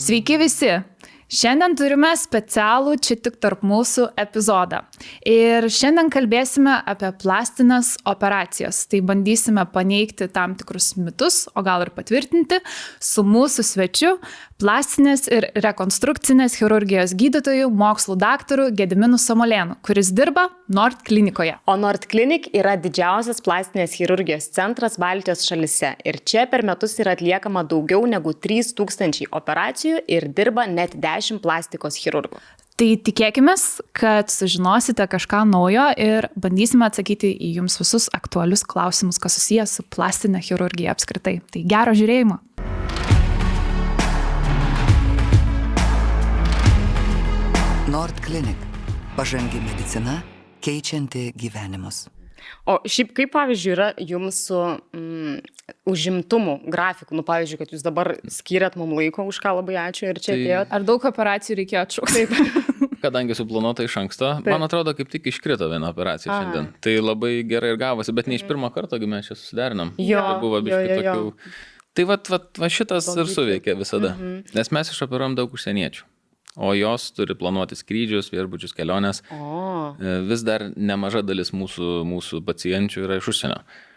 Sveiki visi! Šiandien turime specialų čia tik tarp mūsų epizodą. Ir šiandien kalbėsime apie plastinės operacijas. Tai bandysime paneigti tam tikrus mitus, o gal ir patvirtinti, su mūsų svečiu, plastinės ir rekonstrukcinės chirurgijos gydytoju, mokslų daktaru Gediminu Samolėnu, kuris dirba Nord klinikoje. O Nord Clinic yra didžiausias plastinės chirurgijos centras Baltijos šalyse. Ir čia per metus yra atliekama daugiau negu 3000 operacijų ir dirba net 10 plastikos chirurgų. Tai tikėkime, kad sužinosite kažką naujo ir bandysime atsakyti į jums visus aktualius klausimus, kas susijęs su plastinė chirurgija apskritai. Tai gero žiūrėjimo. Nord Clinic. Pažangi medicina, keičianti gyvenimus. O šiaip kaip, pavyzdžiui, yra jums su užimtumu grafiku? Pavyzdžiui, kad jūs dabar skiriat mums laiko, už ką labai ačiū ir čia atėjot. Ar daug operacijų reikėjo atšaukti? Kadangi suplanuota iš anksto, man atrodo, kaip tik iškrito viena operacija šiandien. Tai labai gerai ir gavosi, bet ne iš pirmo karto, mes čia susiderinom. Tai buvo biškai tokių. Tai va šitas ir suveikė visada, nes mes išoperuojam daug užsieniečių. O jos turi planuoti skrydžius, viešbučius, keliones. Vis dar nemaža dalis mūsų pacienčių yra iš užsienio.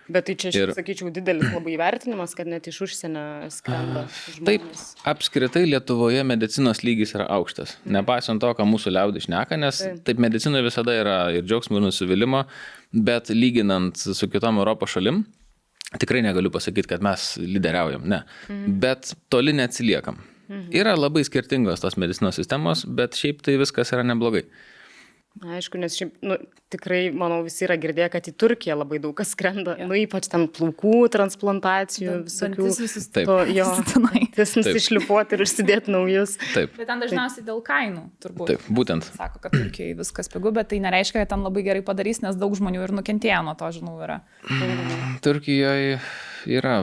Bet tai čia, sakyčiau, didelis labai įvertinimas, kad net iš užsienio skrenda žmonės. Taip, apskritai Lietuvoje medicinos lygis yra aukštas. Nepaisant to, ką mūsų liaudis šneka, nes taip medicinoje visada yra ir džiaugsmo, ir nusivylimo, bet lyginant su kitom Europos šalim, tikrai negaliu pasakyti, kad mes lyderiaujam, ne. Bet toli neatsiliekam. Yra labai skirtingos tos medicinos sistemos, bet šiaip tai viskas yra neblogai. Aišku, nes šiaip, tikrai, manau, visi yra girdėję, kad į Turkiją labai daug kas skrenda, ypač ten plaukų transplantacijų, visokių. Taip. Nusišlifuoti ir užsidėti naujus. Taip. Bet ten dažniausiai dėl kainų, turbūt. Taip, būtent. Sako, kad Turkijai viskas pigu, bet tai nereiškia, kad ten labai gerai padarys, nes daug žmonių ir nukentėjo nuo to, žinau, yra. Turkijoje yra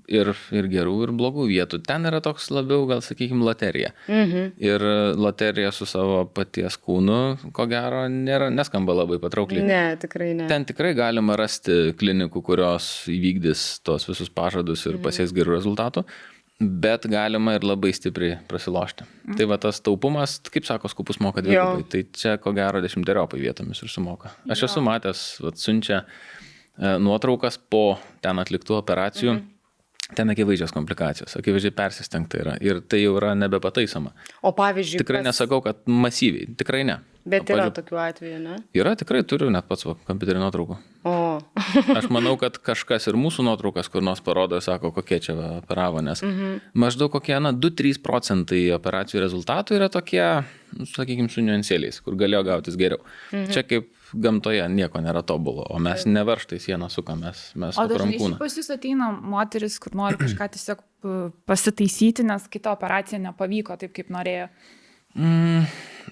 ir gerų, ir blogų vietų. Ten yra toks labiau, gal sakykime, loterija. Ir loterija su savo paties kūnu, ko gero, neskamba labai patraukliai. Ne, tikrai ne. Ten tikrai galima rasti klinikų, kurios įvykdys tos visus pažadus ir pasieks gerų rezultatų, bet galima ir labai stipriai prasilošti. Tai va tas taupumas, kaip sako, skupus moka dvigubai. Tai čia, ko gero, 10-eriopai vietomis ir sumoka. Aš esu matęs, siunčia nuotraukas po ten atliktų operacijų. Ten akivaizdžios komplikacijos, akivaizdžiai persistengta yra ir tai jau yra nebepataisoma. O pavyzdžiui... Tikrai nesakau, kad masyviai, tikrai ne. Bet yra tokių atvejų, ne? Yra, tikrai turiu net pats kompiuterį nuotraukų. Aš manau, kad kažkas ir mūsų nuotraukas kur nors parodo, sako, kokie čia operavo, nes maždaug kokie 2-3% operacijų rezultatų yra tokie, sakykime, su niuansėliais, kur galėjo gautis geriau. Čia kaip gamtoje nieko nėra tobulo, o mes nevarštai sieną sukam, mes sukam kūną. O dažnai pas jūs ateina moteris, kur nori kažką tiesiog pasitaisyti, nes kita operacija nepavyko taip, kaip norėjo.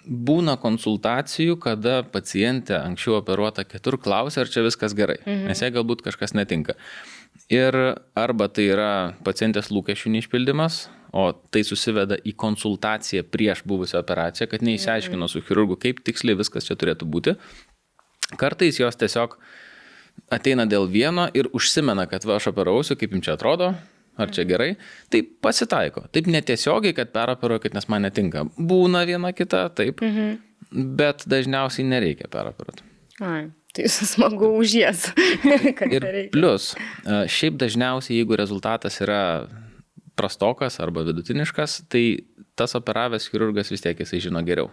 Būna konsultacijų, kada pacientė anksčiau operuota kitur klausia, ar čia viskas gerai, nes jai galbūt kažkas netinka. Ir arba tai yra pacientės lūkesčių neišpildymas, o tai susiveda į konsultaciją prieš buvusią operaciją, kad neįsiaiškino su chirurgu, kaip tiksliai viskas čia turėtų būti. Kartais jos tiesiog ateina dėl vieno ir užsimena, kad aš operausiu, kaip jums čia atrodo, ar čia gerai. Tai pasitaiko. Taip netiesiogiai, kad peroperuoju, kad nes man netinka. Būna viena kita, taip, bet dažniausiai nereikia peroperuoti. Tai smagu už jas. Ir plus, šiaip dažniausiai, jeigu rezultatas yra prastokas arba vidutiniškas, tai tas operavęs chirurgas vis tiek jisai žino geriau,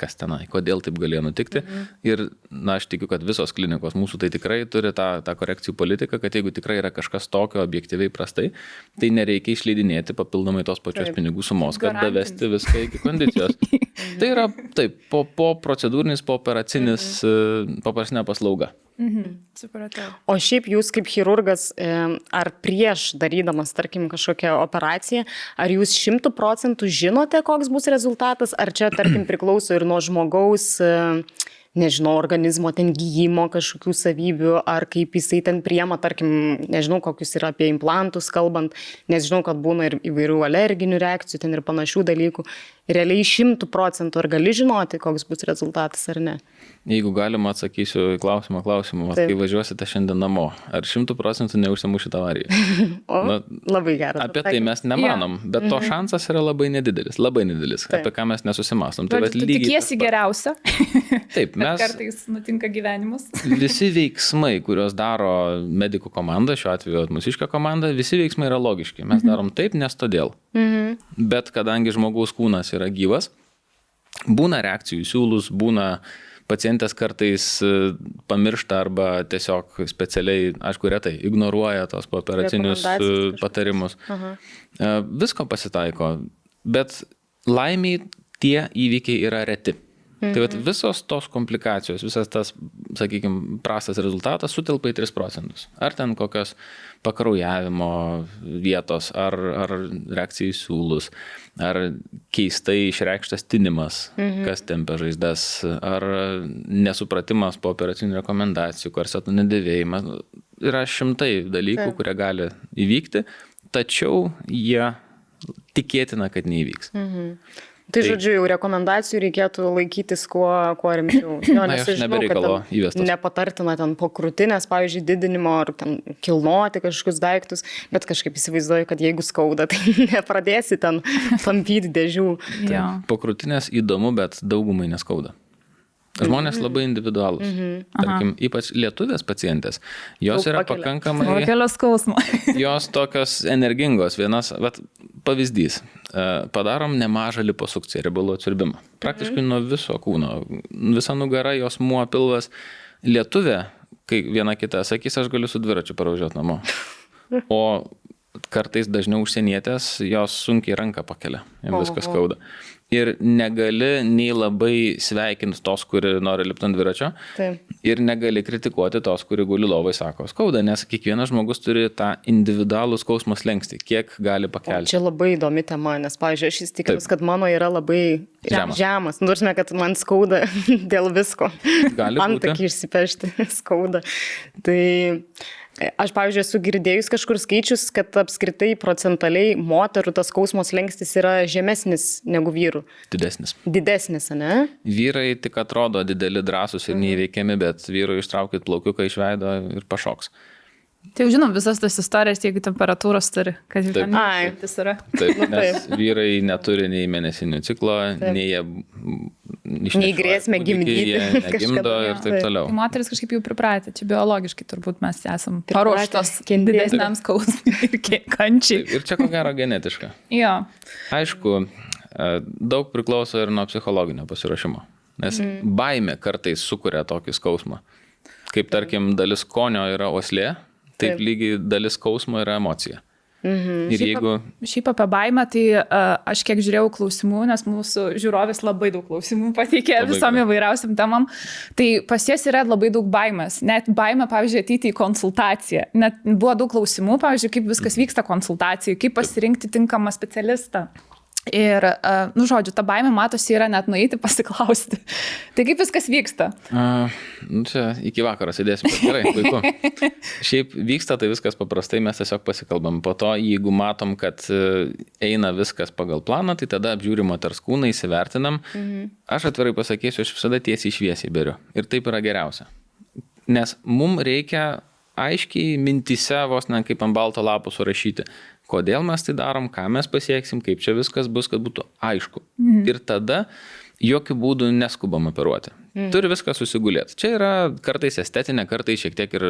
kas tenai, kodėl taip galėjo nutikti. Ir, aš tikiu, kad visos klinikos mūsų tai tikrai turi tą korekcijų politiką, kad jeigu tikrai yra kažkas tokio objektyviai prastai, tai nereikia išleidinėti papildomai tos pačios pinigų sumos, kad davesti viską iki kondicijos. Tai yra, taip, po procedūrinis, po operacinė paslauga. Supratau. O šiaip jūs kaip chirurgas, ar prieš darydamas, tarkim, kažkokią operaciją, ar jūs 100% žinote, koks bus rezultatas, ar čia, tarkim, priklauso ir nuo žmogaus nežinau, organizmo ten gyjimo kažkokių savybių, ar kaip jisai ten priema, tarkim, nežinau, kokius yra apie implantus kalbant, nes žinau, kad būna ir įvairių alerginių reakcijų, ten ir panašių dalykų. Realiai 100% ar gali žinoti, koks bus rezultatas ar ne? Jeigu galima, atsakysiu į klausimą, kai važiuosite šiandien namo, ar 100% neužsimušite avariją? Labai geras. Apie tai mes nemanom, bet to šansas yra labai nedidelis, apie ką mes nesusimastom. Tu tikiesi geriausia. Taip, mes... Kartais nutinka gyvenimas. Visi veiksmai, kuriuos daro medikų komanda, šiuo atveju mūsiška komanda, visi veiksmai yra logiški. Mes darom taip, nes todėl. Bet kadangi žmogaus kūnas yra gyvas, būna reakcijų į siūlus, būna pacientės kartais pamiršta arba tiesiog specialiai, aišku, retai ignoruoja tos pooperacinius patarimus. Visko pasitaiko, bet laimiai tie įvykiai yra reti. Tai vat visos tos komplikacijos, visas tas, sakykime, prastas rezultatas sutelpa į 3%. Ar ten kokios pakraujavimo vietos, ar reakcija į siūlus, ar keistai išreikštas tinimas, kas tempia žaizdas, ar nesupratimas po operacinių rekomendacijų, korsetų nedėvėjimas. Yra šimtai dalykų, kurie gali įvykti, tačiau jie tikėtina, kad neįvyks. Tai žodžiu, jau rekomendacijų reikėtų laikytis kuo rimčiau. Nes aš žinau, kad nepatartina ten po krūtinės, pavyzdžiui, didinimo ar ten kilnoti kažkokius daiktus, bet kažkaip įsivaizduoju, kad jeigu skauda, tai nepradėsi ten tampyti dėžių. Po krūtinės įdomu, bet daugumai neskauda. Žmonės labai individualūs. Tarkim, ypač lietuvės pacientės. Jos yra pakankamai... Jos tokios energingos. Vienas, pavyzdys. Padarom nemažą liposukciją, riebalų atsiurbimą. Praktiškai nuo viso kūno. Visa nugara, jos muo, pilvas. Lietuvė, kai viena kita sakys, aš galiu su dviračiu parvažiuoti namo. O kartais dažniau užsienietės, jos sunkiai ranką pakelia. Jiems viskas skauda. Ir negali nei labai sveikinti tos, kuri nori lipti ant dviračio, ir negali kritikuoti tos, kuri guli lovai, sako, skauda, nes kiekvienas žmogus turi tą individualų skausmo slenkstį, kiek gali pakelti. Čia labai įdomi tema, nes, pavyzdžiui, aš įsitikinus, kad mano yra labai žemas. Nursime, kad man skauda dėl visko. Antakį išsipešti skauda. Tai... Aš, pavyzdžiui, esu girdėjus kažkur skaičius, kad apskritai procentaliai moterų tas skausmo slenkstis yra žemesnis negu vyrų. Didesnis, ne? Vyrai tik atrodo dideli, drąsūs ir neįveikiami, bet vyrui ištraukit plaukiuką iš veido ir pašoks. Tai jau žinom visas tas istorijas, jeigu temperatūros turi, kad jau ten yra. Taip, nes vyrai neturi nei mėnesinių ciklo, nei grėsmė gimdyti, negimdo ir taip toliau. Tai moteris kažkaip jau pripratę, čia biologiškai turbūt mes esam paruoštos didesniam skausmui ir kančiai. Ir čia ko gero genetiška. Jo. Aišku, daug priklauso ir nuo psichologinio pasiruošimo, nes baimė kartais sukuria tokį skausmą. Kaip tarkim, dalis skonio yra uoslė, taip lygiai dalis skausmo yra emocija. Ir jeigu... Šiaip apie baimę, tai aš kiek žiūrėjau klausimų, nes mūsų žiūrovės labai daug klausimų pateikė visom įvairiausiam temam, tai pas jas yra labai daug baimės. Net baimė, pavyzdžiui, ateiti į konsultaciją. Net buvo daug klausimų, pavyzdžiui, kaip viskas vyksta konsultacijai, kaip pasirinkti tinkamą specialistą. Ir, žodžiu, ta baimė matosi yra net nueiti pasiklausti. Tai kaip viskas vyksta? Čia iki vakaro sėdėsim. Gerai, puiku. Šiaip vyksta tai viskas paprastai, mes tiesiog pasikalbam. Po to, jeigu matom, kad eina viskas pagal planą, tai tada apžiūrim moters kūną, įsivertinam. Aš atvirai pasakysiu, aš visada tiesiai šviesiai beriu. Ir taip yra geriausia. Nes mums reikia aiškiai mintyse, vos ne kaip ant balto lapo surašyti, kodėl mes tai darom, ką mes pasieksim, kaip čia viskas bus, kad būtų aišku. Ir tada jokių būdų neskubam operuoti. Turi viską susigulėti. Čia yra kartais estetinė, kartais šiek tiek ir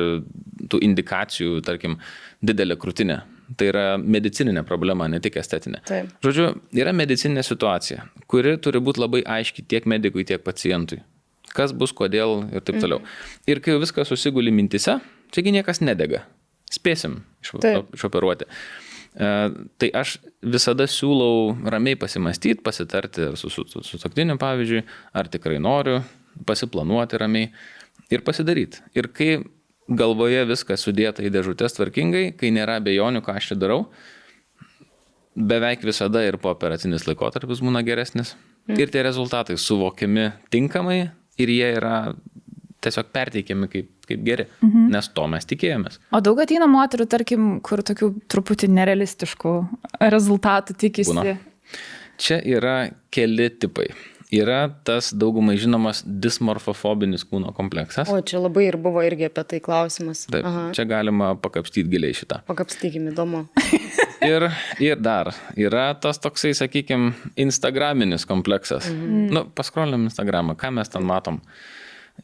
tų indikacijų, tarkim, didelė krūtinė. Tai yra medicininė problema, ne tik estetinė. Žodžiu, yra medicininė situacija, kuri turi būti labai aiški tiek medikui, tiek pacientui. Kas bus, kodėl ir taip toliau. Ir kai viskas susiguli mintise, čiagi niekas nedega. Spėsim išoperuoti. Tai aš visada siūlau ramiai pasimastyti, pasitarti su sutuoktiniu, pavyzdžiui, ar tikrai noriu, pasiplanuoti ramiai ir pasidaryti. Ir kai galvoje viskas sudėta į dėžutės tvarkingai, kai nėra abejonių, ką aš čia darau, beveik visada ir pooperacinis laikotarpis būna geresnis. Ir tie rezultatai suvokiami tinkamai, ir jie yra tiesiog perteikiami kaip geri, nes to mes tikėjomės. O daug ateina moterų, tarkim, kur tokių truputį nerealistiškų rezultatų tikisi? Būna. Čia yra keli tipai. Yra tas daugumai žinomas dismorfofobinis kūno kompleksas. O, čia labai ir buvo irgi apie tai klausimas. Taip, čia galima pakapstyti giliai šitą. Pakapstykim, įdomu. Ir dar yra tas toksai, sakykime, instagraminis kompleksas. Paskrolinam Instagramą, ką mes ten matom?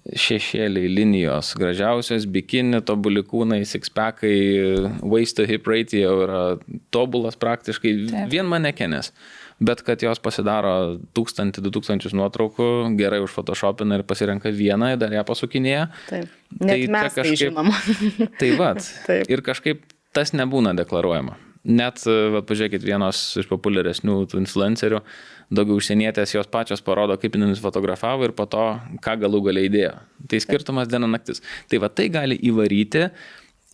Šešėliai, linijos, gražiausios, bikini, tobuli kūnai, sixpackai, waist to hip ratio yra tobulas praktiškai. Taip. Vien manekenės. Bet kad jos pasidaro 1000-2000 nuotraukų, gerai užfotoshopina ir pasirenka vieną, dar ją pasukinėja. Taip. Net mes kažkaip, tai žinom. Tai vat. Taip. Ir kažkaip tas nebūna deklaruojama. Net, pažiūrėkit, vienos iš populiaresnių tų influencerių, daugiau užsienietės, jos pačios parodo, kaip jinai fotografavo ir po to, ką galų galiai įdėjo. Tai skirtumas diena naktis. Tai va tai gali įvaryti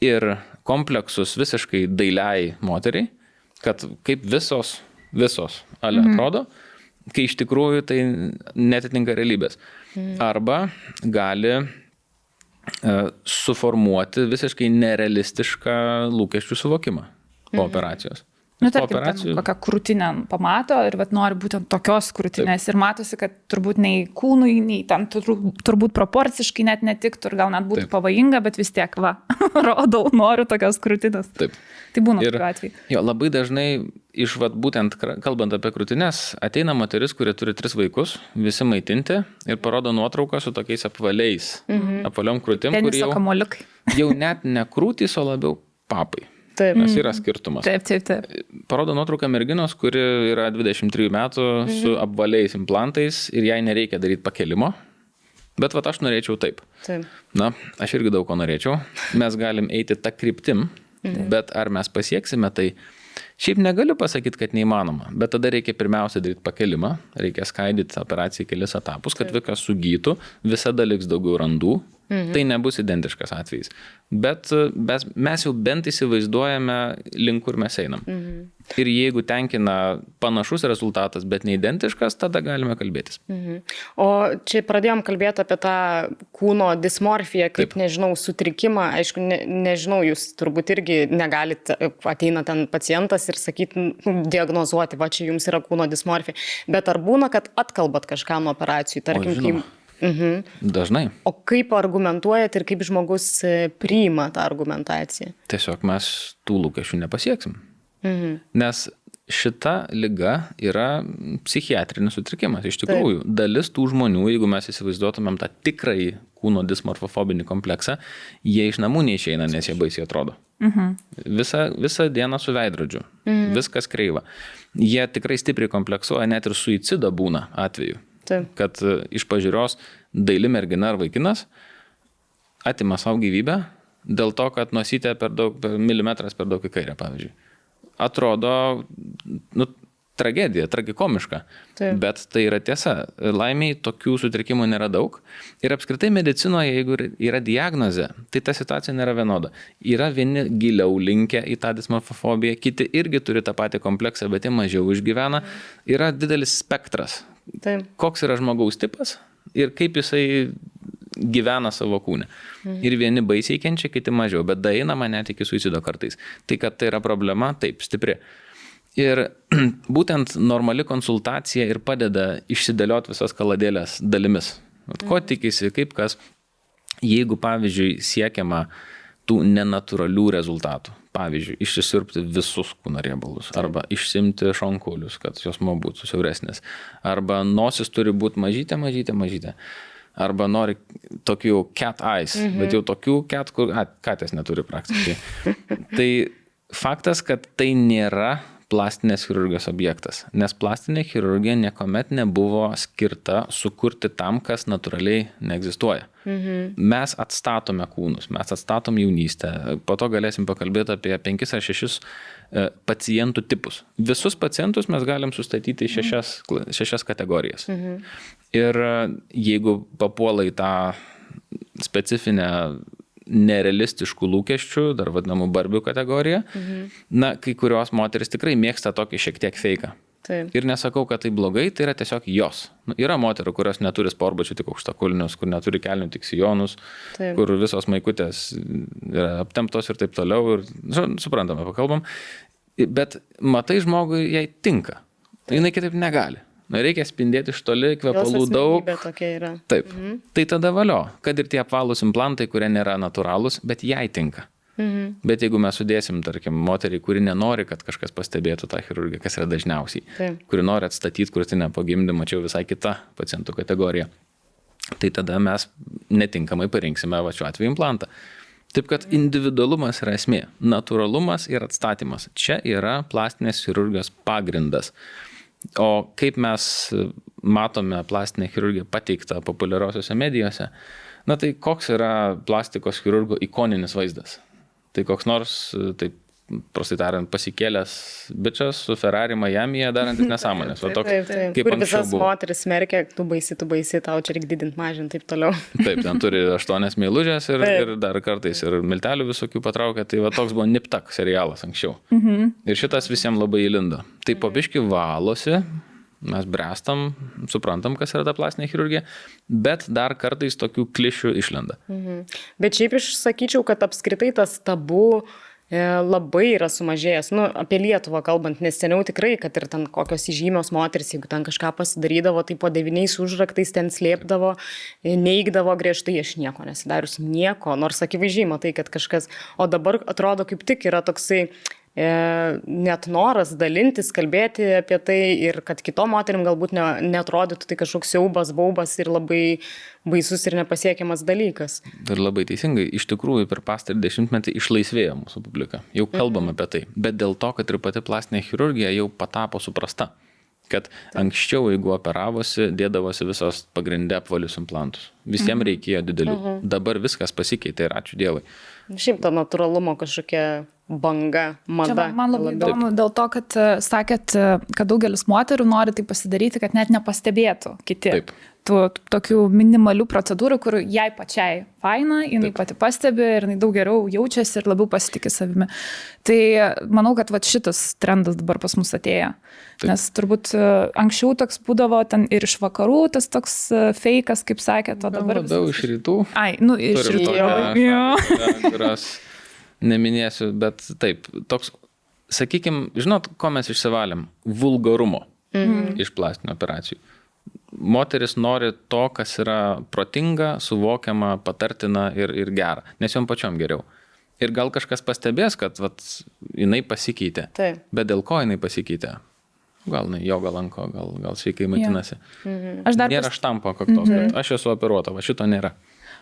ir kompleksus visiškai dailiai moteriai, kad kaip visos atrodo, kai iš tikrųjų tai netitinka realybės. Arba gali suformuoti visiškai nerealistišką lūkesčių suvokimą po operacijos. Tarkim, kokią krūtinę pamato ir nori būtent tokios krūtinės. Taip. Ir matosi, kad turbūt nei kūnui, nei tam turbūt proporciškai net netiktų ir gal net būtų pavojinga, bet vis tiek, rodau, noriu tokios krūtinės. Taip. Tai būna tokiu atveju. Jo, labai dažnai iš būtent kalbant apie krūtinės, ateina moteris, kuri turi 3 vaikus, visi maitinti ir parodo nuotrauką su tokiais apvaliais, apvaliom krūtim, kur jau net ne krūtys, o labiau papai. Taip. Nes yra skirtumas. Taip. Parodo nuotrauką merginos, kuri yra 23 metų su apvaliais implantais ir jai nereikia daryti pakelimo. Bet aš norėčiau taip. Aš irgi daug ko norėčiau. Mes galim eiti tą kryptim, bet ar mes pasieksime, tai šiaip negaliu pasakyti, kad neįmanoma. Bet tada reikia pirmiausia daryti pakelimą, reikia skaidyti operaciją į kelis etapus, kad viskas sugytų, visada liks daugiau randų. Tai nebus identiškas atvejis. Bet mes jau bent įsivaizduojame, link kur mes einam. Ir jeigu tenkina panašus rezultatas, bet neidentiškas, tada galime kalbėtis. O čia pradėjom kalbėti apie tą kūno dismorfiją, kaip, nežinau, sutrikimą. Aišku, nežinau, jūs turbūt irgi negalite, ateina ten pacientas ir sakyti, diagnozuoti, čia jums yra kūno dismorfija. Bet ar būna, kad atkalbat kažką nuo operacijų, tarkim, Dažnai. O kaip argumentuojat ir kaip žmogus priima tą argumentaciją? Tiesiog mes tų lūkesčių nepasieksim. Nes šita liga yra psichiatrinis sutrikimas. Iš tikrųjų, dalis tų žmonių, jeigu mes įsivaizduotumėm tą tikrąjį kūno dismorfofobinį kompleksą, jie iš namų neišeina, nes jie baisiai atrodo. Visą dieną su veidrodžiu. Viskas kreiva. Jie tikrai stipriai kompleksuoja, net ir suicido būna atveju. Taip. Kad iš pažiūros daili mergina ar vaikinas atima savo gyvybę dėl to, kad nosytė milimetras per daug į kairę, pavyzdžiui. Atrodo, tragedija, tragikomiška. Taip. Bet tai yra tiesa. Laimiai tokių sutrikimų nėra daug. Ir apskritai medicinoje, jeigu yra diagnozė, tai ta situacija nėra vienoda. Yra vieni giliau linkę į tą dismorfofobiją, kiti irgi turi tą patį kompleksą, bet jie mažiau išgyvena. Yra didelis spektras. Taip. Koks yra žmogaus tipas ir kaip jisai gyvena savo kūne. Ir vieni baisiai kenčia, kiti mažiau, bet daeinama net iki suicido kartais. Tai, kad tai yra problema, taip, stipri. Ir būtent normali konsultacija ir padeda išsidėlioti visas kaladėlės dalimis. Ko tikisi, kaip kas, jeigu, pavyzdžiui, siekiama tų nenatūralių rezultatų. Pavyzdžiui, išsisirpti visus kūno riebalus, arba išsimti šonkulius, kad jos būtų siauresnės. Arba nosis turi būti mažytė. Arba nori tokių cat eyes, bet jau tokių cat, kur katės neturi praktiškai. Tai faktas, kad tai nėra plastinės chirurgijos objektas, nes plastinė chirurgija niekuomet nebuvo skirta sukurti tam, kas natūraliai neegzistuoja. Mes atstatome kūnus, mes atstatom jaunystę, po to galėsim pakalbėti apie 5 ar 6 pacientų tipus. Visus pacientus mes galim sustatyti į 6 kategorijas. Ir jeigu papuola į tą specifinę nerealistiškų lūkesčių, dar vadinamų barbių kategoriją, kai kurios moteris tikrai mėgsta tokį šiek tiek feiką. Taip. Ir nesakau, kad tai blogai, tai yra tiesiog jos. Yra moterų, kurios neturi sportbačių, tik aukštakulnius, kur neturi kelnių, tik sijonus, Taip. kur visos maikutės yra aptemptos ir taip toliau. Ir, suprantame, pakalbam. Bet matai žmogui, jai tinka. Jinai kitaip negali. Reikia spindėti iš toli, kvepalų daug. Taip. Tai tada valio, kad ir tie apvalūs implantai, kurie nėra natūralūs, bet jai tinka. Bet jeigu mes sudėsim, tarkim, moterį, kuri nenori, kad kažkas pastebėtų tą chirurgiją, kas yra dažniausiai, kuri nori atstatyti krūtinę po gimdymo, čia jau visai kita pacientų kategorija, tai tada mes netinkamai parinksime šiuo atveju implantą. Taip kad individualumas yra esmė, natūralumas ir atstatymas. Čia yra plastinės chirurgijos pagrindas. O kaip mes matome plastinę chirurgiją pateiktą populiariosiuose medijose, tai koks yra plastikos chirurgo ikoninis vaizdas? Tai koks nors, taip prastai tariant, pasikėlęs bičas su Ferrari Miami'e darantis nesąmonės. Taip. Kur visas moteris smerkia, tu baisi, tau čia reikia didinti, mažinti, taip toliau. Taip, ten turi 8 meilužės ir dar kartais ir miltelių visokių patraukia. Tai toks buvo Nip-Tak serialas anksčiau. Ir šitas visiems labai įlindo. Tai po biškį valosi, mes brestam, suprantam, kas yra ta plastinė chirurgija, bet dar kartais tokių klišių išlenda. Bet šiaip aš sakyčiau, kad apskritai tas tabu labai yra sumažėjęs. Apie Lietuvą kalbant, nes seniau tikrai, kad ir ten kokios įžymios moteris, jeigu ten kažką pasidarydavo, tai po 9 užraktais ten slėpdavo, neigdavo griežtai, aš nieko nesidarius, nieko, nors akivaizdžiai matai, kad kažkas, o dabar atrodo kaip tik yra toksai net noras dalintis, kalbėti apie tai ir kad kitom moterim galbūt neatrodytų tai kažkoks siaubas, baubas ir labai baisus ir nepasiekiamas dalykas. Ir labai teisingai, iš tikrųjų per pastarį 10-metį išlaisvėjo mūsų publika. Jau kalbam apie tai, bet dėl to, kad ir pati plastinė chirurgija jau patapo suprasta. Kad anksčiau, jeigu operavosi, dėdavosi visos pagrindė apvalius implantus. Visiems reikėjo didelių. Dabar viskas pasikeitė ir ačiū Dievui. Šiaip to natūralumo kažkokia banga, mada. Čia man labai įdomu dėl to, kad sakėt, kad daugelis moterų nori tai pasidaryti, kad net nepastebėtų kiti. Taip. Tų tokių minimalių procedūrų, kur jai pačiai faina, jinai pati pastebi ir jinai daug geriau jaučiasi ir labiau pasitikė savimi. Tai manau, kad šitas trendas dabar pas mus atėjo. Taip. Nes turbūt anksčiau toks būdavo ten ir iš vakarų, tas toks feikas, kaip sakėt, o dabar... Labiau iš rytų. Iš rytų. Kurios neminėsiu, bet taip, toks, sakykime, žinot, ko mes išsivalėm? Vulgarumo iš plastinių operacijų. Moteris nori to, kas yra protinga, suvokiama, patartina ir gera, nes jom pačiom geriau. Ir gal kažkas pastebės, kad jinai pasikeitė. Taip. Bet dėl ko jinai pasikeitė? Gal jogą lanko, gal sveikai maitinasi. Nėra štampo kaktos, kad aš esu operuota, šito nėra.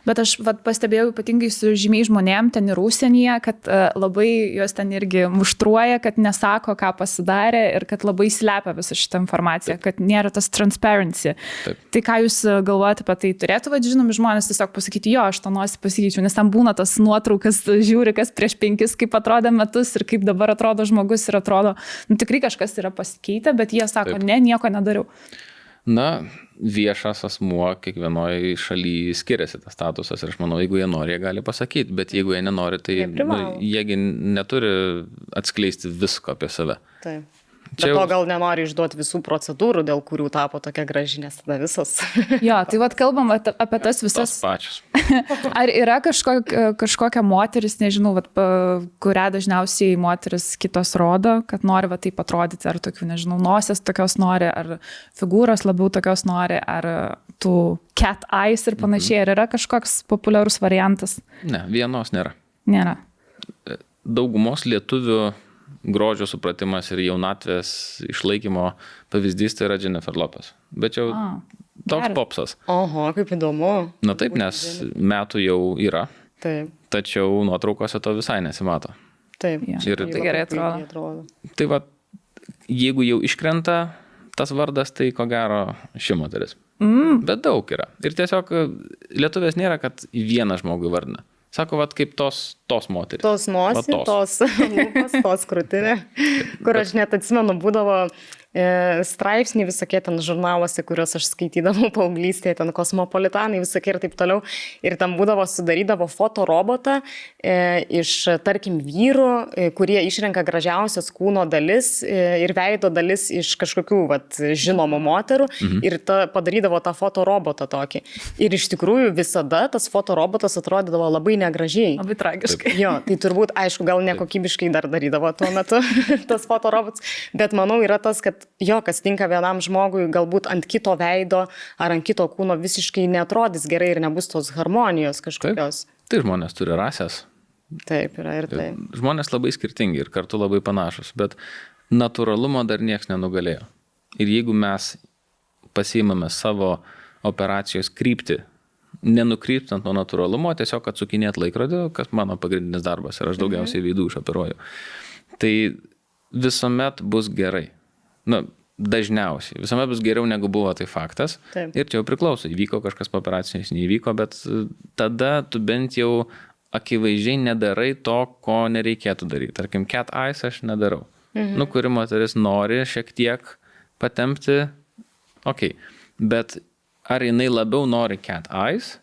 Bet aš pastebėjau ypatingai su žymiai žmonėm ten ir užsienyje, kad labai juos ten irgi muštruoja, kad nesako, ką pasidarė ir kad labai slepia visą šitą informaciją, kad nėra tas transparency. Taip. Tai ką jūs galvojate apie tai? Turėtų, žinomi žmonės tiesiog pasakyti, jo, aš tą nosį pasikeičiau, nes ten būna tas nuotraukas, žiūri, kas prieš 5, kaip atrodė metus ir kaip dabar atrodo žmogus ir atrodo, tikrai kažkas yra pasikeitę, bet jie sako, Taip. ne, nieko nedariau. Viešas asmuo kiekvienoje šalyje skiriasi tas statusas ir aš manau, jeigu jie nori, jie gali pasakyti, bet jeigu jie nenori, tai jiegi neturi atskleisti visko apie save. Taip. Bet to gal nenori išduoti visų procedūrų, dėl kurių tapo tokia graži, nes tada visos. Jo, tai kalbam apie tas visas. Tos pačios. Ar yra kažkokia moteris, nežinau, kurią dažniausiai moteris kitos rodo, kad nori taip atrodyti, ar tokių, nežinau, nosės tokios nori, ar figūros labiau tokios nori, ar tų cat eyes ir panašiai, ar yra kažkoks populiarus variantas? Ne, vienos nėra. Nėra. Daugumos lietuvių grožio supratimas ir jaunatvės išlaikymo pavyzdys tai yra Jennifer Lopez. Bet jau toks popsas. Oho, kaip įdomu. Na taip, nes metų jau yra. Taip. Tačiau nuotraukose to visai nesimato. Taip. Ja. Ir tai gerai atrodo. Tai jeigu jau iškrenta tas vardas, tai ko gero ši moteris. Bet daug yra. Ir tiesiog lietuvės nėra, kad vieną žmogų vardina. Sako, kaip tos moterys. Tos nosį, tos lūpas, tos krūtinė, kur aš net atsimenu, būdavo straipsniai visokie ten žurnaluose, kuriuos aš skaitydavau paauglystėje, ten Kosmopolitanai visokie ir taip toliau. Ir tam sudarydavo fotorobotą iš, tarkim, vyrų, kurie išrenka gražiausias kūno dalis ir veido dalis iš kažkokių žinomų moterų ir padarydavo tą fotorobotą tokį. Ir iš tikrųjų visada tas fotorobotas atrodydavo labai negražiai. Labai tragiškai. Jo, tai turbūt, aišku, gal nekokybiškai dar darydavo tuo metu tas fotorobotas, bet manau yra tas, kad kas tinka vienam žmogui, galbūt ant kito veido ar ant kito kūno visiškai neatrodys gerai ir nebus tos harmonijos kažkokios. Tai žmonės turi rasės. Taip, yra ir taip. Žmonės labai skirtingi ir kartu labai panašus, bet natūralumo dar nieks nenugalėjo. Ir jeigu mes pasiimame savo operacijos kryptį, nenukryptant nuo natūralumo, tiesiog atsukinėt laikrodį, kas mano pagrindinis darbas ir aš daugiausiai veidų išoperuoju, tai visuomet bus gerai. Dažniausiai. Visuomet bus geriau negu buvo, tai faktas. Taip. Ir čia jau priklauso, įvyko kažkas po operacijos, neįvyko, bet tada tu bent jau akivaizdžiai nedarai to, ko nereikėtų daryti. Tarkim, cat eyes aš nedarau. Kuri moteris nori šiek tiek patempti, bet ar jinai labiau nori cat eyes,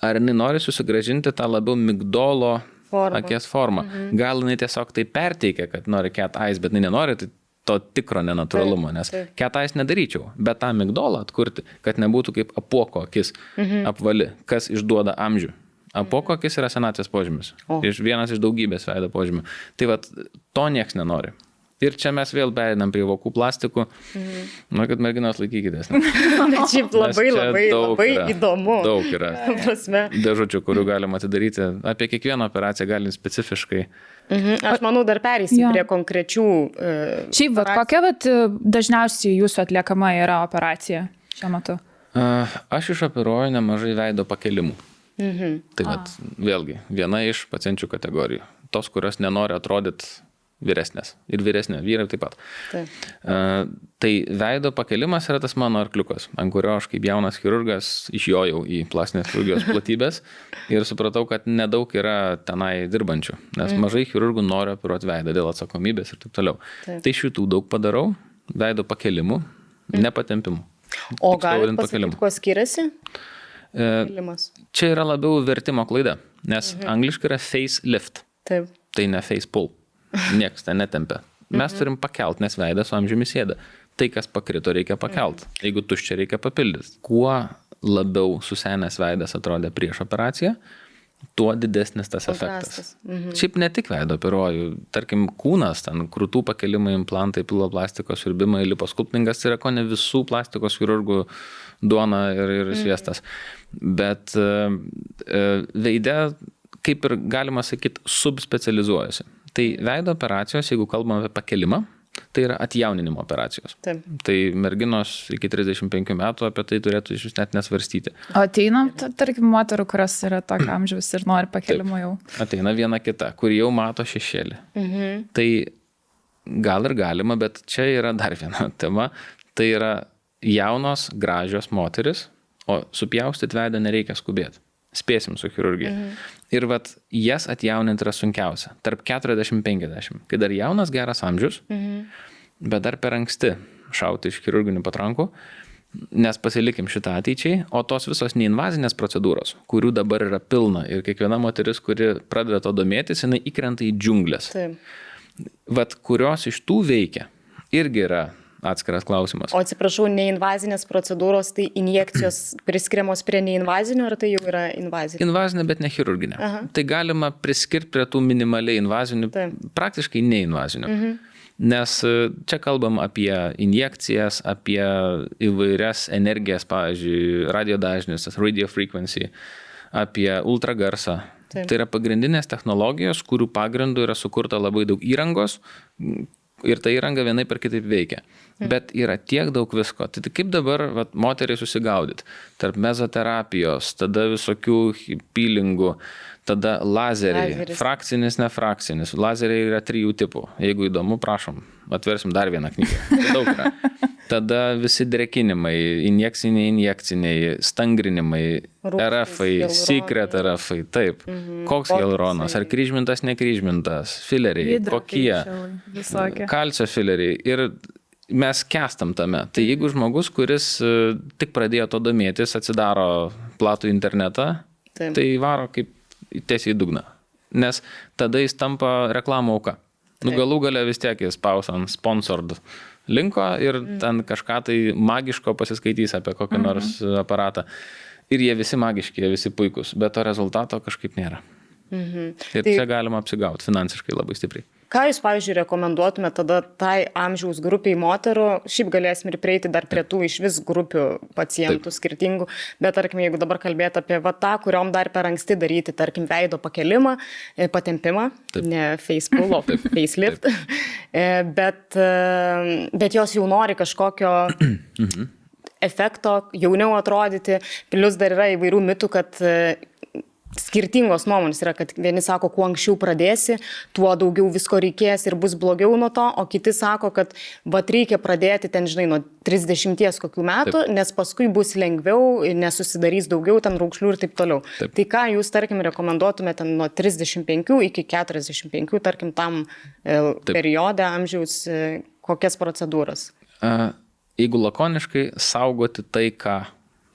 ar jinai nori susigrąžinti tą labiau migdolo akies formą. Gal jinai tiesiog tai perteikia, kad nori cat eyes, bet jinai nenori to tikro nenatūralumo, nes cat eyes nedaryčiau, bet tą migdolą atkurti, kad nebūtų kaip apuoko akis apvali, kas išduoda amžių. Apuoko akis yra senatvės požymis. Vienas iš daugybės veido požymių. Tai to nieks nenori. Ir čia mes vėl pereinam prie vokų plastikų. Kad merginos laikykitės. Bet šiaip labai įdomu. Daug yra dėžučių, kurių galima atidaryti. Apie kiekvieną operaciją galim specifiškai. Aš manau, dar pereisim prie konkrečių Šiaip, kokia dažniausiai jūsų atliekama yra operacija šiuo metu? Aš išoperuoju nemažai veido pakelimų. Tai vėlgi, viena iš pacienčių kategorijų. Tos, kurios nenori atrodyti vyresnės. Ir vyresnė, vyrai taip pat. Tai veido pakelimas yra tas mano arkliukas, ant kurio aš kaip jaunas chirurgas išjojau į plastinės chirurgijos platybės ir supratau, kad nedaug yra tenai dirbančių, nes mažai chirurgų nori operuoti veidą dėl atsakomybės ir taip toliau. Tai šitų daug padarau, veido pakelimų, nepatempimų. O galit pasakyti, kuo skiriasi? Čia yra labiau vertimo klaida, nes angliškai yra face lift. Taip. Tai ne face pull. Niekas ten netempia. Mes turim pakelt, nes veidas su amžiumi sėda. Tai, kas pakrito, reikia pakelt. Jeigu tuščia, reikia papildyti. Kuo labiau susenęs veidas atrodė prieš operaciją, tuo didesnis tas efektas. Šiaip ne tik veido operuoju. Tarkim, kūnas, ten krūtų pakelimai, implantai, piloplastikos siurbimai, liposkulptingas yra ko ne visų plastikos chirurgų duona ir sviestas. Bet veide, kaip ir galima sakyti, subspecializuojasi. Tai veido operacijos, jeigu kalbame apie pakelimą, tai yra atjauninimo operacijos. Taip. Tai merginos iki 35 metų apie tai turėtų iš vis net nesvarstyti. O ateina, tarkim, moterų, kurios yra tokio amžiaus ir nori pakelimo jau? Ateina viena kita, kur jau mato šešėlį. Tai gal ir galima, bet čia yra dar viena tema. Tai yra jaunos, gražios moteris, o supjaustyti veidą nereikia skubėti. Spėsim su chirurgija. Ir jas atjauninti yra sunkiausia. Tarp 40-50. Kai dar jaunas geras amžius, bet dar per anksti šauti iš chirurginių patrankų, nes pasilikim šitą ateičiai, o tos visos neinvazinės procedūros, kurių dabar yra pilna ir kiekviena moteris, kuri pradeda to domėtis, jinai įkrenta į džiunglės. Taip. Kurios iš tų veikia, irgi yra atskiras klausimas. O atsiprašau, neinvazinės procedūros, tai injekcijos priskiriamos prie neinvazinio, ar tai jau yra invazinė? Invazinė, bet ne chirurginė. Tai galima priskirti prie tų minimaliai invazinių, praktiškai neinvazinių. Nes čia kalbam apie injekcijas, apie įvairias energijas, pavyzdžiui, radiodažnis, radio frequency, apie ultragarsą. Tai yra pagrindinės technologijos, kurių pagrindų yra sukurta labai daug įrangos, ir ta įranga vienai per kitaip veikia. Bet yra tiek daug visko. Tai kaip dabar moteriai susigaudyti? Tarp mezoterapijos, tada visokių peelingų, tada lazeriai, frakcinis, nefrakcinis. Lazeriai yra 3 tipų. Jeigu įdomu, prašom, atversim dar vieną knygą. Daug yra. Tada visi drekinimai, injekciniai, stangrinimai, RF-ai, secret RF-ai, taip. Koks hialuronas, ar kryžmintas, nekryžmintas, fileriai, kokie, kalcio fileriai. Ir mes kestam tame. Tai jeigu žmogus, kuris tik pradėjo to domėtis, atsidaro platų internetą, tai varo kaip tiesiai į dugną. Nes tada jis tampa reklamų auka. Galų gale vis tiek jis spaus ant sponsored linko ir ten kažką tai magiško pasiskaitys apie kokį nors aparatą. Ir jie visi magiški, jie visi puikus, bet to rezultato kažkaip nėra. Ir čia galima apsigauti finansiškai labai stipriai. Ką jūs, pavyzdžiui, rekomenduotumėte tada tai amžiaus grupiai moterų? Šiaip galėsim ir prieiti dar prie tų iš vis grupių pacientų skirtingų, bet tarkim, jeigu dabar kalbėti apie tą, kuriom dar per anksti daryti, tarkim, veido pakelimą, patempimą, ne facepull, o facelift, bet jos jau nori kažkokio efekto, jauniau atrodyti, plus dar yra įvairių mitų, kad skirtingos nuomonės yra, kad vieni sako, kuo anksčiau pradėsi, tuo daugiau visko reikės ir bus blogiau nuo to, o kiti sako, kad reikia pradėti ten, žinai, nuo 30 kokių metų, nes paskui bus lengviau, nesusidarys daugiau ten raukšlių ir taip toliau. Tai ką jūs, tarkim, rekomenduotumėte nuo 35 iki 45, tarkim, tam periode amžiaus, kokias procedūras? Jeigu lakoniškai, saugoti tai, ką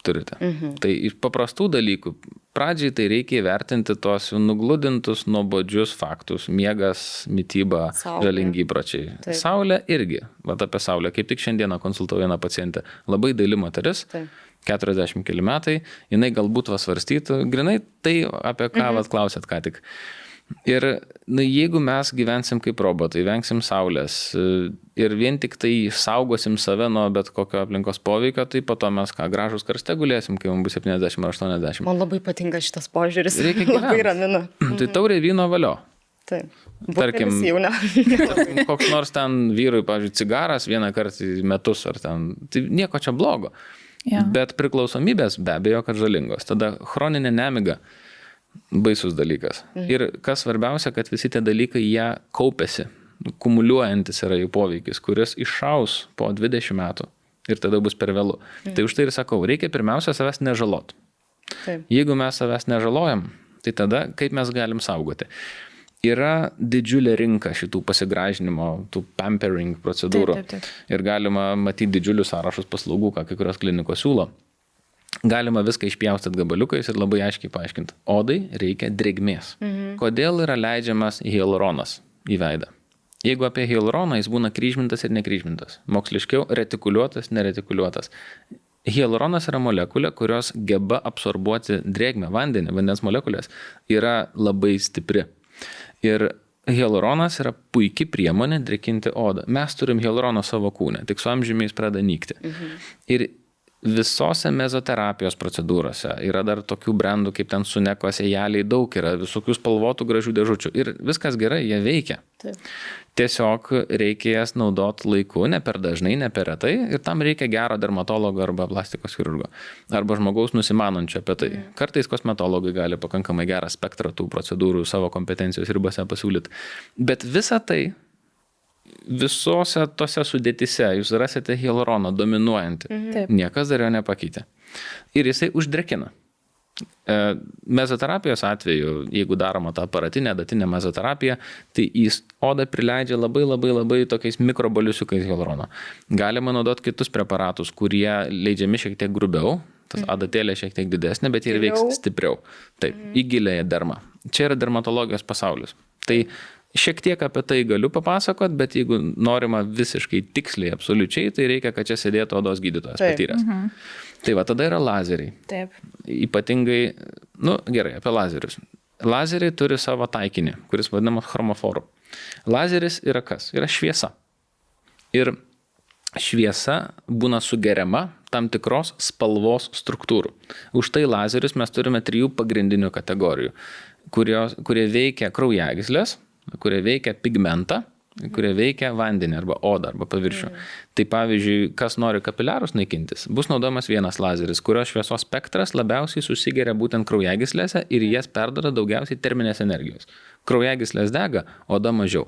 turite. Tai iš paprastų dalykų, pradžiai tai reikia įvertinti tuos nugludintus, nuobodžius faktus, miegas, mityba, žalingi įpročiai. Saulė irgi, apie saulę, kaip tik šiandieną konsultavau vieną pacientę, labai daili moteris, 40 keli metai, jinai galbūt svarstytų, grinai tai, apie ką klausėt ką tik. Ir jeigu mes gyvensim kaip robotai, vengsim saulės ir vien tik tai saugosim save nuo bet kokio aplinkos poveikio, tai po to mes gražus karste gulėsim, kai mums bus 70 ar 80. Man labai patinka šitas požiūris. Labai ramina. Tai taurė vyno valio. Taip. Tarkim, koks nors ten vyrui, pavyzdžiui, cigaras vieną kartą į metus ar ten, tai nieko čia blogo. Bet priklausomybės be abejo, kad žalingos. Tada chroninė nemiga. Baisus dalykas. Ir kas svarbiausia, kad visi tie dalykai jie kaupiasi, kumuliuojantis yra jų poveikis, kuris iššaus po 20 metų ir tada bus per vėlu. Tai už tai ir sakau, reikia pirmiausia savęs nežalot. Jeigu mes savęs nežalojam, tai tada kaip mes galim saugoti? Yra didžiulė rinka šitų pasigražinimo, tų pampering procedūrų. Ir galima matyti didžiulius sąrašus paslaugų, ką kai kurios klinikos siūlo. Galima viską išpjaustyti gabaliukais ir labai aiškiai paaiškinti. Odai reikia drėgmės. Kodėl yra leidžiamas hialuronas į veidą? Jeigu apie hialuroną, jis būna kryžmintas ir nekryžmintas. Moksliškiau retikuliuotas, neretikuliuotas. Hialuronas yra molekulė, kurios geba absorbuoti drėgmę, vandenį, vandens molekulės, yra labai stipri. Ir hialuronas yra puikia priemonė drėkinti odą. Mes turim hialuroną savo kūne, tik su amžiumi jis pradeda nykti. Ir visose mezoterapijos procedūrose yra dar tokių brandų, kaip ten Suneko sėjeliai, daug yra visokių spalvotų gražių dėžučių. Ir viskas gerai, jie veikia. Tiesiog reikia jas naudoti laiku, ne per dažnai, ne per retai. Ir tam reikia gero dermatologo arba plastikos chirurgo. Arba žmogaus nusimanančio apie tai. Kartais kosmetologai gali pakankamai gerą spektrą tų procedūrų savo kompetencijos ribose pasiūlyti. Bet visa tai visose tose sudėtise jūs rasite hialuroną dominuojantį. Niekas dar jo nepakeitė. Ir jisai uždrėkina. Mezoterapijos atveju, jeigu daroma ta aparatinė, datinė mezoterapiją, tai į odą prileidžia labai tokiais mikroboliusiukais hialurono. Galima naudoti kitus preparatus, kurie leidžiami šiek tiek grubiau, tas adatėlė šiek tiek didesnė, bet ir veiks stipriau. Taip, į giliąją dermą. Čia yra dermatologijos pasaulis. Tai šiek tiek apie tai galiu papasakot, bet jeigu norima visiškai tiksliai, absoliučiai, tai reikia, kad čia sėdėtų odos gydytojas patyręs. Tai va, tada yra lazeriai. Ypatingai, gerai, apie lazerius. Lazeriai turi savo taikinį, kuris vadinamas chromoforu. Lazeris yra kas? Yra šviesa. Ir šviesa būna sugeriama tam tikros spalvos struktūrų. Už tai lazerius mes turime 3 pagrindinių kategorijų, kurie veikia kraujagyslės, kurie veikia pigmentą, kurie veikia vandenį arba odą arba paviršių. Tai pavyzdžiui, kas nori kapiliarus naikintis, bus naudojamas vienas lazeris, kurio šviesos spektras labiausiai susigeria būtent kraujagyslėse ir jas perduoda daugiausiai terminės energijos. Kraujagyslės dega, oda mažiau.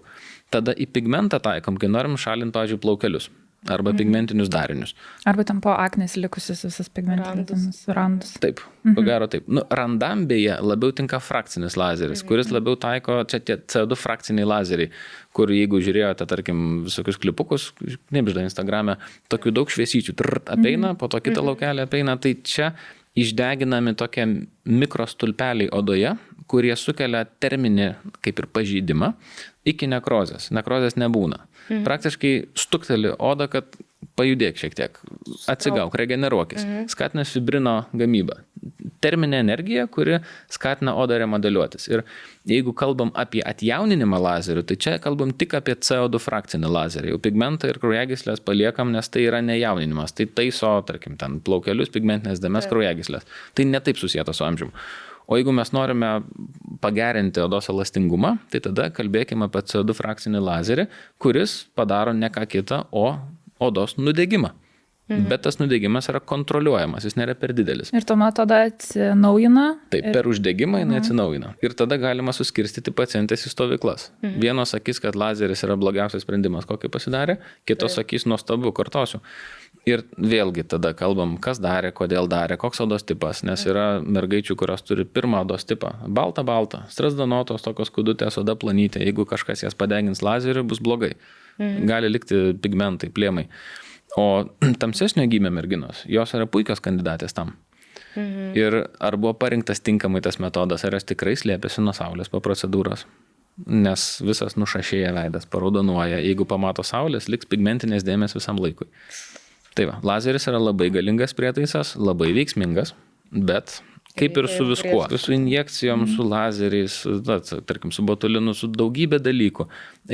Tada į pigmentą taikom, kai norim šalinti, pavyzdžiui, plaukelius. arba pigmentinius darinius. Arba tam po aknės likusius visas pigmentinius randus. Taip, ko gero taip. Randam beje labiau tinka frakcinis lazeris, kuris labiau taiko, čia tie CO2 frakciniai lazeriai, kur jeigu žiūrėjote, tarkim, visokius klipukus, knibžda Instagrame, tokių daug šviesyčių apeina, po to kitą laukelį apeina, tai čia išdeginami tokie mikrostulpeliai odoje, kurie sukelia terminį kaip ir pažeidimą iki nekrozės. Nekrozės nebūna. Praktiškai stukteli odą, kad pajudėk šiek tiek, atsigauk, regeneruokis. Skatina fibrino gamybą. Terminė energija, kuri skatina odą remodeliuotis. Ir jeigu kalbam apie atjauninimą lazerių, tai čia kalbam tik apie CO2 frakcinį lazerį. Jau pigmentą ir kraujagyslės paliekam, nes tai yra nejauninimas. Tai taiso, tarkim, ten plaukelius, pigmentinės dėmes, kraujagyslės. Tai netaip susijęta su amžiumi. O jeigu mes norime pagerinti odos elastingumą, tai tada kalbėkime apie CO2 frakcinį lazerį, kuris padaro ne ką kitą, o odos nudegimą. Bet tas nudegimas yra kontroliuojamas, jis nėra per didelis. Ir tuomet tada atsinaujina? Taip, per uždegimą jinai atsinaujina. Ir tada galima suskirstyti pacientės į stovyklas. Vienos sakys, kad lazeris yra blogiausias sprendimas, kokį pasidarė, kitos sakys, nuostabu, kartosiu. Ir vėlgi tada kalbam, kas darė, kodėl darė, koks odos tipas, nes yra mergaičių, kurios turi pirmą odos tipą. Balta, strazdanotos, tokios kudutės, oda planytė, jeigu kažkas jas padegins lazeriu, bus blogai. Gali likti pigmentai, plėmai. O tamsesnio gymio merginos, jos yra puikios kandidatės tam. Ir ar buvo parinktas tinkamai tas metodas, ar jos tikrai slėpėsi nuo saulės po procedūros. Nes visas nušašėja veidas, paraudonuoja. Jeigu pamato saulės, liks pigmentinės dėmės visam laikui. Tai va, lazeris yra labai galingas prietaisas, labai veiksmingas, bet kaip ir su viskuo, su injekcijom, su lazeriais, tarkim, su botulinu, su daugybė dalykų,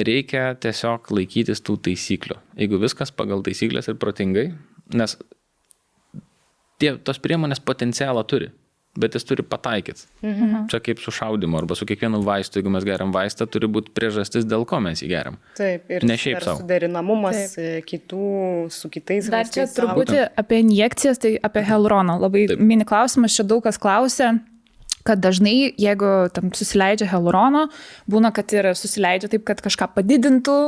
reikia tiesiog laikytis tų taisyklių. Jeigu viskas pagal taisyklės ir protingai, nes tos priemonės potencialą turi, bet jis turi pataikyti. Čia kaip su šaudimu arba su kiekvienu vaistu, jeigu mes geriam vaistą, turi būti priežastis, dėl ko mes jį geriam. Taip, ir ne šiaip savo. Suderinamumas kitų su kitais. Dar čia truputį apie injekcijas, tai apie hialuroną. Labai mini klausimas, čia daug kas klausia, kad dažnai, jeigu tam susileidžia hialurono, būna, kad ir susileidžia taip, kad kažką padidintų,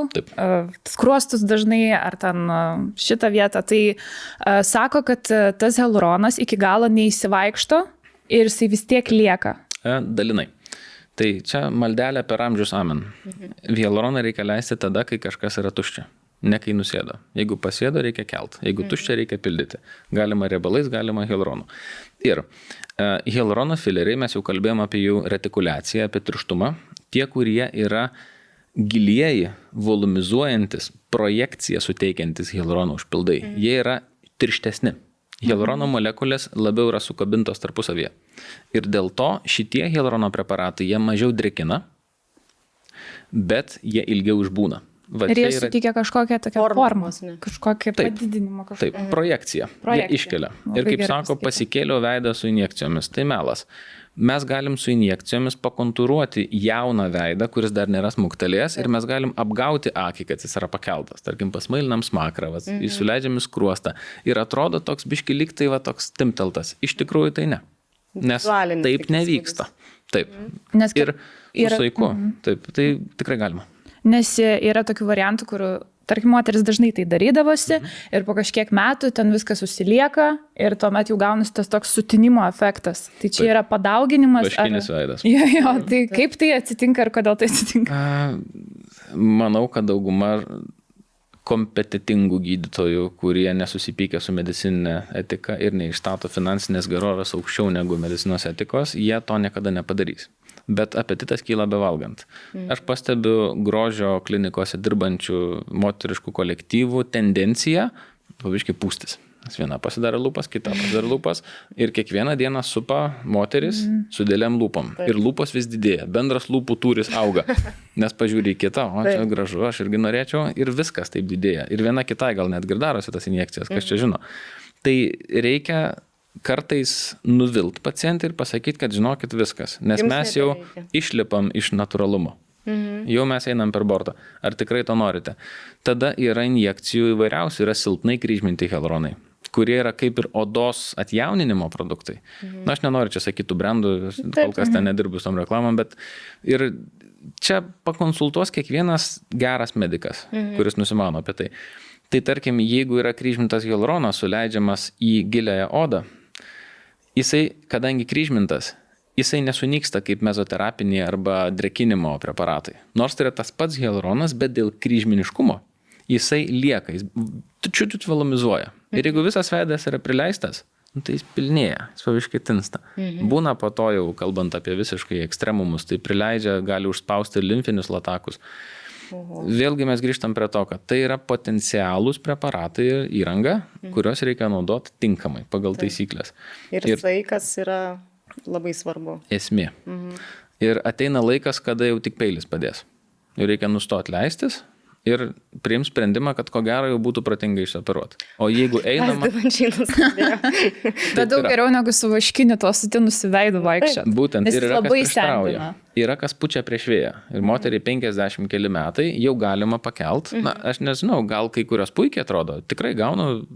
skruostus dažnai, ar ten šitą vietą. Tai sako, kad tas hialuronas iki galo neįsivaikšto, ir jisai vis tiek lieka. Dalinai. Tai čia maldelė per amžius amen. Hialuroną reikia leisti tada, kai kažkas yra tuščia. Ne kai nusėdo. Jeigu pasėdo, reikia kelt. Jeigu tuščia, reikia pildyti. Galima riebalais, galima hialuronu. Ir hialurono fileriai, mes jau kalbėjome apie jų retikuliaciją, apie tirštumą. Tie, kurie yra gilieji, volumizuojantis, projekciją suteikiantis hialurono užpildai, jie yra tirštesni. Hialurono molekulės labiau yra sukabintos tarpusavyje. Ir dėl to šitie hialurono preparatai, jie mažiau drėkina, bet jie ilgiau išbūna. Ir jie suteikia kažkokią tokią formą, kažkokią padidinimą. Taip, projekciją. Jie iškelia. Ir kaip sako, pasikėliau veidą su injekcijomis. Tai melas. Mes galim su injekcijomis pakontūruoti jauną veidą, kuris dar nėra smuktelėjęs, ir mes galim apgauti akį, kad jis yra pakeltas. Tarkim, pasmailinam smakrą, įsileidžiam į skruostą. Ir atrodo toks biški lyg tai toks timteltas. Iš tikrųjų tai ne. Nes taip nevyksta. Taip. Nes ir su saiku. Taip, tai tikrai galima. Nes yra tokių variantų, kur, tarkim, moteris dažnai tai darydavosi ir po kažkiek metų ten viskas susilieka ir tuomet jau gaunasi tas toks sutinimo efektas. Tai čia yra padauginimas. Vaškinis veidas. Jo, tai kaip tai atsitinka ir kodėl tai atsitinka? Manau, kad dauguma kompetitingų gydytojų, kurie nesusipykia su medicininė etika ir neišstato finansinės gerovės aukščiau negu medicinos etikos, jie to niekada nepadarys. Bet apetitas kyla bevalgant. Aš pastebiu grožio klinikose dirbančių moteriškų kolektyvų tendenciją pavyzdžiui pūstis. Viena pasidaro lūpas, kita pasidaro lūpas ir kiekvieną dieną supa moteris su dėliam lūpom. Ir lūpos vis didėja, bendras lūpų tūris auga. Nes pažiūrė į kitą, o čia gražu, aš irgi norėčiau, ir viskas taip didėja. Ir viena kitai gal net girdarosi tas injekcijas, kas čia žino. Tai reikia kartais nuvilt pacientą ir pasakyti, kad žinokit viskas, nes mes jau išlipam iš natūralumo. Jau mes einam per bortą. Ar tikrai to norite? Tada yra injekcijų įvairiausių, yra silpnai kryžminti hialuronai, kurie yra kaip ir odos atjauninimo produktai. Na, aš nenoriu čia sakytų brandų, kol kas ten nedirbu su tom reklamom, bet ir čia pakonsultuos kiekvienas geras medikas, kuris nusimano apie tai. Tai tarkim, jeigu yra kryžmintas hialuronas suleidžiamas į giliąją odą, jisai, kadangi kryžmintas, jisai nesunyksta kaip mezoterapiniai arba drekinimo preparatai. Nors tai yra tas pats hialuronas, bet dėl kryžminiškumo jisai lieka, jis čiut velomizuoja. Ir jeigu visas veidas yra prileistas, tai jis pilnėja, jis paviškai tinsta. Būna po to jau, kalbant apie visiškai ekstremumus, tai prileidžia, gali užspausti limfinius latakus. Vėlgi mes grįžtam prie to, kad tai yra potencialūs preparatai ir įranga, kurios reikia naudoti tinkamai pagal taisyklės. Ir saikas yra labai svarbu. Esmė. Ir ateina laikas, kada jau tik peilis padės. Jau reikia nustoti leistis ir priims sprendimą, kad ko gero jau būtų protingai išoperuoti. O jeigu einama... Bet daug geriau negu su vaškiniu to sutinusi veidu vaikščiat. Būtent. Ir yra kas prieštrauja. Yra kas pučia prieš vėją. Ir moteriai 50 keli metai jau galima pakelt. Na, aš nežinau, gal kai kurios puikiai atrodo. Tikrai gaunu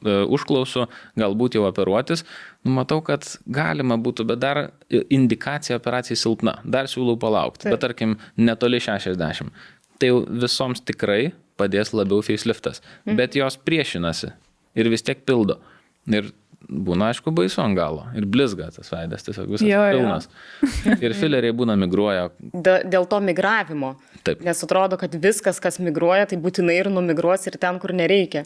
užklausų, galbūt jau operuotis. Matau, kad galima būtų, bet dar indikacija operacijai silpna. Dar siūlau palaukti. Bet tarkim, netoli 60. Tai jau visoms tikrai padės labiau faceliftas. Bet jos priešinasi ir vis tiek pildo. Ir būna, aišku, baisu ant galo. Ir blizga tas veidas, tiesiog visas pilnas. Ir fileriai būna migruoja. Dėl to migravimo. Taip. Nes atrodo, kad viskas, kas migruoja, tai būtinai ir numigruos ir ten, kur nereikia.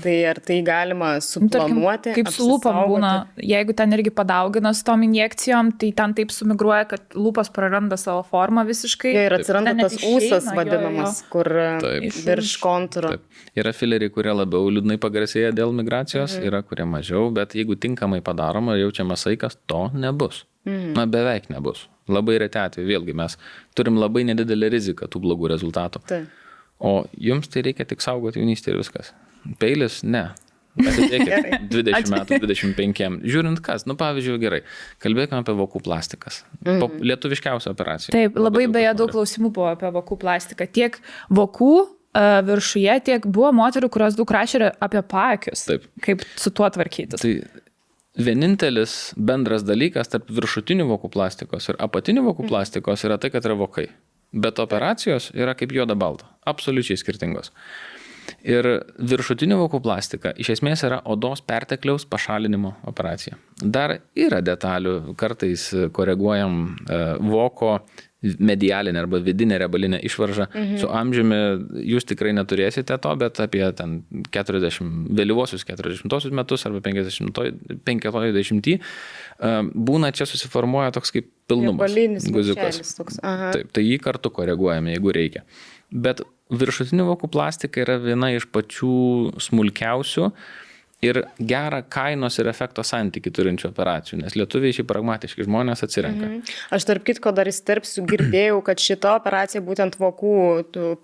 Tai ar tai galima suplanuoti? Kaip su lūpom būna, jeigu ten irgi padaugina su tom injekcijom, tai ten taip sumigruoja, kad lūpas praranda savo formą visiškai. Ir atsiranda tas ūsas vadinamas, kur virš kontūro. Yra fileriai, kurie labiau liūdnai pagarsėja dėl migracijos, yra kurie mažiau, bet jeigu tinkamai padaroma, jaučiamas saikas, to nebus. Na, beveik nebus. Labai reti atveju, vėlgi mes turim labai nedidelę riziką tų blogų rezultatų. O jums tai reikia tik saugoti jaunystę ir viskas. Peilis, ne. Atidėkit 20 metų, 25. Žiūrint kas, pavyzdžiui, gerai, kalbėkime apie vokų plastikas. Lietuviškiausia operacija. Taip, labai beje daug klausimų buvo apie vokų plastiką. Tiek vokų viršuje, tiek buvo moterų, kurios daug rašė apie paakius. Taip. Kaip su tuo tvarkytis. Tai vienintelis bendras dalykas tarp viršutinių vokų plastikos ir apatinių vokų plastikos yra tai, kad yra vokai. Bet operacijos yra kaip juoda balta. Absoliučiai skirtingos. Ir viršutinių vokų plastika iš esmės yra odos pertekliaus pašalinimo operacija. Dar yra detalių, kartais koreguojam voko medialinę arba vidinę riebalinę išvaržą. Su amžiumi jūs tikrai neturėsite to, bet apie ten 40, vėlyvosius 40 metus arba 50 būna čia susiformuoja toks kaip pilnumas. Guziukas. Taip, tai jį kartu koreguojame, jeigu reikia. Bet viršutinių vokų plastika yra viena iš pačių smulkiausių ir gerą kainos ir efekto santykį turinčių operacijų, nes lietuviai šiaip pragmatiški žmonės atsirenka. Aš tarp kitko dar įsterpsiu, girdėjau, kad šita operacija būtent vokų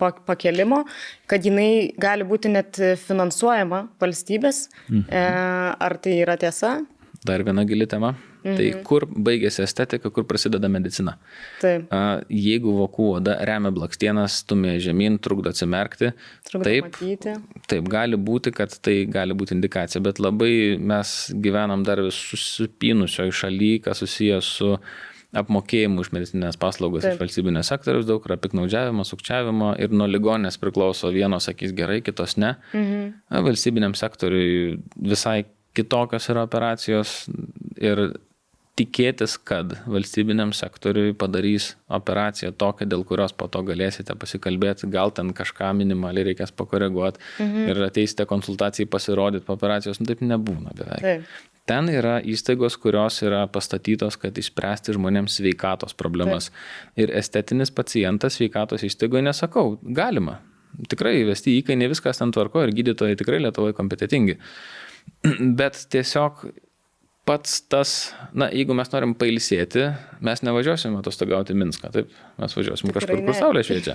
pakelimo, kad jinai gali būti net finansuojama valstybės. Ar tai yra tiesa? Dar viena gili tema. Tai kur baigėsi estetika, kur prasideda medicina. Taip. Jeigu vokų oda remia blakstienas, stumia žemyn, trukdo atsimerkti, taip gali būti, kad tai gali būti indikacija, bet labai mes gyvenam dar vis susipynusioje šalyje, kas susijęs su apmokėjimu už medicinines paslaugas iš valstybinės sektoriaus, daug yra piknaudžiavimo, sukčiavimo ir nuo ligoninės priklauso, vienos sakys gerai, kitos ne. Valstybiniam sektoriui visai kitokios yra operacijos ir tikėtis, kad valstybiniam sektoriui padarys operaciją tokią, dėl kurios po to galėsite pasikalbėti, gal ten kažką minimaliai reikės pakoreguoti ir ateisite konsultacijai pasirodyti po operacijos, taip nebūna beveik. Ten yra įstaigos, kurios yra pastatytos, kad išspręsti žmonėms sveikatos problemas. Ir estetinis pacientas sveikatos įstaigoje nesakau, galima. Tikrai įvesti įkainį, viskas ten tvarko ir gydytojai tikrai Lietuvoje kompetentingi. Bet tiesiog pats tas, jeigu mes norim pailsėti, mes nevažiuosim atostogauti Minską, taip? Mes važiuosim kažkur, kur saulė šviečia.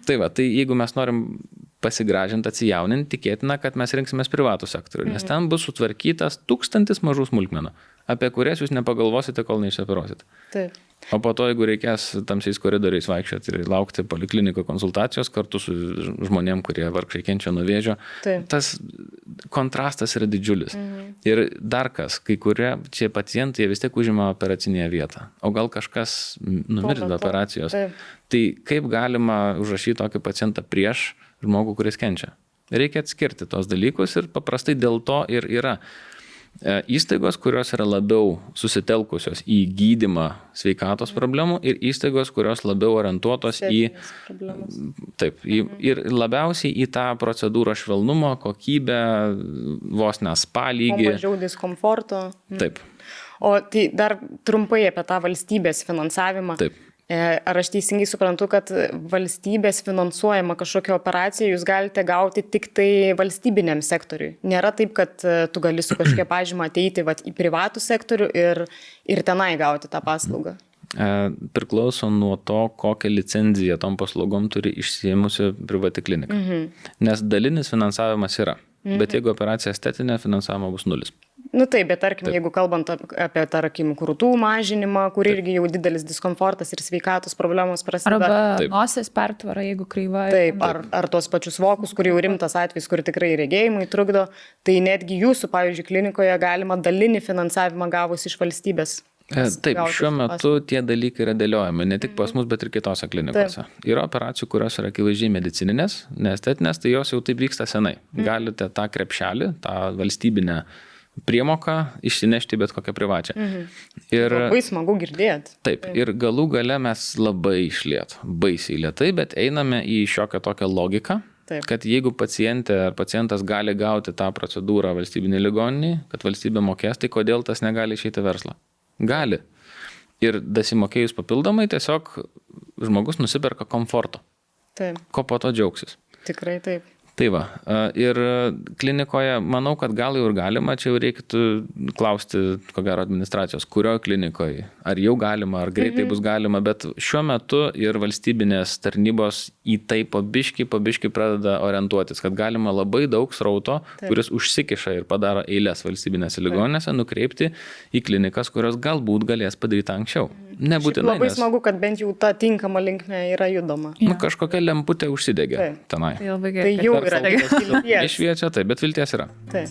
Tai jeigu mes norim pasigražinti, atsijauninti, tikėtina, kad mes rinksimės privatų sektorių, nes ten bus sutvarkytas 1000 mažų smulkmenų, apie kurias jūs nepagalvosite, kol neišoperuosit. Taip. O po to, jeigu reikės tamsiais koridoriais vaikščioti ir laukti polikliniko konsultacijos kartu su žmonėm, kurie vargšai kenčia nuo vėžio, tas kontrastas yra didžiulis. Ir dar kas, kai kurie čia pacientai vis tiek užima operacinėje vietą, o gal kažkas numirs be operacijos. Tai kaip galima užrašyti tokį pacientą prieš žmogų, kuris kenčia? Reikia atskirti tos dalykus ir paprastai dėl to ir yra įstaigos, kurios yra labiau susitelkusios į gydymą sveikatos problemų ir įstaigos, kurios labiau orientuotos ir labiausiai į tą procedūrą švelnumo, kokybę, vos ne spa lygį. Mažiau diskomforto. Taip. O tai dar trumpai apie tą valstybės finansavimą. Taip. Ar aš teisingai suprantu, kad valstybės finansuojama kažkokią operaciją jūs galite gauti tik tai valstybiniam sektoriui? Nėra taip, kad tu gali su kažkokia pažyma ateiti į privatų sektorių ir tenai gauti tą paslaugą? Priklauso nuo to, kokią licenciją tom paslaugom turi išsiėmusi privati klinika. Nes dalinis finansavimas yra, bet jeigu operacija estetinė, finansavimo bus 0. Taip, bet tarkim, jeigu kalbant apie, tarkim, krūtų mažinimą, kur irgi jau didelis diskomfortas ir sveikatos problemos prasideda. Arba nosies pertvara, jeigu kreiva. Taip, ar tos pačius vokus, kur jau rimtas atvejs, kur tikrai regėjimui trukdo, tai netgi jūsų, pavyzdžiui, klinikoje galima dalinį finansavimą gavus iš valstybės. Taip, šiuo metu tie dalykai yra dėliojami, ne tik pas mus, bet ir kitose klinikose. Yra operacijų, kurios yra akivaizdžiai medicininės, neestetinės, tai jos jau taip vyksta senai. Galite tą krepšelį, tą valstybinę priemoką išsinešti bet kokią privačią. Ir labai smagu girdėti. Taip, ir galų gale mes labai išliet, baisiai lėtai, bet einame į šiokią tokią logiką, kad jeigu pacientė ar pacientas gali gauti tą procedūrą valstybinį ligoninį, kad valstybė mokės, tai kodėl tas negali išeiti verslą? Gali. Ir dasimokėjus papildomai tiesiog žmogus nusiperka komforto. Taip. Ko po to džiaugsis. Tikrai taip. Tai va, ir klinikoje, manau, kad gal jau ir galima, čia jau reikėtų klausti, ko gero, administracijos, kurioje klinikoje, ar jau galima, ar greitai bus galima, bet šiuo metu ir valstybinės tarnybos į tai pabiški pradeda orientuotis, kad galima labai daug srauto, kuris užsikiša ir padaro eilės valstybinėse ligoninėse, nukreipti į klinikas, kurios galbūt galės padaryti anksčiau. Nebūtinai. Labai smagu, kad bent jau ta tinkama linkme yra judoma. Kažkokia lemputė užsidegė tenai. Tai jau yra vilties. Išviečia, taip, bet vilties yra. Taip.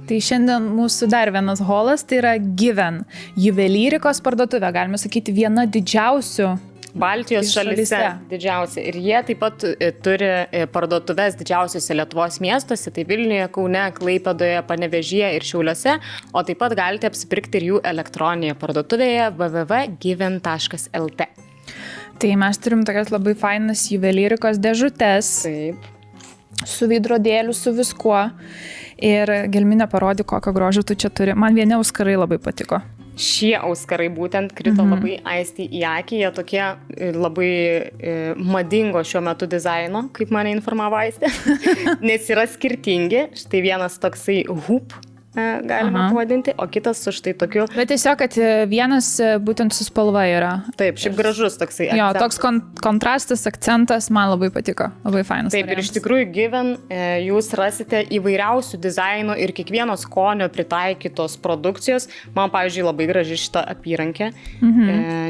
Tai šiandien mūsų dar vienas holas, tai yra Given, juvelyrikos parduotuvė, galime sakyti, viena didžiausių Baltijos šalyse didžiausia. Ir jie taip pat turi parduotuves didžiausiose Lietuvos miestuose, tai Vilniuje, Kaune, Klaipėdoje, Panevėžyje ir Šiauliuose, o taip pat galite apsipirkti ir jų elektroninėje parduotuvėje www.given.lt. Tai mes turim tokias labai fainas juvelyrikos dėžutes. Taip. Su veidrodėliu, su viskuo. Ir Gelminė parodė, kokio grožio tu čia turi. Man vieni auskarai labai patiko. Šie auskarai būtent krito labai aiškiai į akį, jie tokie labai madingo šiuo metu dizaino, kaip mane informavo Aistė, nes yra skirtingi. Štai vienas toksai hoop, galima pavadinti, o kitas su štai tokiu. Bet tiesiog, kad vienas būtent su spalva yra. Taip, šiaip gražus toksai akcentas. Jo, toks kontrastas, akcentas man labai patiko, labai fainas. Taip, variantas. Ir iš tikrųjų Given jūs rasite įvairiausių dizainų ir kiekvieno skonio pritaikytos produkcijos. Man, pavyzdžiui, labai graži šita apyrankė,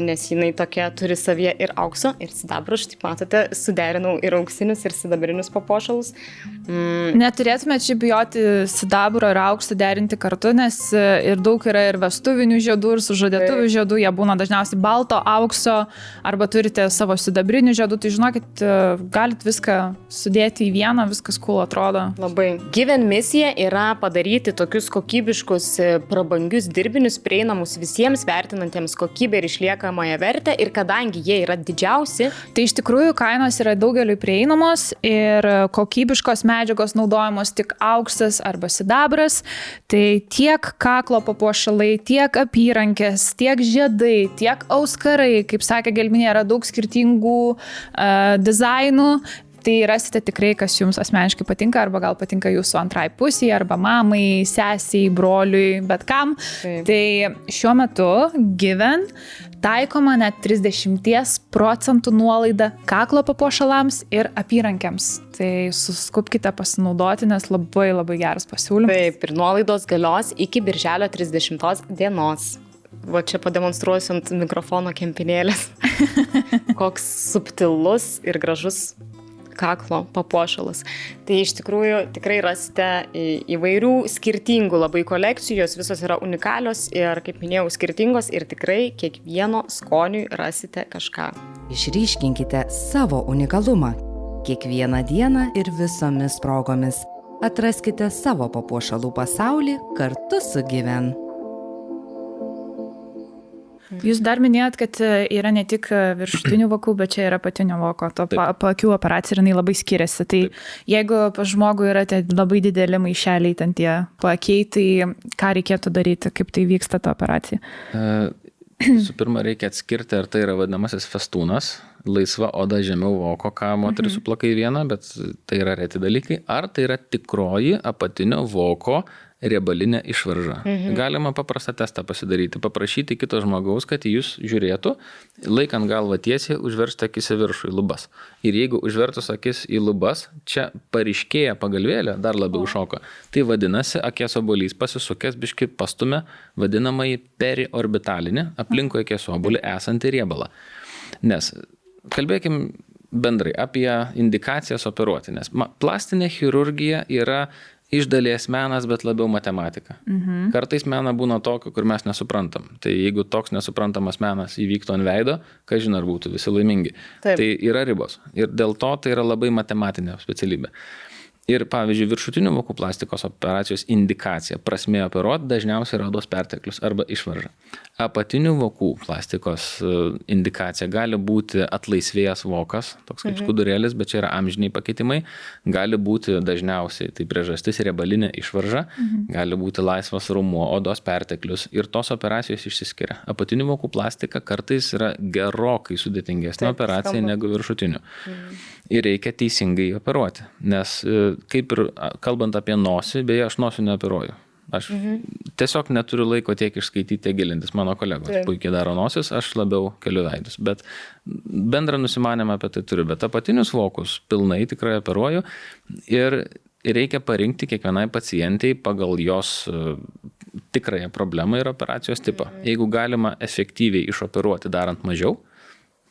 nes jinai tokia turi savyje ir aukso, ir sidabro. Štai matote, suderinau ir auksinius, ir sidabrinius papuošalus. Neturėtume čia bijoti sidabro ir aukso derinti kartu, nes ir daug yra ir vestuvinių žiedų, ir sužadėtuvių žiedų, jie būna dažniausiai balto, aukso, arba turite savo sidabrinių žiedų, tai žinokit, galit viską sudėti į vieną, viskas cool atrodo. Labai. Given misija yra padaryti tokius kokybiškus, prabangius dirbinius, prieinamus visiems, vertinantiems kokybę ir išliekamąją vertę, ir kadangi jie yra didžiausi, tai iš tikrųjų kainos yra daugeliui prieinamos ir kokybiškos medžiagos naudojamos tik auksas arba sidabras. Tai tiek kaklo papuošalai, tiek apyrankės, tiek žiedai, tiek auskarai, kaip sakė Gelminė, yra daug skirtingų dizainų. Tai rasite tikrai, kas jums asmeniškai patinka, arba gal patinka jūsų antrai pusiai, arba mamai, sesiai, broliui, bet kam. Taip. Tai šiuo metu Given taikoma net 30% nuolaida kaklo papuošalams ir apyrankiams. Tai suskubkite pasinaudoti, nes labai labai geras pasiūlymas. Taip, ir nuolaidos galios iki birželio 30 dienos. Va čia pademonstruosiu ant mikrofono kempinėlės. Koks subtilus ir gražus kaklo papuošalas. Tai iš tikrųjų tikrai rasite įvairių skirtingų labai kolekcijos, visos yra unikalios ir, kaip minėjau, skirtingos ir tikrai kiekvieno skoniui rasite kažką. Išryškinkite savo unikalumą. Kiekvieną dieną ir visomis progomis. Atraskite savo papuošalų pasaulį kartu su Given. Jūs dar minėjot, kad yra ne tik viršutinių vokų, bet čia yra apatinio voko. To paakių operacija ir jinai labai skiriasi. Tai jeigu pas žmogų yra labai dideli maišeliai, ten tie paakiai, tai ką reikėtų daryti, kaip tai vyksta ta operacija? Su pirma, reikia atskirti, ar tai yra vadinamasis festūnas, laisva oda žemiau voko, ką moteris suplaka į vieną, bet tai yra reti dalykai, ar tai yra tikroji apatinio voko riebalinė išvarža. Galima paprastą testą pasidaryti, paprašyti kito žmogaus, kad jūs žiūrėtų, laikant galvą tiesiai, užversti akis į viršų, į lubas. Ir jeigu užvertus akis į lubas, čia paryškėja pagalvėlė, dar labiau šoka. Tai vadinasi, akies obuolys pasisukęs biškį pastumė vadinamąjį periorbitalinį, aplinkui akies obuolį esantį riebalą. Nes kalbėkim bendrai apie indikacijas operuoti, nes plastinė chirurgija yra iš dalies menas, bet labiau matematika. Kartais mena būna tokio, kur mes nesuprantam. Tai jeigu toks nesuprantamas menas įvyktų ant veido, ką žinai, ar būtų visi laimingi. Taip. Tai yra ribos. Ir dėl to tai yra labai matematinė specialybė. Ir pavyzdžiui, viršutinių vokų plastikos operacijos indikacija, prasmė operuoti dažniausiai yra odos perteklius arba išvarža. Apatinių vokų plastikos indikacija gali būti atlaisvėjęs vokas, toks kaip skudurėlis, bet čia yra amžiniai pakeitimai. Gali būti dažniausiai, tai priežastis riebalinė išvarža, gali būti laisvas raumuo, odos perteklius ir tos operacijos išsiskiria. Apatinių vokų plastika kartais yra gerokai sudėtingesnė operacija negu viršutinių. Ir reikia teisingai operuoti, nes kaip ir kalbant apie nosį, beje, aš nosių neoperuoju. Aš tiesiog neturiu laiko tiek išskaityti, tiek gilintis. Mano kolegos puikiai daro nosis, aš labiau keliu veidus. Bet bendrą nusimanymą apie tai turiu. Bet apatinius vokus pilnai tikrai operuoju ir reikia parinkti kiekvienai pacientai pagal jos tikrąją problemą ir operacijos tipą. Jeigu galima efektyviai išoperuoti darant mažiau,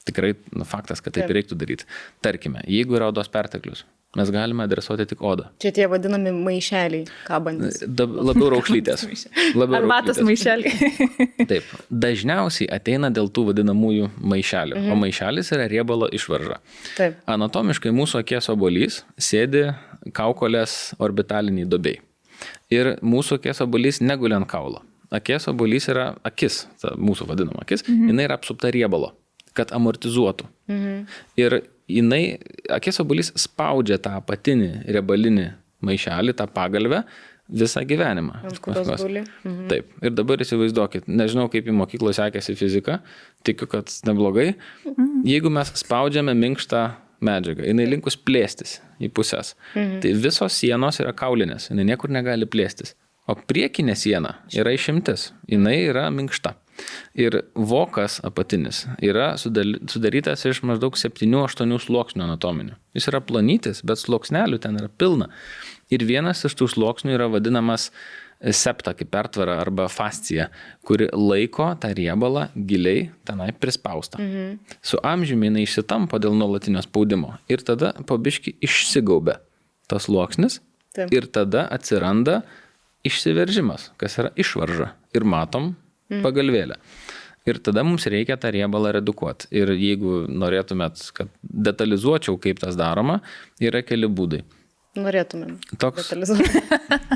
tikrai faktas, kad taip reiktų daryti. Tarkime, jeigu yra odos perteklius, mes galime adresuoti tik odą. Čia tie vadinami maišeliai kabantis. Labiau raukšlytės. Arbatos maišeliai. Taip. Dažniausiai ateina dėl tų vadinamųjų maišelių. O maišelis yra riebalo išvarža. Taip. Anatomiškai mūsų akies obuolys sėdi kaukolės orbitaliniai duobei. Ir mūsų akies obuolys neguli ant kaulo. Akies obuolys yra akis, ta mūsų vadinama akis, jinai yra apsupta riebalo, kad amortizuotų. Ir jinai, akies obuolys spaudžia tą apatinį riebalinį maišelį, tą pagalvę visą gyvenimą. Taip. Ir dabar įsivaizduokit, nežinau, kaip į mokyklą sekėsi fizika, tikiu, kad neblogai. Jeigu mes spaudžiame minkštą medžiagą, jinai linkus plėstis į pusės. Tai visos sienos yra kaulinės, jinai niekur negali plėstis. O priekinė siena yra išimtis, jinai yra minkšta. Ir vokas apatinis yra sudarytas iš maždaug 7-8 sluoksnių anatominių. Jis yra plonytis, bet sluoksnelių ten yra pilna. Ir vienas iš tų sluoksnių yra vadinamas septa, kaip pertvara arba fascija, kuri laiko tą riebalą giliai tenai prispaustą. Su amžiumi jinai išsitampo dėl nuolatinio spaudimo. Ir tada po biškį išsigaubia tas sluoksnis. Ir tada atsiranda išsiveržimas, kas yra išvarža. Ir matom pagalvėlę. Ir tada mums reikia tą riebalą redukuoti. Ir jeigu norėtumėt, kad detalizuočiau, kaip tas daroma, yra keli būdai. Norėtumėm toks detalizuoti.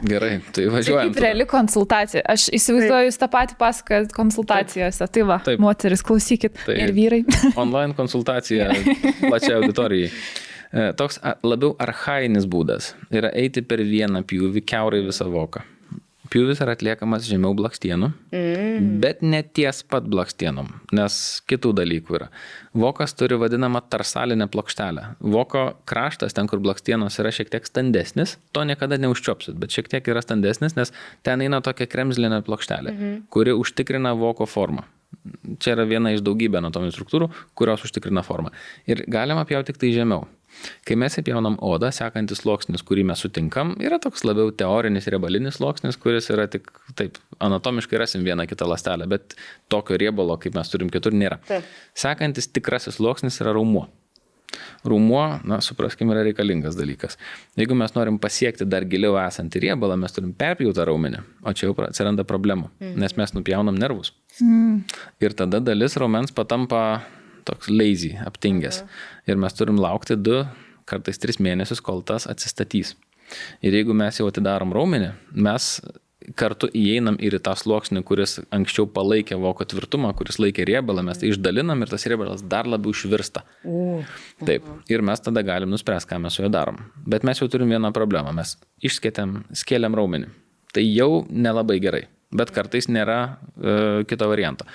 Gerai, tai važiuojam. Kaip reali konsultacija. Aš įsivaizduoju, jūs tą patį pasakojat konsultacijose. Tai va, moteris, klausykit. Ir vyrai. Online konsultacija plačiai auditorijai. Toks labiau archainis būdas yra eiti per vieną pjūvį kiaurai visą voką. Pjūvis yra atliekamas žemiau blakstienų, bet ne ties pat blakstienom, nes kitų dalykų yra. Vokas turi vadinamą tarsalinę plokštelę. Voko kraštas, ten kur blakstienos yra šiek tiek standesnis, to niekada neužčiopsit, bet šiek tiek yra standesnis, nes ten eina tokia kremzlinė plokštelė, kuri užtikrina voko formą. Čia yra viena iš daugybė anatominių struktūrų, kurios užtikrina formą. Ir galima pjauti tik tai žemiau. Kai mes įpjaunam odą, sekantis sluoksnis, kurį mes sutinkam, yra toks labiau teorinis riebalinis sluoksnis, kuris yra tik, taip, anatomiškai rasim vieną kitą ląstelę, bet tokio riebalo, kaip mes turim kitur, nėra. Sekantis tikrasis sluoksnis yra raumuo. Raumuo, supraskime, yra reikalingas dalykas. Jeigu mes norim pasiekti dar giliau esantį riebalą, mes turim perpjautą raumenį, o čia jau atsiranda problemų, nes mes nupjaunam nervus. Ir tada dalis raumens patampa toks lazy, aptingęs. Ir mes turim laukti 2, kartais 3 mėnesius, kol tas atsistatys. Ir jeigu mes jau atidarom raumenį, mes kartu įeinam ir į tą sluoksnį, kuris anksčiau palaikė voko tvirtumą, kuris laikė riebalą, mes tai išdalinam ir tas riebalas dar labiau išvirsta. Taip. Ir mes tada galim nuspręsti, ką mes su juo darom. Bet mes jau turim vieną problemą. Mes skėlėm raumenį. Tai jau nelabai gerai. Bet kartais nėra kito varianto.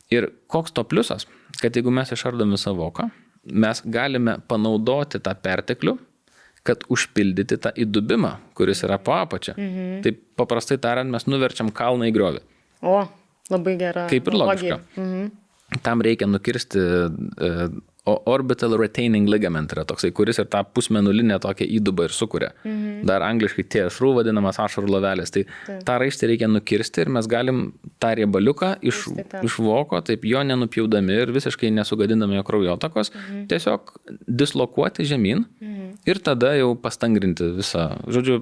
Ir koks to pliusas, kad jeigu mes išardom visą voką, mes galime panaudoti tą perteklių, kad užpildyti tą įdubimą, kuris yra po apačia. Tai paprastai tariant, mes nuverčiam kalną į griovį. O, labai gera. Kaip ir logiška. Tam reikia nukirsti orbital retaining ligament, yra toksai, kuris ir tą pusmenulinę tokią įdubą ir sukuria. Dar angliškai TSRU vadinamas ašarų lovelės. Tai tą raištį reikia nukirsti ir mes galim tą riebaliuką iš voko, taip jo nenupjaudami ir visiškai nesugadindami jo kraujotakos, tiesiog dislokuoti žemyn ir tada jau pastangrinti visą. Žodžiu,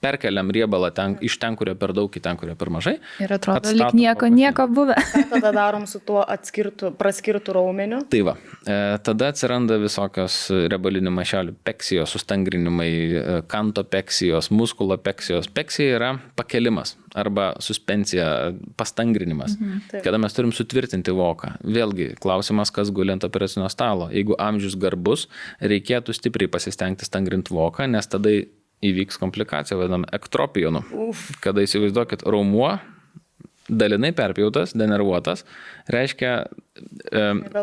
perkeliam riebalą iš ten, kurio per daug, į ten, kurio per mažai. Ir atrodo, lyg nieko buvę. Tada darom su tuo praskirtų raumeniu. Tai va. Tada atsiranda visokios riebalinių maišelių peksijos, sustangrinimai, kanto peksijos, muskulo peksijos. Peksija yra pakelimas arba suspensija, pastangrinimas, kada mes turim sutvirtinti voką. Vėlgi, klausimas, kas guli ant operacinio stalo. Jeigu amžius garbus, reikėtų stipriai pasistengti stangrinti voką, nes tada įvyks komplikacija, vadinam, ektropijonu. Kada įsivaizduokit, raumuo dalinai perpjautas, denervuotas, reiškia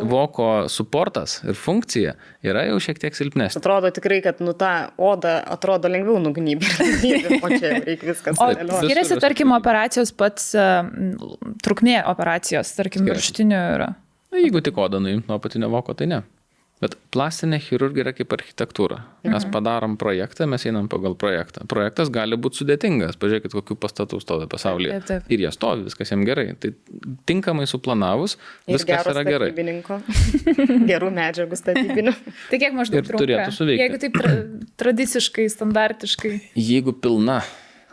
voko suportas ir funkcija yra jau šiek tiek silpnesnė. Atrodo tikrai, kad ta oda atrodo lengviau nugnybė, o čia reikia viskas dėlioti. O skiriasi, tarkim, operacijos pats trukmė operacijos, tarkim, viršutinių yra? Jeigu tik odą nuimt nuo apatinio voko, tai ne. Bet plastinė chirurgija yra kaip architektūra. Mes padarom projektą, mes einam pagal projektą. Projektas gali būti sudėtingas. Pažiūrėkit, kokių pastatų stovi pasaulyje. Taip. Ir jie stovi, viskas jiems gerai. Tai tinkamai suplanavus, viskas yra gerai. Gerų medžiagų statybinių. Tai kiek maždaug trunka? Turėtų suveikti. Jeigu taip tradiciškai, standartiškai. Jeigu pilna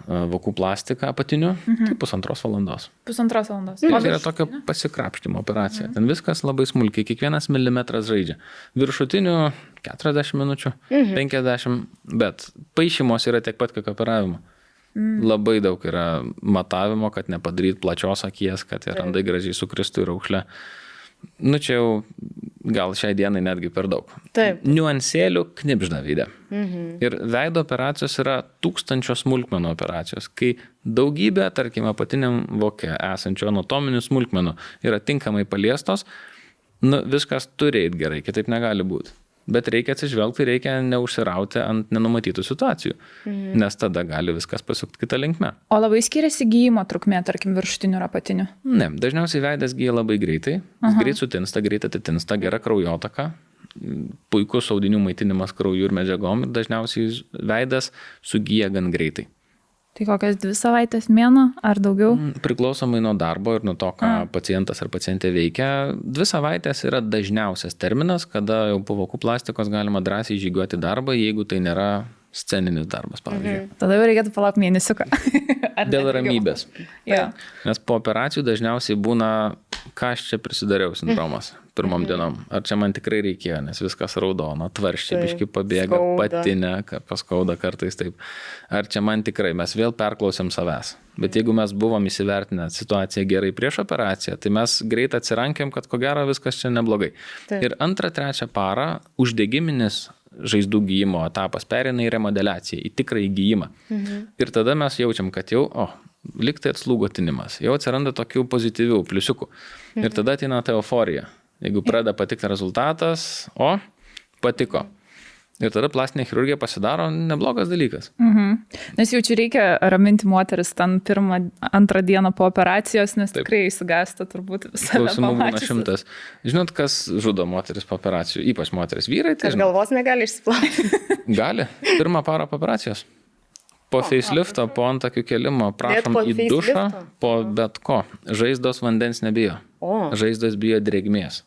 vokų plastika apatinių, tai 1,5 valandos. 1,5 valandos. Tai yra tokia pasikrapštimo operacija. Ten viskas labai smulkiai, kiekvienas milimetras žaidžia. Viršutinių 40 minučių, 50, bet paišymos yra tiek pat, kiek operavimo. Labai daug yra matavimo, kad nepadaryt plačios akies, kad randai gražiai sukristų į raukšlę. Čia jau gal šiai dienai netgi per daug. Taip. Niuansėlių knibžda veide. Ir veido operacijos yra 1000 smulkmenų operacijos, kai daugybė, tarkim, apatiniam voke esančių anatominių smulkmenų yra tinkamai paliestos, viskas turi eiti gerai, kitaip negali būti. Bet reikia atsižvelgti, reikia neužsirauti ant nenumatytų situacijų, nes tada gali viskas pasukti kitą linkmę. O labai skiriasi gyjimo trukmė, tarkim, viršutinių ir apatinių? Ne, dažniausiai veidas gyja labai greitai, jis greit sutinsta, greit atitinsta, gera kraujotaka, puikus audinių maitinimas krauju ir medžiagom ir dažniausiai veidas sugyja gan greitai. Tai kokias 2 savaitės, mėnuo ar daugiau? Priklausomai nuo darbo ir nuo to, ką pacientas ar pacientė veikia. 2 savaitės yra dažniausias terminas, kada jau po vokų plastikos galima drąsiai žygiuoti darbą, jeigu tai nėra sceninis darbas, pavyzdžiui. Tada jau reikėtų palaukti mėnesiuką. Dėl ramybės. Ja. Nes po operacijų dažniausiai būna, ką aš čia prisidariau sindromas pirmom dienom. Ar čia man tikrai reikėjo, nes viskas raudona, tvarščiai biški pabėga, patinė, paskauda kartais taip. Ar čia man tikrai, mes vėl perklausėm savęs. Bet jeigu mes buvom įsivertinę situaciją gerai prieš operaciją, tai mes greit atsirankėm, kad ko gero viskas čia neblogai. Taip. Ir 2-3 parą uždegiminis žaizdų gyjimo etapas pereina į remodeliaciją, į tikrąjį gyjimą. Ir tada mes jaučiam, kad jau, lyg tai atslūgo tinimas, jau atsiranda tokių pozityvių pliusiukų. Ir tada ateina ta euforija. Jeigu pradeda patikti rezultatas, patiko. Ir tada plastinė chirurgija pasidaro neblogas dalykas. Nes jau čia reikia raminti moteris ten 1-2 dieną po operacijos, nes tikrai įsigąsta turbūt visą. Klausimų būna 100. Žinot, kas žudo moteris po operacijų? Ypač moteris. Vyrai tai... Aš galvos negali išsiplauti. Gali. 1 parą po operacijos. Po facelifto, po antakių kelimo, prašom į dušą, po bet ko. Žaizdos vandens nebijo. Žaizdos bijo drėgmės.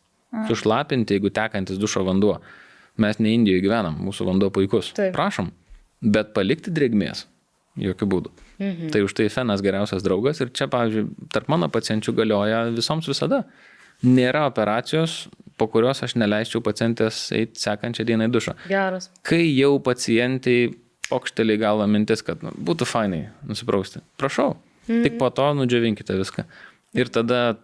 Sušlapinti, jeigu tekantis dušo vanduo. Mes ne Indijoje gyvenam, mūsų vanduo puikus. Taip. Prašom, bet palikti drėgmės. Jokių būdų. Tai už tai fenas geriausias draugas ir čia, pavyzdžiui, tarp mano pacienčių galioja visoms visada. Nėra operacijos, po kurios aš neleisčiau pacientės eiti sekančią dieną į dušą. Geras. Kai jau pacientai pokštelį galva mintis, kad būtų fainai nusiprausti, prašau, tik po to nudžiovinkite viską. Ir tada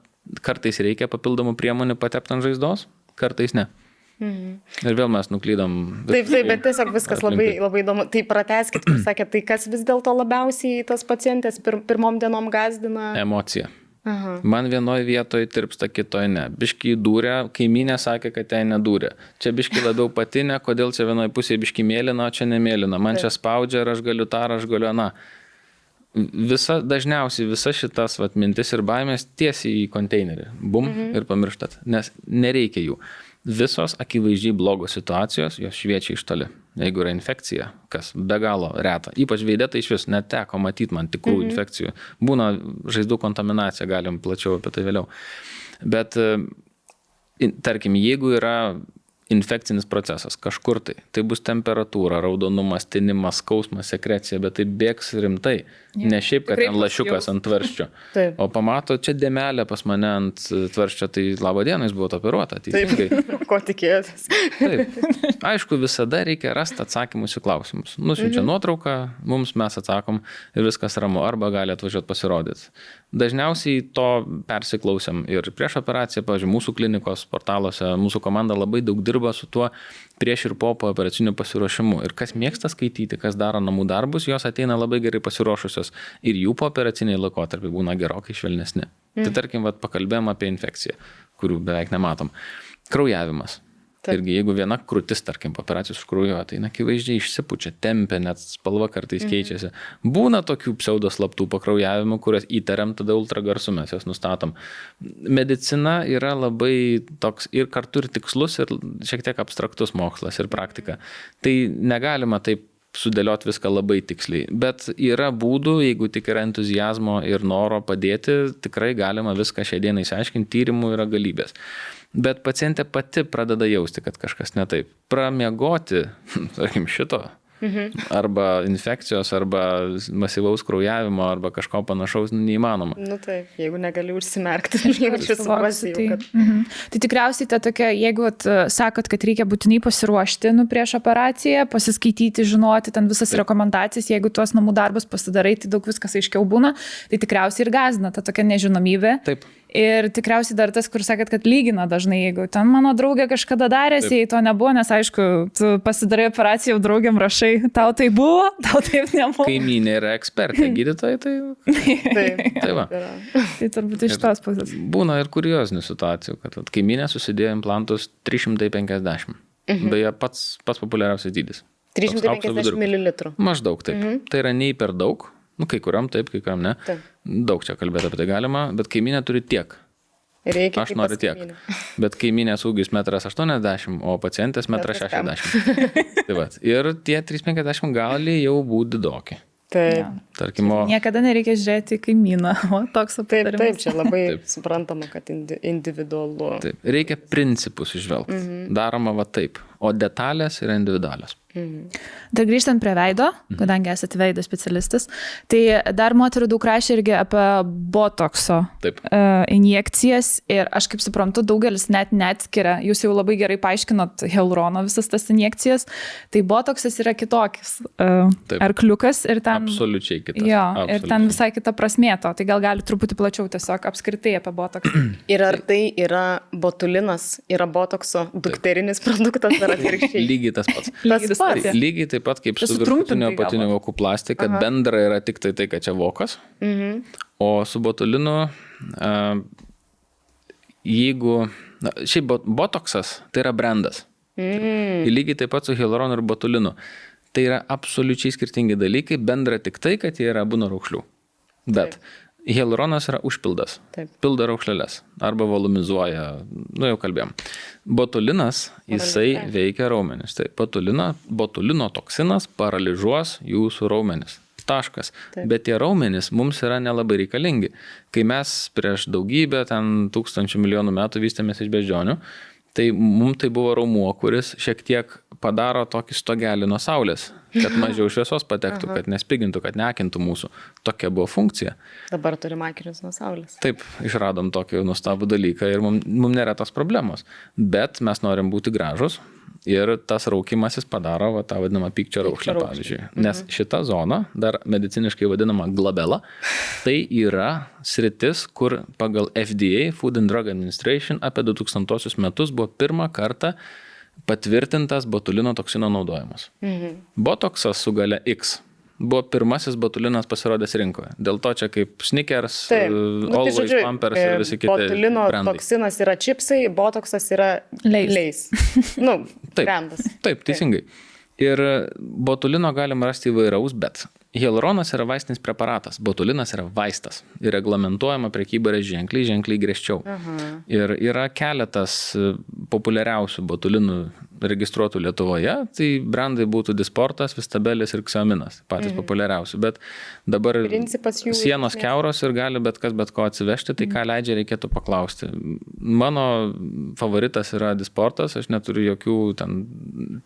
kartais reikia papildomų priemonių patepti ant žaizdos, kartais ne. Ir vėl mes nuklydom. Taip, bet tiesiog viskas labai įdomu. Tai pratęskit, kur sakėt, tai kas vis dėlto labiausiai tas pacientės pirmom dienom gazdina? Emocija. Aha. Man vienoje vietoje tirpsta, kitoje ne. Biški dūrė, kaimynė sakė, kad ten nedūrė. Čia biški labiau patinė, kodėl čia vienoje pusėje biški mėlyna, o čia nemėlyna. Man čia spaudžia ir aš galiu tą, ar aš galiu aną. Dažniausiai visa šitas mintis ir baimės tiesiai į konteinerį. Bum ir pamirštat, nes nereikia jų. Visos akivaizdžiai blogos situacijos, jos šviečia iš toli. Jeigu yra infekcija, kas be galo reta. Ypač veide tai iš vis neteko matyti man tikrų infekcijų. Būna žaizdų kontaminacija, galim plačiau apie tai vėliau. Bet, tarkim, jeigu yra infekcinis procesas kažkur tai bus temperatūra, raudonumas, tinimas, skausmas, sekrecija, bet tai bėgs rimtai. Ne šiaip, kad ten lašiukas ant tvarščio. O pamato, čia dėmelė pas mane ant tvarščio, tai labo dieną jis buvo operuota. Ko tikėjotės? Taip. Aišku, visada reikia rasti atsakymus į klausimus. Nusiunčia nuotrauką, mums mes atsakom ir viskas ramu, arba gali atvažiuoti pasirodyti. Dažniausiai to persiklausėm ir prieš operaciją, pavyzdžiui, mūsų klinikos portaluose, mūsų komanda labai daug dirba su tuo prieš ir po operaciniu pasiruošimu. Ir kas mėgsta skaityti, kas daro namų darbus, jos ateina labai gerai pasiruošusios ir jų po operaciniai laikotarpiai būna gerokai švelnesni. Tai tarkim, pakalbėjom apie infekciją, kurių beveik nematom. Kraujavimas. Irgi, jeigu viena krūtis, tarkim, po operacijos užkraujuoja, tai akivaizdžiai išsipučia, tempia, net spalva kartais keičiasi. Būna tokių pseudoslaptų pakraujavimų, kurias įtariam, tada ultragarsu mes jas nustatom. Medicina yra labai toks ir kartu ir tikslus, ir šiek tiek abstraktus mokslas ir praktika. Tai negalima taip sudėlioti viską labai tiksliai. Bet yra būdų, jeigu tik yra entuziazmo ir noro padėti, tikrai galima viską šią dieną išsiaiškinti, tyrimų yra galybės. Bet pacientė pati pradeda jausti, kad kažkas ne taip. Pramiegoti, tarkim, šito, arba infekcijos, arba masyvaus kraujavimo, arba kažko panašaus neįmanoma. Taip, jeigu negali užsimerkti, jaučiu suprasti. Tai tikriausiai ta tokia, jeigu sakot, kad reikia būtinai pasiruošti prieš operaciją, pasiskaityti, žinoti ten visas rekomendacijas, jeigu tuos namų darbus pasidarai, tai daug viskas aiškiau būna, tai tikriausiai ir gąsdina ta tokia nežinomybė. Taip. Ir tikriausiai dar tas, kur sakėt, kad lygina dažnai, jeigu ten mano draugė kažkada darėsi, jei to nebuvo, nes aišku, tu pasidarai operaciją, jau draugiam rašai, tau tai buvo, tau taip nebuvo. Kaimynė yra ekspertė, gydytojai, tai... Tai va. Tai turbūt iš tos pusės. Būna ir kuriozinių situacijų, kad kaimynė susidėjo implantus 350. Beje, pats populiariausias dydis. 350 ml. Maždaug taip. Tai yra nei per daug. Kai kuriam taip, kai kuriam ne. Taip. Daug čia kalbėti apie tai galima, bet kaimynė turi tiek. Reikia aš noriu tiek. Bet kaimynės ūgis 1,80 m, o pacientės 1,60 m. Tai va. Ir tie 3,50 gali jau būti didoki. Taip. Tarkim, niekada nereikia žiūrėti į kaimyną, o toks aptarimas. Taip, čia labai suprantama, kad individualu. Taip. Reikia principus išvelgti. Daroma va taip, o detalės yra individualios. Dar grįžtant prie veido, kadangi esate veido specialistas, tai dar moterų daug rašė irgi apie botokso injekcijas ir aš kaip suprantu, daugelis net neatskiria, jūs jau labai gerai paaiškinot hialurono visas tas injekcijas, tai botoksas yra kitokis arkliukas ir ten... Absoliučiai kitas. Jo, ir ten visai kita prasmė to, tai gal gali truputį plačiau tiesiog apskritai apie botoksą. Ir ar tai yra botulinas, yra botokso dukterinis produktas ar atvirkščiai? Lygiai tas pats. Lygiai taip pat kaip su viršutinio apatinio vokų plastika, bendra yra tik tai, kad čia vokas, o su botulinu, jeigu, šiaip botoksas tai yra brandas. Lygiai taip pat su hialuronu ir botulinu. Tai yra absoliučiai skirtingi dalykai, bendra tik tai, kad jie yra abu nuo raukšlių. Bet hialuronas yra užpildas, pildo raukšleles arba volumizuoja, jau kalbėjom. Botulinas, jisai veikia raumenis. Tai botulino toksinas paralyžuos jūsų raumenis. Taškas. Bet tie raumenys mums yra nelabai reikalingi. Kai mes prieš daugybę, 1000 milijonų metų vystėmės iš beždžionių, Tai mums tai buvo raumuo, kuris šiek tiek padaro tokį stogelį nuo saulės, kad mažiau šviesos patektų, kad nespigintų, kad neakintų mūsų. Tokia buvo funkcija. Dabar turim akinius nuo saulės. Taip, išradom tokį nuostabų dalyką ir mums nėra tos problemos. Bet mes norim būti gražus ir tas raukimasis padaro tą vadinamą pykčio raukšlę, pavyzdžiui. Nes šita zona, dar mediciniškai vadinama glabela, tai yra sritis, kur pagal FDA, Food and Drug Administration, apie 2000 metus buvo pirmą kartą patvirtintas botulino toksino naudojimas. Botoksas su gale X buvo pirmasis botulinas pasirodęs rinkoje. Dėl to čia kaip Snickers, Always, Pampers ir visi kiti botulino brandai. Toksinas yra čipsai, botoksas yra leis. Brandas. Taip, teisingai. Ir botulino galima rasti įvairaus, bet hialuronas yra vaistinis preparatas, botulinas yra vaistas ir reglamentuojama prekyba yra ženkliai griežčiau. Ir yra keletas populiariausių botulinų registruotų Lietuvoje, tai brandai būtų Disportas, Vistabelis ir Xiaominas, patys populiariausi, bet dabar sienos kiauros ir gali bet kas bet ko atsivežti, tai ką leidžia reikėtų paklausti. Mano favoritas yra Disportas, aš neturiu jokių ten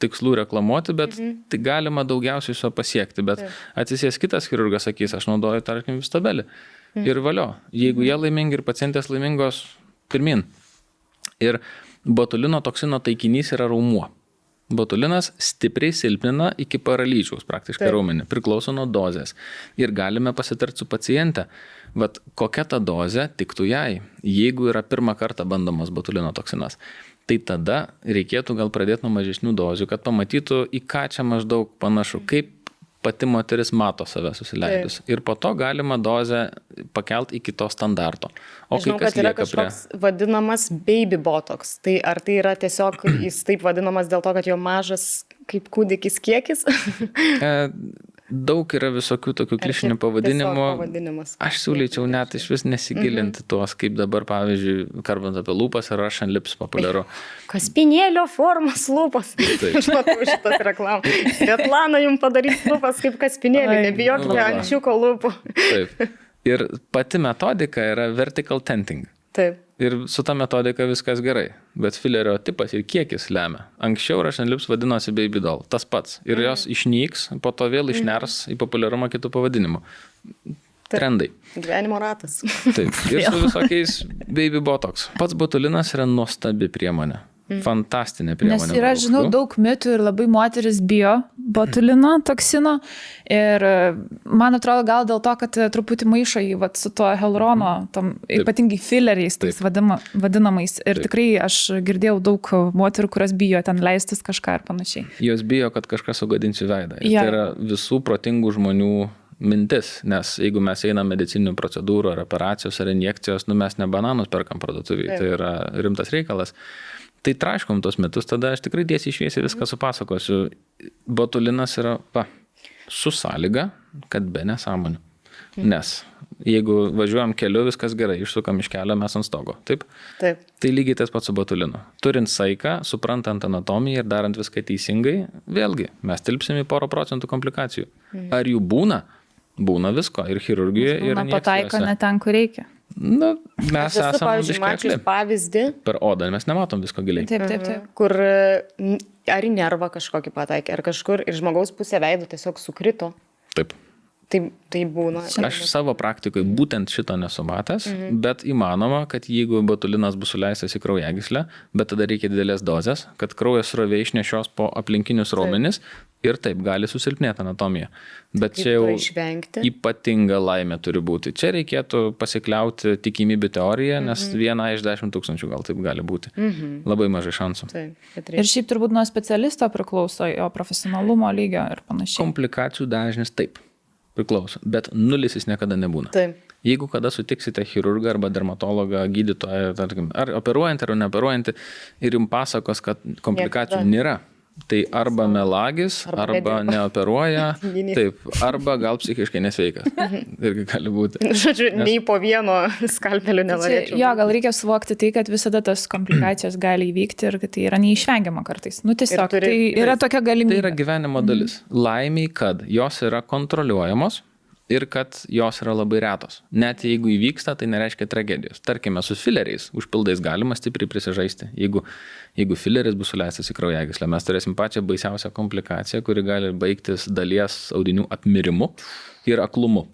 tikslų reklamuoti, bet tai galima daugiausiai su pasiekti, bet atsisės kitas chirurgas sakys, aš naudoju, tarkim, Vistabelį. Ir valio, jeigu jie laimingi ir pacientės laimingos, pirmin. Ir botulino toksino taikinys yra raumuo. Botulinas stipriai silpnina iki paralyžiaus praktiškai raumenį, priklauso nuo dozės. Ir galime pasitarti su paciente, vat kokia ta dozė tiktų jai, jeigu yra pirmą kartą bandomas botulino toksinas. Tai tada reikėtų gal pradėti nuo mažesnių dozių, kad pamatytų, į ką čia maždaug panašu, kaip pati moteris mato save susileidus. Ir po to galima dozę pakelt iki to standarto. O žinau, kad yra kažkoks vadinamas baby botox. Tai ar tai yra tiesiog jis taip vadinamas dėl to, kad jo mažas kaip kūdikis kiekis? Daug yra visokių tokių klišinių pavadinimų. Aš siūlyčiau net iš vis nesigilinti tuos, kaip dabar, pavyzdžiui, kalbant apie lūpas ir Russian lips populiaru. Kaspinėlio formos lūpas. Aš matau šitas reklamas. Svetlana jums padarys lūpas kaip kaspinėlį, nebijokite ančiuko lūpų. Taip. Ir pati metodika yra vertical tenting. Taip. Ir su ta metodika viskas gerai, bet filerio tipas ir kiekis lemia. Anksčiau Russian lips vadinosi baby doll, tas pats. Ir jos išnyks, po to vėl išners į populiarumą kitų pavadinimų. Trendai. Gyvenimo ratas. Taip. Ir su visokiais baby botox. Pats botulinas yra nuostabi priemonė. Fantastinė priemonė. Nes yra, žinau, daug mitų ir labai moteris bijo botulino toksino ir man atrodo gal dėl to, kad truputį maišo jį su tuo hialurono, ypatingai fileriais tais vadinamais. Ir tikrai aš girdėjau daug moterų, kurios bijo ten leistis kažką ir panašiai. Jos bijo, kad kažkas sugadins jų veidą. Ir tai yra visų protingų žmonių mintis, nes jeigu mes einam medicininių procedūrų ar operacijos ar injekcijos, mes ne bananus perkam parduotuvėje, tai yra rimtas reikalas. Tai traiškom tos metus, tada aš tikrai tiesiai šviesiai viską supasakosiu. Botulinas yra su sąlyga, kad be nesąmonių. Nes jeigu važiuojam keliu, viskas gerai, išsukam iš kelio, mes ant stogo. Taip? Taip. Tai lygiai tas pats su botulinu. Turint saiką, suprantant anatomiją ir darant viską teisingai, vėlgi, mes tilpsim į 1% komplikacijų. Ar jų būna? Būna visko. Ir chirurgijoje, ir injekcijose. Pataiko ne ten, kur reikia. Na, mes esame biškekli. Pavyzdį. Per odą mes nematom visko giliai. Taip. Kur ar į nervą kažkokį pataikė, ar kažkur ir žmogaus pusė veido tiesiog sukrito. Taip. Tai būna. Aš savo praktikoje būtent šito nesu matęs, bet įmanoma, kad jeigu botulinas bus suleistas į kraujagyslę, bet tada reikia didelės dozės, kad kraujas srovė išnešios po aplinkinius raumenis ir taip gali susilpnėti anatomija. Bet čia jau ypatinga laimė turi būti. Čia reikėtų pasikliauti tikimybių teoriją, nes 1 iš 10 000 gal taip gali būti. Labai mažai šansų. Ir šiaip turbūt nuo specialisto priklauso, jo profesionalumo lygio ir panašiai. Komplikacijų dažnis taip priklauso, bet nulis jis niekada nebūna. Taip. Jeigu kada sutiksite chirurgą arba dermatologą, gydytoją, tarkim, ar operuojantį ar neoperuojantį ir jums pasakos, kad komplikacijų nėra, tai arba melagis, arba neoperuoja, taip, arba gal psichiškai nesveikas. Irgi gali būti. Žodžiu, nei po vieno skalpelių nenorėčiau. Jo, gal reikia suvokti tai, kad visada tas komplikacijos gali įvykti ir kad tai yra neišvengiama kartais. Nu tiesiog, tai yra tokia galimybė. Tai yra gyvenimo dalis. Laimiai, kad jos yra kontroliuojamos ir kad jos yra labai retos. Net jeigu įvyksta, tai nereiškia tragedijos. Tarkime, su fileriais, užpildais galima stipriai prisižaisti. Jeigu fileris bus suleistas į kraujagyslę, mes turėsim pačią baisiausią komplikaciją, kuri gali baigtis dalies audinių apmirimu ir aklumu.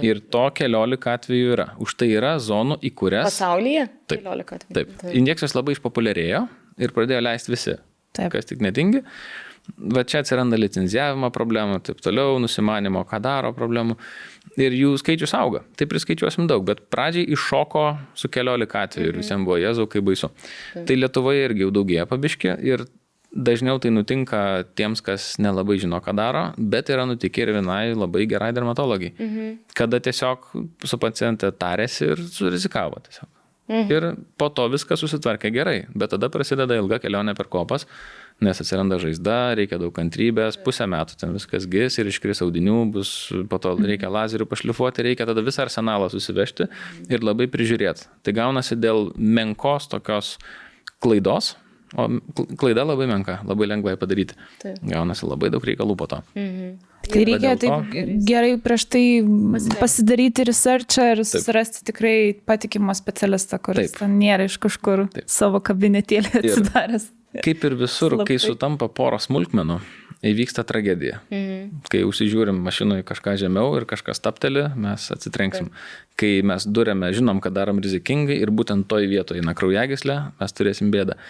Ir to 14 atvejų yra. Už tai yra zonų, į kurias... Pasaulyje? Taip. 14 atvejų. Taip. Injekcijos labai išpopuliarėjo ir pradėjo leisti visi. Taip. Kas tik netingi. Va čia atsiranda licenzijavimo problemų, taip toliau, nusimanimo, ką daro problemų. Ir jų skaičius auga. Tai priskaičiuosim daug, bet pradžiai iššoko su 14 atvejų ir visiems buvo jėzau, kaip baisu. Tai Lietuvoje irgi jau daugėja pabiškė ir dažniau tai nutinka tiems, kas nelabai žino, ką daro, bet yra nutikę ir vienai labai gerai dermatologijai. Kada tiesiog su paciente tarėsi ir surizikavo tiesiog. Ir po to viskas susitvarkė gerai, bet tada prasideda ilga kelionė per kopas, nes atsiranda žaizda, reikia daug kantrybės, pusę metų ten viskas gis ir iškris audinių, po to reikia lazerių pašlifuoti, reikia tada visą arsenalą susivežti ir labai prižiūrėti. Tai gaunasi dėl menkos tokios klaidos, o klaida labai menka, labai lengvai padaryti. Taip. Gaunasi labai daug reikalų po to. Tai reikia taip gerai prieš tai pasidaryti researchą ir susirasti tikrai patikimą specialistą, kuris ten nėra iš kažkur savo kabinetėlį atsidaręs. Kaip ir visur, kai sutampa poros smulkmenų, įvyksta tragedija. Kai užsižiūrim mašinoje kažką žemiau ir kažkas tapteli, mes atsitrenksim. Kai mes durėme, žinom, kad darom rizikingai ir būtent toj vietoje eina kraujagyslė, mes turėsim bėdą.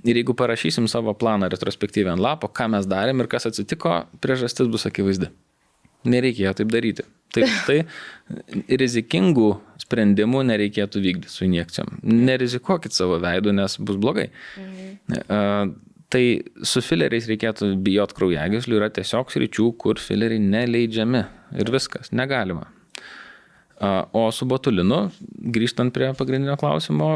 Ir jeigu parašysim savo planą retrospektyviai ant lapo, ką mes darėm ir kas atsitiko, priežastis bus akivaizdi. Nereikėjo taip daryti. Tai rizikingų sprendimų nereikėtų vykdyti su injekcijom. Nerizikuokit savo veidu, nes bus blogai. Tai su fileriais reikėtų bijot kraujagyslių, yra tiesiog sričių, kur fileriai neleidžiami ir viskas, negalima. O su botulinu, grįžtant prie pagrindinio klausimo,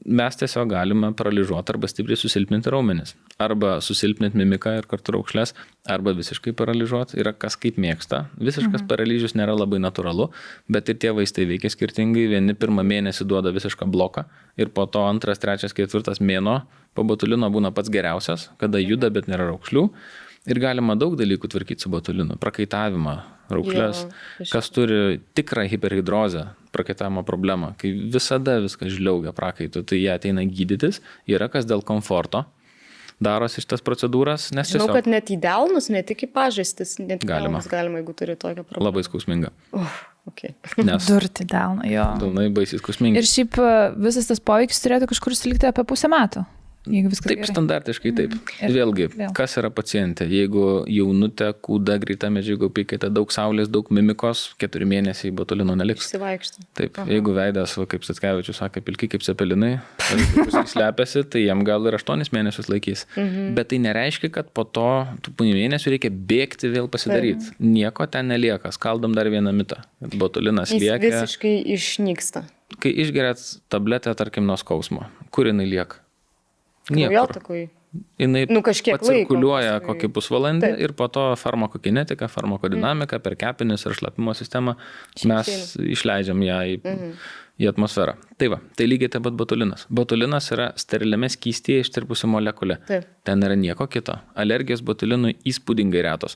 mes tiesiog galime paralyžuoti arba stipriai susilpninti raumenis. Arba susilpninti mimiką ir kartu raukšles, arba visiškai paralyžuoti. Yra kas kaip mėgsta. Visiškas paralyžius nėra labai natūralu, bet ir tie vaistai veikia skirtingai. Vieni pirmą mėnesį duoda visišką bloką ir po to 2, 3, 4 mėnuo po botulino būna pats geriausias, kada juda, bet nėra raukšlių. Ir galima daug dalykų tvarkyti su botulinu. Prakaitavimą, raukšles, kas turi tikrą hiperhidrozę, prakaitavimo problemą, kai visada viskas žliaugia prakaitu, tai jie ateina gydytis, yra kas dėl komforto darosi šitas procedūras, nes tiesiog... Žinau, kad net į delnus, ne tik į pažastis, net galima, jeigu turi tokią problemą. Labai skausminga. Okay. Nes durti delną, jo. Delnai baisiai skausmingi. Ir šiaip visas tas poveikis turėtų kažkur sulikti apie pusę metų. Taip, gerai. Standartiškai taip. Vėlgi, kas yra pacientė? Jeigu jaunutė, kūda, greita medžiagų apykaita, daug saulės, daug mimikos, 4 mėnesiai botulino neliks. Išsivaikšti. Taip, jeigu veidas, kaip Statkevičius sakė, pilki kaip cepelinai, slepiasi, tai jam gal ir 8 mėnesius laikys. Bet tai nereiškia, kad po to tų mėnesių reikia bėgti vėl pasidaryti. Nieko ten nelieka. Skaldom dar vieną mitą. Botulinas lieka. Jis visiškai išnyksta. Kai išgeriat tabletę, tarkim, nuo skausmo, kur jinai lieka? Kraujotakoj. Jinai cirkuliuoja kokį pusvalandį ir po to farmakokinetika, farmakodinamika per kepenis ir šlapimo sistemą mes išleidžiam ją į atmosferą. Tai va, tai lygiai taip pat botulinas. Botulinas yra steriliame skystyje ištirpusi molekulė. Ten yra nieko kito. Alergijos botulinui įspūdingai retos.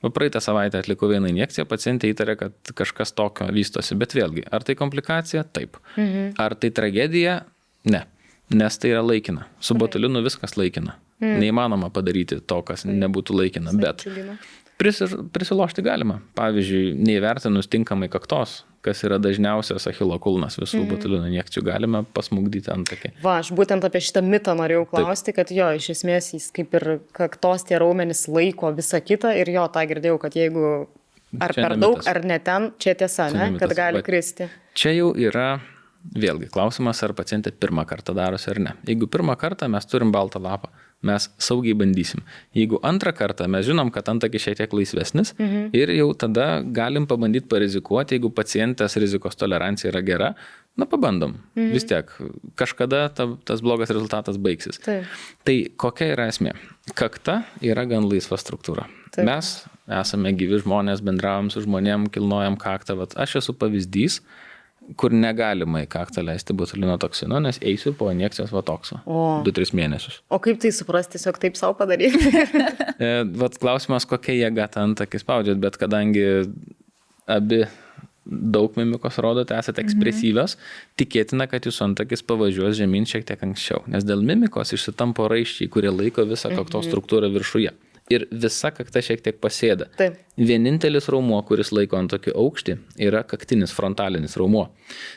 Praeitą savaitę atlikau vieną injekciją, pacientė įtarė, kad kažkas tokio vystosi, bet vėlgi, ar tai komplikacija? Taip. Ar tai tragedija? Ne. Nes tai yra laikina. Su botulinu viskas laikina. Neįmanoma padaryti to, kas nebūtų laikina, bet prisilošti galima. Pavyzdžiui, neįvertinus tinkamai kaktos, kas yra dažniausias achilo kulnas visų botulino injekcijų, galime pasmugdyti antakį. Aš būtent apie šitą mitą norėjau klausti, kad iš esmės jis kaip ir kaktos tie raumenys laiko visą kitą ir tą girdėjau, kad jeigu ar čia per daug, ar ne ten, čia tiesa, ne? Kad gali kristi. Čia jau yra vėlgi klausimas, ar pacientė pirmą kartą darosi ar ne. Jeigu pirmą kartą mes turim baltą lapą, mes saugiai bandysim. Jeigu antrą kartą mes žinom, kad antakis šiek tiek laisvesnis ir jau tada galim pabandyti parizikuoti, jeigu pacientės rizikos tolerancija yra gera, pabandom. Vis tiek, kažkada tas blogas rezultatas baigsis. Tai kokia yra esmė? Kakta yra gan laisva struktūra. Mes esame gyvi žmonės, bendravom su žmonėm, kilnojam kaktą. Aš esu pavyzdys, kur negalima į kaktą leisti botulino toksino, nes eisiu po injekcijos vatokso 2-3 mėnesius. O kaip tai suprasti, tiesiog taip savo padaryti? Klausimas, kokia jėga tą antakį spaudžiat, bet kadangi abi daug mimikos rodote, esate ekspresyvios, tikėtina, kad jūsų antakis pavažiuos žemyn šiek tiek anksčiau, nes dėl mimikos išsitampo raiščiai, kurie laiko visą kaktos struktūrą viršuje. Ir visa kakta šiek tiek pasėda. Taip. Vienintelis raumuo, kuris laiko antakį aukštį, yra kaktinis frontalinis raumuo.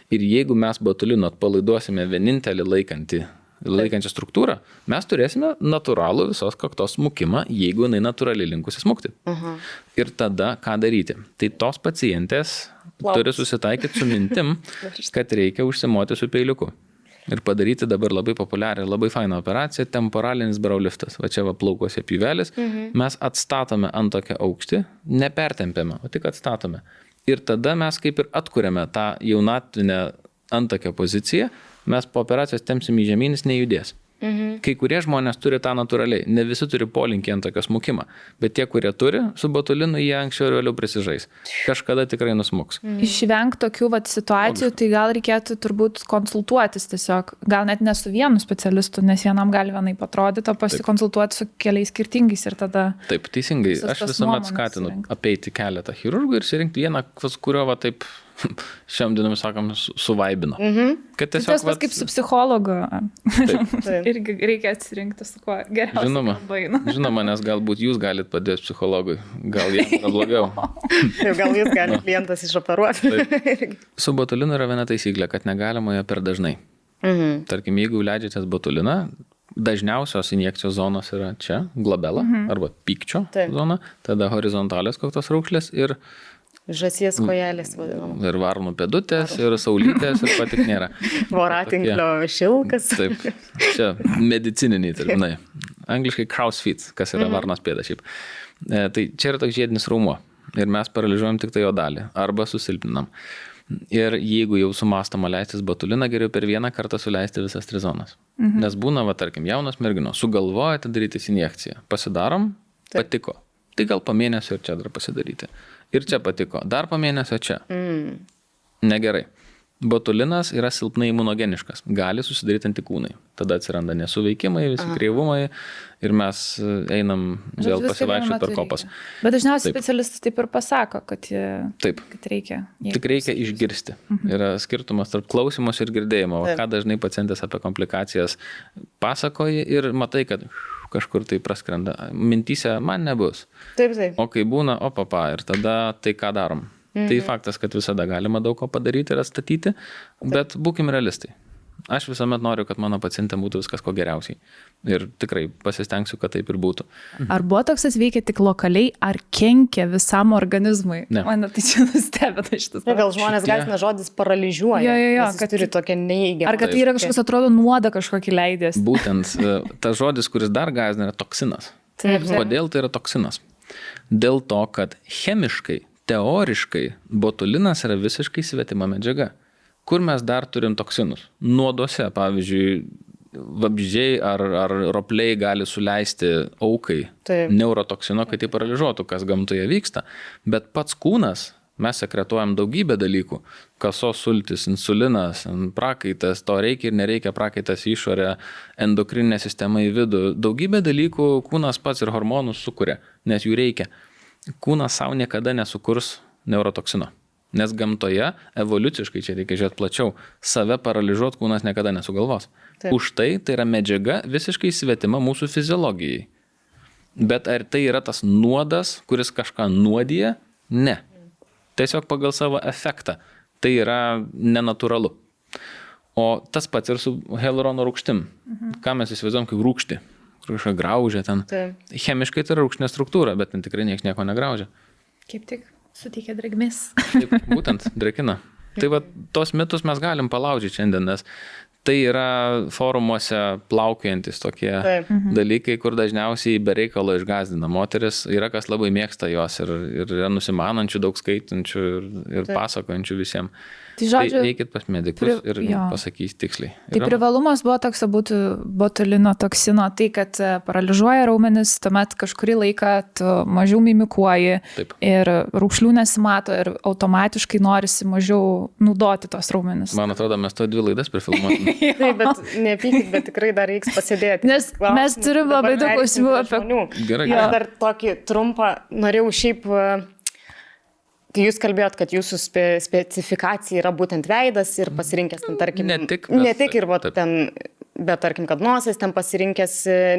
Ir jeigu mes botulino atpalaiduosime vienintelį laikančią struktūrą, mes turėsime natūralų visos kaktos smukimą, jeigu jinai natūraliai linkusi smukti. Ir tada ką daryti? Tai tos pacientės turi susitaikyti su mintim, kad reikia užsimoti su peiliuku. Ir padaryti dabar labai populiarią, labai fainą operaciją, temporalinis brow liftas. Va čia va plaukuose pjuvelis, mes atstatome antakio aukštį, nepertempiame, o tik atstatome. Ir tada mes kaip ir atkuriame tą jaunatvinę antakio poziciją, mes po operacijos tempsim į žemyn, jis nejudės. Kai kurie žmonės turi tą natūraliai, ne visi turi polinkį antakio smukimą, bet tie, kurie turi, su botulinu jie anksčiau ir vėliau prisižais. Kažkada tikrai nusmuks. Išvengti tokių situacijų, tai gal reikėtų turbūt konsultuotis tiesiog, gal net ne su vienu specialistu, nes vienam gali vienai patrodyti, o pasikonsultuoti su keliais skirtingais ir tada... Taip, teisingai, aš visuomet skatinu apeiti keletą chirurgų ir surinkti vieną, kurio va taip šiam dienomis sakom suvaibino. Kad tiesiog... Tas kaip su psichologu. Irgi reikia atsirinkti su kuo geriausiai. Žinoma, nes galbūt jūs galite padėti psichologui. Gal jam yra blogiau. Gal jūs galite klientas išoperuoti. Su botulinu yra viena taisyklė, kad negalima jo per dažnai. Tarkim, jeigu leidžiatės botuliną, dažniausios injekcijos zonos yra čia, glabela arba pykčio zona, tada horizontalios kaktos raukšlės ir žąsies kojelės vadinama. Ir varnų pėdutės, ir saulytės, ir patik nėra. Voratinklio šilkas. Taip, čia medicininiai terminai. Angliškai crow's feet, kas yra varnos pėda šiaip. Tai čia yra toks žiedinis raumuo. Ir mes paralyžiuojam tik tai jo dalį. Arba susilpninam. Ir jeigu jau sumąstama leistis botuliną, geriau per vieną kartą suleisti visas 3 zonas. Nes būna, tarkim, jaunos merginos, sugalvojate darytis injekciją. Pasidarom, patiko. Tai gal po mėnesio ir čia dar pasidaryti. Ir čia patiko. Dar po mėnesio čia. Negerai. Botulinas yra silpnai imunogeniškas. Gali susidaryti antikūnai. Tada atsiranda nesuveikimai, visi kreivumai ir mes einam vėl pasivaikščioti per kopas. Bet dažniausiai specialistas taip ir pasako, kad reikia. Tik reikia išgirsti. Yra skirtumas tarp klausymus ir girdėjimo. Ką dažnai pacientės apie komplikacijas pasakoja ir matai, kad kažkur tai praskrenda. Mintyse man nebus. Taip. O kai būna, ir tada tai ką darom. Tai faktas, kad visada galima daug ko padaryti ir atstatyti, bet būkim realistai. Aš visuomet noriu, kad mano pacientėm būtų viskas ko geriausiai. Ir tikrai pasistengsiu, kad taip ir būtų. Ar botoksas veikia tik lokaliai, ar kenkia visam organizmui? Ne. Mane tai čia nustebina šitas. Gal žmonės gąsdina žodis paralyžiuoja. Jo, kad turi tokią neįgiamą. Ar kad tai yra kažkas atrodo nuodą kažkokį leidės? Būtent tas žodis, kuris dar gąsdina, yra toksinas. Kodėl tai yra toksinas? Dėl to, kad chemiškai, teoriškai botulinas yra visiškai svetima medžiaga. Kur mes dar turim toksinus? Nuoduose, pavyzdžiui, vabzdžiai ar ropliai gali suleisti aukai neurotoksino, kad jį paralyžuotų, kas gamtoje vyksta. Bet pats kūnas, mes sekretuojam daugybę dalykų. Kasos sultis, insulinas, prakaitas, to reikia ir nereikia, prakaitas į išorę, endokrininė sistema į vidų. Daugybę dalykų kūnas pats ir hormonus sukuria, nes jų reikia. Kūnas savo niekada nesukurs neurotoksino. Nes gamtoje, evoliuciškai, čia reikia žiūrėti plačiau, save paralyžuoti kūnas niekada nesugalvos. Už tai yra medžiaga visiškai svetima mūsų fiziologijai. Bet ar tai yra tas nuodas, kuris kažką nuodija? Ne. Tiesiog pagal savo efektą. Tai yra nenatūralu. O tas pats ir su hialurono rūgštim. Ką mes įsivaizduojam kaip rūgštį? Kažką graužia ten. Chemiškai tai yra rūgštinė struktūra, bet ten tikrai nieks nieko negraužia. Kaip tik suteikia drėgmės. Taip, būtent, drėkina. Tai va, tos mitus mes galim palaužyti šiandien, nes tai yra forumuose plaukiojantis tokie dalykai, kur dažniausiai be reikalo išgąsdina. Moteris yra kas labai mėgsta jos ir yra nusimanančių, daug skaitančių ir pasakojančių visiems. Tai žodžiu, eikit pas medikus ir pasakys tiksliai. Tai privalumas botokso būtų botulino toksino, tai kad paralyžuoja raumenis, tuomet kažkurį laiką tu mažiau mimikuoji ir raukšlių nesimato ir automatiškai norisi mažiau naudoti tos raumenis. Man atrodo, mes to 2 laidas prifilmuotume. Taip, bet nepykit, bet tikrai dar reiks pasėdėti. Nes mes turim labai daug klausimų apie... Gerai. Aš dar tokį trumpą norėjau šiaip... Tai jūs kalbėjot, kad jūsų specifikacija yra būtent veidas ir pasirinkęs, tarkim, ne tik ir ten, bet tarkim, kad nosies ten pasirinkęs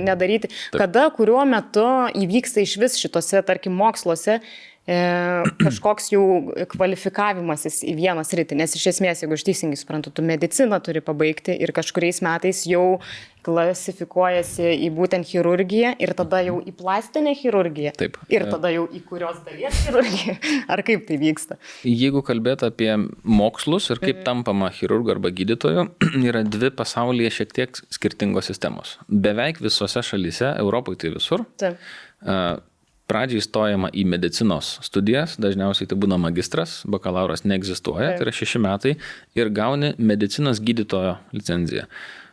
nedaryti. Taip. Kada, kuriuo metu įvyksta iš vis šitose, tarkim, moksluose kažkoks jau kvalifikavimasis į vieną sritį, nes iš esmės, jeigu aš teisingai suprantu, tu mediciną turi pabaigti ir kažkuriais metais jau klasifikuojasi į būtent chirurgiją ir tada jau į plastinę chirurgiją. Taip. Ir tada jau į kurios dalies chirurgiją. Ar kaip tai vyksta? Jeigu kalbėt apie mokslus ir kaip tampama chirurgu arba gydytoju, yra dvi pasaulyje šiek tiek skirtingos sistemos. Beveik visose šalyse, Europoje tai visur. Taip. Pradžiai stojama į medicinos studijas, dažniausiai tai būna magistras, bakalauras neegzistuoja, tai yra 6 metai ir gauni medicinos gydytojo licenciją,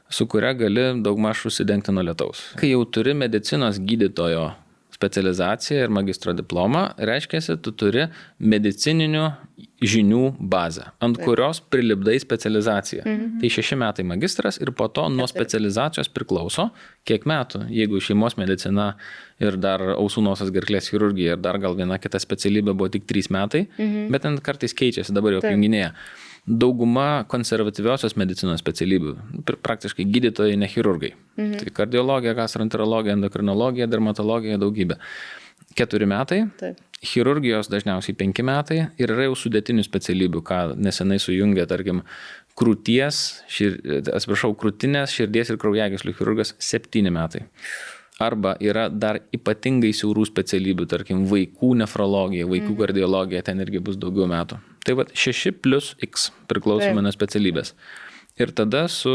su kuria gali daugmaž užsidengti nuo lietaus. Kai jau turi medicinos gydytojo specializaciją ir magistro diplomą, reiškia, tu turi medicininių žinių bazę, ant kurios prilipdai specializaciją. Tai 6 metai magistras ir po to nuo specializacijos priklauso, kiek metų, jeigu šeimos medicina ir dar ausų nosies gerklės chirurgija ir dar gal viena kita specialybė buvo tik 3 metai, bet ten kartais keičiasi, dabar jau apjunginėja. Dauguma konservatyviosios medicinos specialybių, praktiškai gydytojai, ne chirurgai. Tai kardiologija, gastroenterologija, endokrinologija, dermatologija, daugybė. 4 metai, chirurgijos dažniausiai 5 metai ir yra jau sudėtinių specialybių, ką nesenai sujungė, tarkim, krūtinės, širdies ir kraujagyslių chirurgas 7 metai. Arba yra dar ypatingai siaurų specialybių, tarkim, vaikų nefrologija, vaikų kardiologija, ten irgi bus daugiau metų. Tai va 6+X priklausomai nuo specialybės. Ir tada su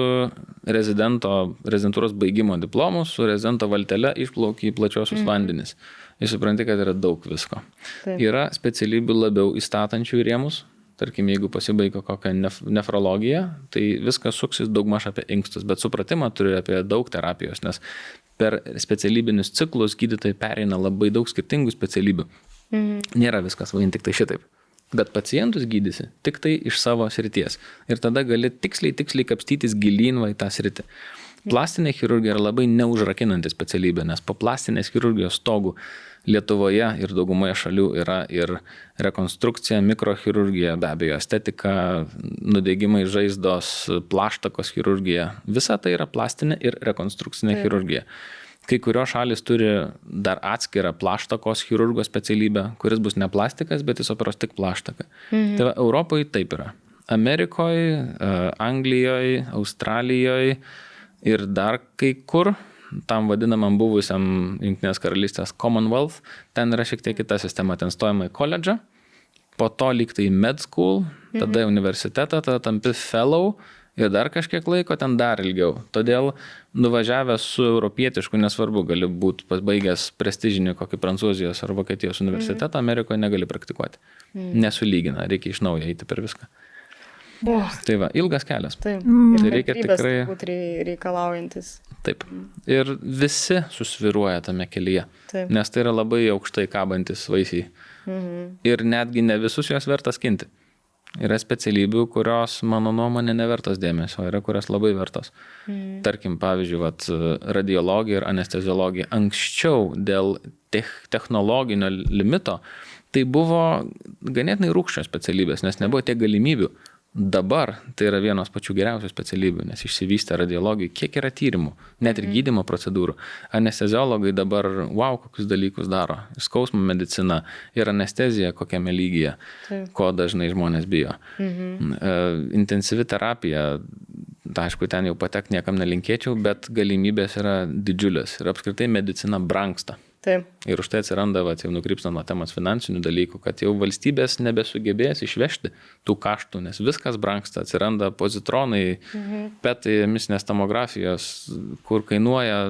rezidentūros baigimo diplomu, su rezidento valtele išplauki į plačiosius vandenis. Ir supranti, kad yra daug visko. Yra specialybių labiau įstatančių į rėmus. Tarkim, jeigu pasibaigia kokią nefrologiją, tai viskas suksis daugmaž apie inkstus, bet supratimą turi apie daug terapijos, nes per specialybinius ciklus gydytojai pereina labai daug skirtingų specialybių. Nėra viskas vien tik tai šitaip. Bet pacientus gydysi tik tai iš savo srities. Ir tada gali tiksliai kapstytis gilyn į tą sritį. Plastinė chirurgija yra labai neužrakinanti specialybė, nes po plastinės chirurgijos stogų Lietuvoje ir daugumoje šalių yra ir rekonstrukcija, mikrochirurgija, be abejo, estetika, nudegimai žaizdos, plaštakos chirurgija. Visa tai yra plastinė ir rekonstrukcinė chirurgija. Kai kurios šalis turi dar atskirą plaštakos chirurgo specialybę, kuris bus ne plastikas, bet jis operuos tik plaštaką. Tai va, Europoje taip yra. Amerikoje, Anglijoje, Australijoje ir dar kai kur, tam vadinamam buvusiam Jungtinės karalystės Commonwealth, ten yra šiek tiek kita sistema, ten stojama į koledžą, po to lyg tai med school, tada į universitetą, tada tampi fellow ir dar kažkiek laiko, ten dar ilgiau. Todėl nuvažiavęs su europietišku, nesvarbu, gali būti pasbaigęs prestižinį kokį Prancūzijos ar Vokietijos universitetą, Amerikoje negali praktikuoti. Nesulygina, reikia iš naujo eiti per viską. Tai va, ilgas kelias. Taip. Tai reikia tikrai reikalaujantis. Taip. Ir visi susviruoja tame kelyje, nes tai yra labai aukštai kabantis vaisiai. Ir netgi ne visus juos verta skinti. Yra specialybių, kurios, mano nuomonė, nevertos dėmesio, yra kurios labai vertos. Tarkim, pavyzdžiui, radiologija ir anesteziologija. Anksčiau dėl technologinio limito tai buvo ganėtinai rūgščios specialybės, nes nebuvo tiek galimybių. Dabar tai yra vienos pačių geriausių specialybių, nes išsivystė radiologijai, kiek yra tyrimų, net ir gydymo procedūrų. Anesteziologai dabar, kokius dalykus daro. Skausmo medicina ir anestezija kokiame lygyje, ko dažnai žmonės bijo. Intensyvi terapija, aišku, ten jau patek niekam nelinkėčiau, bet galimybės yra didžiulės ir apskritai medicina brangsta. Taip. Ir už tai atsiranda, jau nukrypstant nuo temos finansinių dalykų, kad jau valstybės nebesugebės išvežti tų kaštų, nes viskas brangsta, atsiranda pozitronai, petai, emisinės tomografijos, kur kainuoja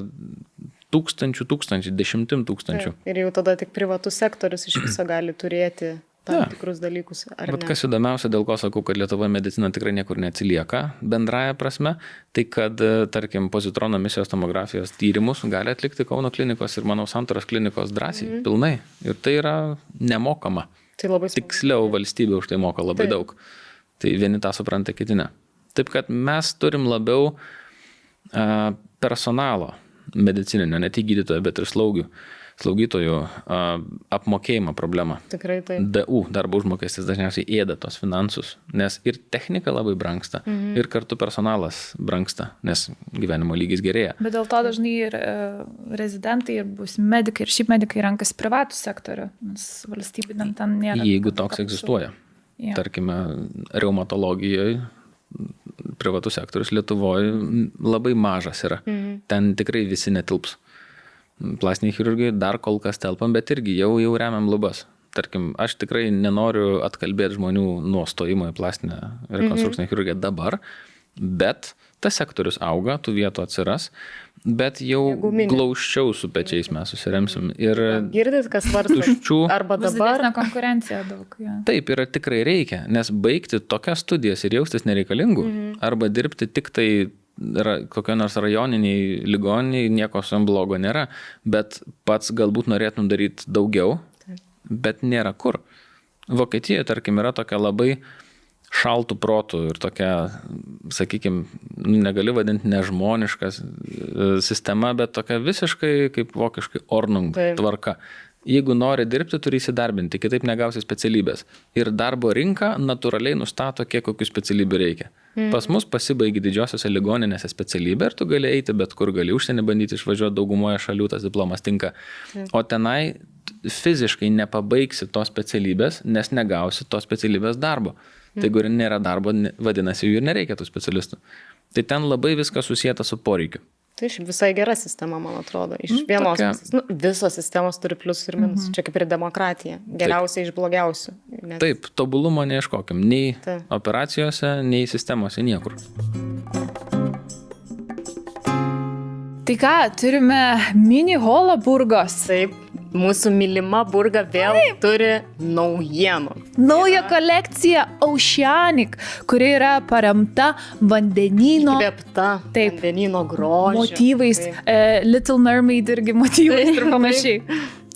tūkstančių, 10 tūkstančių. Ir jau tada tik privatus sektorius iš viso gali turėti tam tikrus dalykus. Bet kas įdomiausia, dėl ko sakau, kad Lietuvoje medicina tikrai niekur neatsilieka bendraja prasme, tai kad, tarkim, pozitrono emisijos tomografijos tyrimus gali atlikti Kauno klinikos ir, manau, Santaros klinikos drąsiai, pilnai. Ir tai yra nemokama. Tai labai tiksliau valstybė už tai moka labai daug. Tai vieni tą supranta, kiti ne. Taip, kad mes turim labiau personalo medicininio, ne tik gydytojo, bet ir slaugytojų apmokėjimo problema. Tikrai taip. DU, darbo užmokestis, dažniausiai ėda tos finansus, nes ir technika labai brangsta, ir kartu personalas brangsta, nes gyvenimo lygis gerėja. Bet dėl to dažnai ir rezidentai, ir bus medikai, ir šiaip medikai renkasi privatų sektorių, nes valstybiniam ten nėra. Jeigu toks egzistuoja. Yeah. Tarkime, reumatologijoje privatus sektorius Lietuvoje labai mažas yra. Ten tikrai visi netilps. Plastiniai chirurgai dar kol kas telpam, bet irgi jau remiam lubas. Tarkim, aš tikrai nenoriu atkalbėti žmonių nuo stojimo į plastinę rekonstrukcinę chirurgiją dabar, bet tas sektorius auga, tų vietų atsiras, bet jau glaučiau su pečiais mes susiremsim. Ir girdit, kas svarsto, arba dabar. Bus didesnė konkurencija daug. Ja. Taip, yra tikrai reikia, nes baigti tokias studijas ir jaustis nereikalingų, arba dirbti tik tai kokio nors rajoniniai ligoniniai, nieko su jom blogo nėra, bet pats galbūt norėtum daryti daugiau, bet nėra kur. Vokietijoje, tarkim, yra tokia labai šaltų protų ir tokia, sakykime, negali vadinti nežmoniška sistema, bet tokia visiškai kaip vokiškai Ordnung tvarka. Jeigu nori dirbti, turi įsidarbinti, kitaip negausi specialybės. Ir darbo rinka natūraliai nustato, kiek kokių specialybių reikia. Pas mus pasibaigi didžiosiose ligoninėse specialybę ir tu gali eiti bet kur, gali užsienį bandyti išvažiuoti, daugumoje šalių tas diplomas tinka. O tenai fiziškai nepabaigsi tos specialybės, nes negausi tos specialybės darbo. Tai jeigu nėra darbo, vadinasi, jų ir nereikia tų specialistų. Tai ten labai viskas susijęta su poreikiu. Tai visai gera sistema, man atrodo. Iš vienos pusės. Visos sistemos turi pliusų ir minusų. Čia kaip ir demokratija. Geriausia iš blogiausių. Nes... Taip, tobulumo neieškokim. Nei operacijose, nei sistemose, niekur. Tai ką, turime mini holą Burgos. Taip. Mūsų mylima Burga vėl turi naujienų. Nauja kolekcija Oceanic, kuri yra paremta vandenyno. Įkvėpta vandenyno grožio. Motyvais. Little Mermaid irgi motyvais ir panašiai.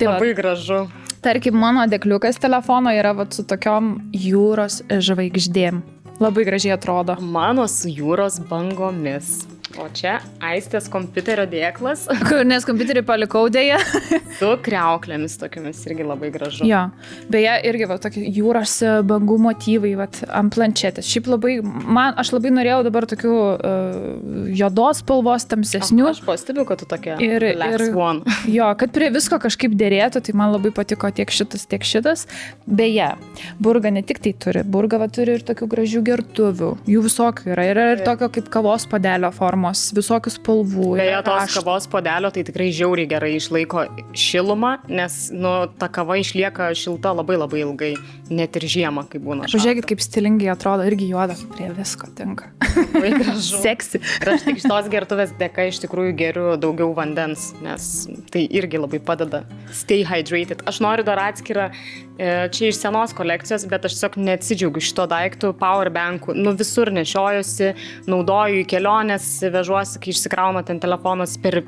Tai labai gražu. Tarkim, mano dėkliukas telefono yra su tokiom jūros žvaigždėm. Labai gražiai atrodo. Mano su jūros bangomis. O čia Aistės kompiuterio dėklas. Nes kompiuterį palikau dėja. Su kriauklėmis tokiamis irgi labai gražu. Jo, beje, irgi tokie jūros bangų motyvai ant planšetės. Šiaip labai, aš labai norėjau dabar tokių juodos spalvos, tamsesnių. Aš pastebiu, kad tu tokia one. Jo, kad prie visko kažkaip dėrėtų, tai man labai patiko tiek šitas. Beje, Burga ne tik tai turi. Burga turi ir tokių gražių gertuvių. Jų visokių yra. Yra ir tokio kaip kavos puodelio formos. Visokių spalvų. Beje, tos kavos puodelio tai tikrai žiauriai gerai išlaiko šilumą, nes ta kava išlieka šilta labai labai ilgai, net ir žiemą, kai būna šalta. Pažiūrėkit, kaip stilingai atrodo, irgi juoda, prie visko tinka. Labai gražu. Seksi. Ir aš tik šitos gertuvės dėka iš tikrųjų geriu daugiau vandens, nes tai irgi labai padeda stay hydrated. Aš noriu dar atskirą, čia iš senos kolekcijos, bet aš tiesiog neatsidžiaugiu šito daiktų, powerbankų. Visur nešiojusi, naudoju į kelionės, vežuosi, kai išsikrauna ten telefonas per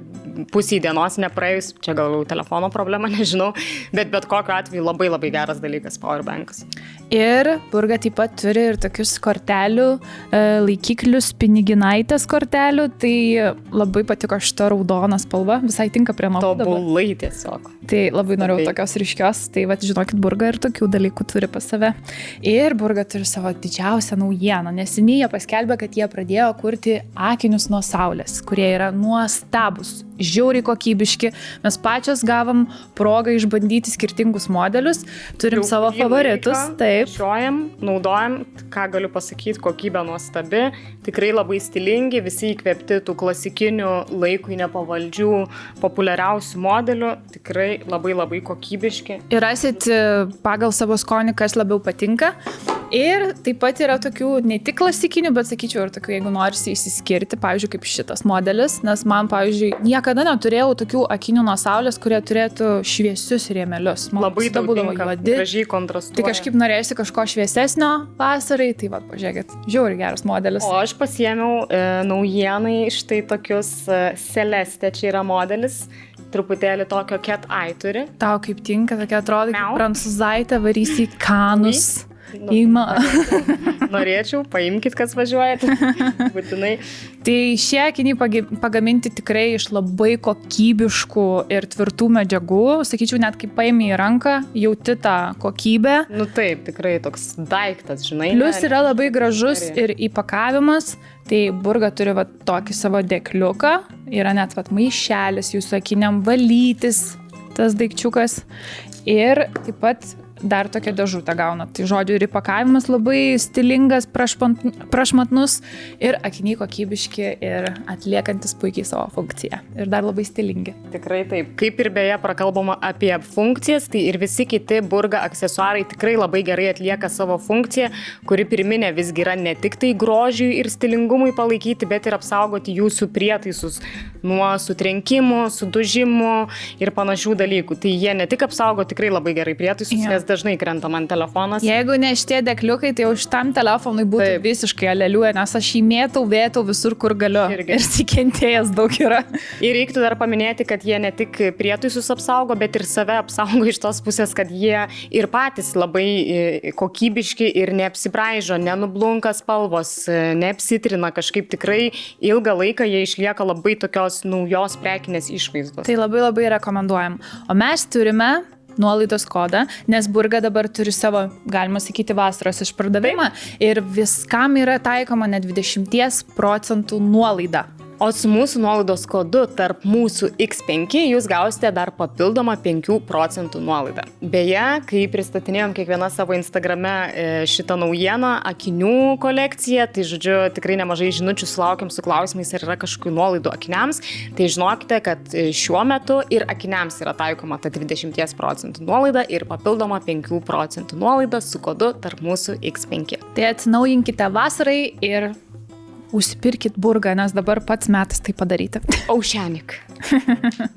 pusį dienos nepraėjus, čia gal telefono problema, nežinau, bet kokiu atveju labai labai geras dalykas powerbankas. Ir Burga taip pat turi ir tokius kortelių, laikiklius, piniginaitės kortelių, tai labai patiko šita raudona spalva, visai tinka prie nokų dabar. Tobulai tiesiog. Tai labai norėjau tokios ryškios, tai žinokit, Burga ir tokių dalykų turi pas save. Ir Burga turi savo didžiausią naujieną, neseniai jie paskelbė, kad jie pradėjo kurti akinius nuo saulės, kurie yra nuostabus, žiauriai kokybiški. Mes pačios gavom progą išbandyti skirtingus modelius, turim savo favoritus. Taip. Šiojam, naudojam, ką galiu pasakyti, kokybė nuostabi, tikrai labai stilingi, visi įkvėpti tų klasikinių laikui nepavaldžių, populiariausių modelių, tikrai labai labai kokybiški. Ir rasit pagal savo skonį, kas labiau patinka. Ir taip pat yra tokių ne tik klasikinių, bet sakyčiau ir tokių, jeigu norisi išsiskirti, pavyzdžiui, kaip šitas modelis, nes man, pavyzdžiui, niekada neturėjau tokių akinių nuo saulės, kurie turėtų šviesius rėmelius. Man labai daug tinka, gražiai kontrastuoja. Tai kažkaip norėjusi kažko šviesesnio vasarai, tai pažiūrėkit, žiauriai geras modelis. O aš pasiėmiau naujienai štai tokius Celeste, čia yra modelis, truputėlį tokio cat eye turi. Tau kaip tinka, tokia atrodo, kaip prancūzaitė varysi į Kanus. Norėčiau, paimkit, kas važiuojat. Būtinai. Tai šie akiniai pagaminti tikrai iš labai kokybiškų ir tvirtų medžiagų. Sakyčiau, net kai paimi į ranką, jauti tą kokybę. Taip, tikrai toks daiktas, žinai. Plius yra labai gražus ir įpakavimas. Tai Burga turi tokį savo dėkliuką. Yra net maišelis jūsų akiniam valytis, tas daikčiukas. Ir taip pat dar tokia dėžutė gauna. Tai žodžiu, ir įpakavimas labai stilingas, prašmatnus ir akiniai kokybiški ir atliekantis puikiai savo funkciją. Ir dar labai stilingi. Tikrai taip. Kaip ir beje prakalbama apie funkcijas, tai ir visi kiti Burga aksesuarai tikrai labai gerai atlieka savo funkciją, kuri pirminė visgi yra ne tik tai grožiui ir stilingumui palaikyti, bet ir apsaugoti jūsų prietaisus nuo sutrenkimų, sudužimų ir panašių dalykų. Tai jie ne tik apsaugo tikrai labai gerai prietaisus, nes dažnai krenta man telefonas. Jeigu ne šitie dėkliukai, tai jau šitam telefonui būtų visiškai aleliuoja, nes aš jį vėtau visur, kur galiu. Ir sikentėjęs daug yra. Ir reiktų dar paminėti, kad jie ne tik prietaisus apsaugo, bet ir save apsaugo iš tos pusės, kad jie ir patys labai kokybiški ir neapsibraižo, nenublunka spalvos, neapsitrina kažkaip tikrai ilgą laiką jie išlieka labai tokios naujos prekinės išvaizdos. Tai labai labai rekomenduojam. O mes turime nuolaidos kodą, nes Burga dabar turi savo, galima sakyti, vasaros išpardavimą ir viskam yra taikoma net 20% nuolaida. O su mūsų nuolaidos kodu tarp mūsų X5 jūs gausite dar papildomą 5% nuolaidą. Beje, kai pristatinėjom kiekvieną savo Instagrame šitą naujieną, akinių kolekciją, tai žodžiu, tikrai nemažai žinučių sulaukiam su klausimais, ar yra kažkokių nuolaidų akiniams, tai žinokite, kad šiuo metu ir akiniams yra taikoma ta 20% nuolaida ir papildoma 5% nuolaida su kodu tarp mūsų X5. Tai atsinaujinkite vasarai ir užsipirkit Burgą, nes dabar pats metas tai padaryti. Aušenik.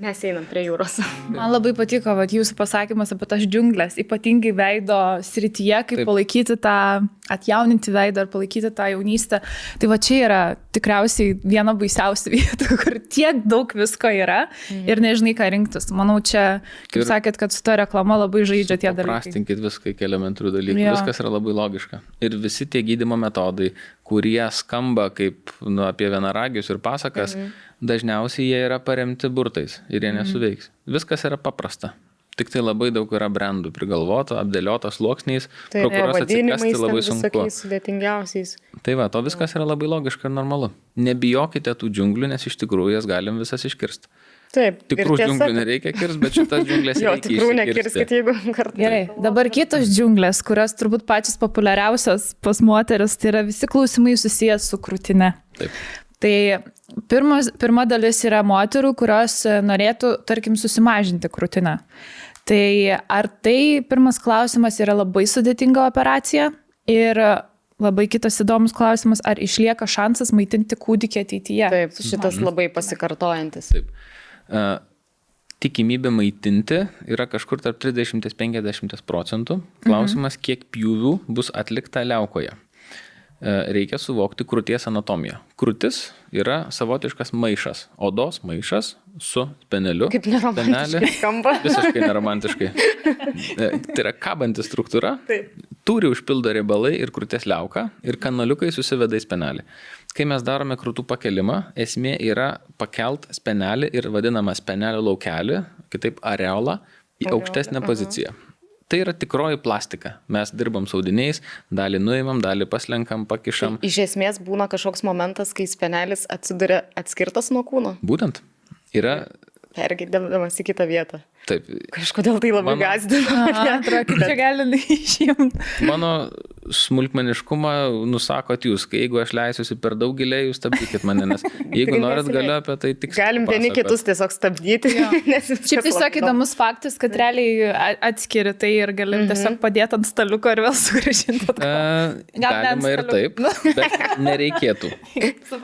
Mes einam prie jūros. Man labai patiko jūsų pasakymas apie tas džiunglės, ypatingai veido srityje, kaip palaikyti tą, atjauninti veidą ar palaikyti tą jaunystę. Tai čia yra tikriausiai viena baisiausių vietų, kur tiek daug visko yra ir nežinai, ką rinktis. Manau, čia, kaip sakėt, kad su ta reklama labai žaidžia tie dalykai. Prastinkit viską iki elementarių dalykų. Viskas yra labai logiška. Ir visi tie gydymo metodai, kurie skamba kaip apie vienaragius ir pasakas, dažniausiai jie yra paremti burtais ir jie nesuveiks. Viskas yra paprasta. Tik tai labai daug yra brandų prigalvoto, apdėlioto sluoksniais, pro kurios atsikasti labai sunku. Sudėtingiausiais. Tai to viskas yra labai logiška ir normalu. Nebijokite tų džiunglių, nes iš tikrųjų jas galim visas iškirsti. Taip. Tikrų džiunglių nereikia kirsti, bet šitas džiunglės reikia iškirsti. Tikrų nekirskit, jeigu kartą. Gerai, dabar kitos džiunglės, kurios turbūt pačios populiariausios pas moteris, tai yra visi klausimai susijęs su krūtine. Taip. Tai pirma dalis yra moterų, kurios norėtų, tarkim, susimažinti krūtinę. Tai ar tai pirmas klausimas yra labai sudėtinga operacija ir labai kitas įdomus klausimas, ar išlieka šansas maitinti kūdikį ateityje? Taip, šitas labai pasikartojantis. Taip. Tikimybė maitinti yra kažkur tarp 30–50%. Klausimas, kiek pjūvių bus atlikta liaukoje. Reikia suvokti krūties anatomiją. Krūtis yra savotiškas maišas, odos maišas su speneliu. Kaip neromantiškai skamba. Visiškai neromantiškai. Tai yra kabanti struktūra, tūrį užpildo riebalai ir krūties liauka ir kanaliukai susiveda į spenelį. Kai mes darome krūtų pakelimą, esmė yra pakelt spenelį ir vadinamą spenelio laukelį, kitaip areolą, į aukštesnę poziciją. Tai yra tikroji plastika. Mes dirbam su audiniais, dalį nuimam, dalį paslenkam, pakišam. Iš esmės būna kažkoks momentas, kai spenelis atsiduria atskirtas nuo kūno. Būtent. Yra pergėdamas į kitą vietą. Taip. Kažkodėl tai labai gazdina. Atrodo, čia gali išjimti. Mano smulkmeniškumą nusakot jūs, kai jeigu aš leisiuosi per daug giliai, jūs stabdykit mane, nes jeigu norit galiu apie tai tik galim vieni kitus tiesiog stabdyti. Šiaip tiesiog įdomus faktas, kad realiai atskiri tai ir galim tiesiog padėti ant staliuko ir vėl sugrįžinti. Galima ir taip, bet nereikėtų.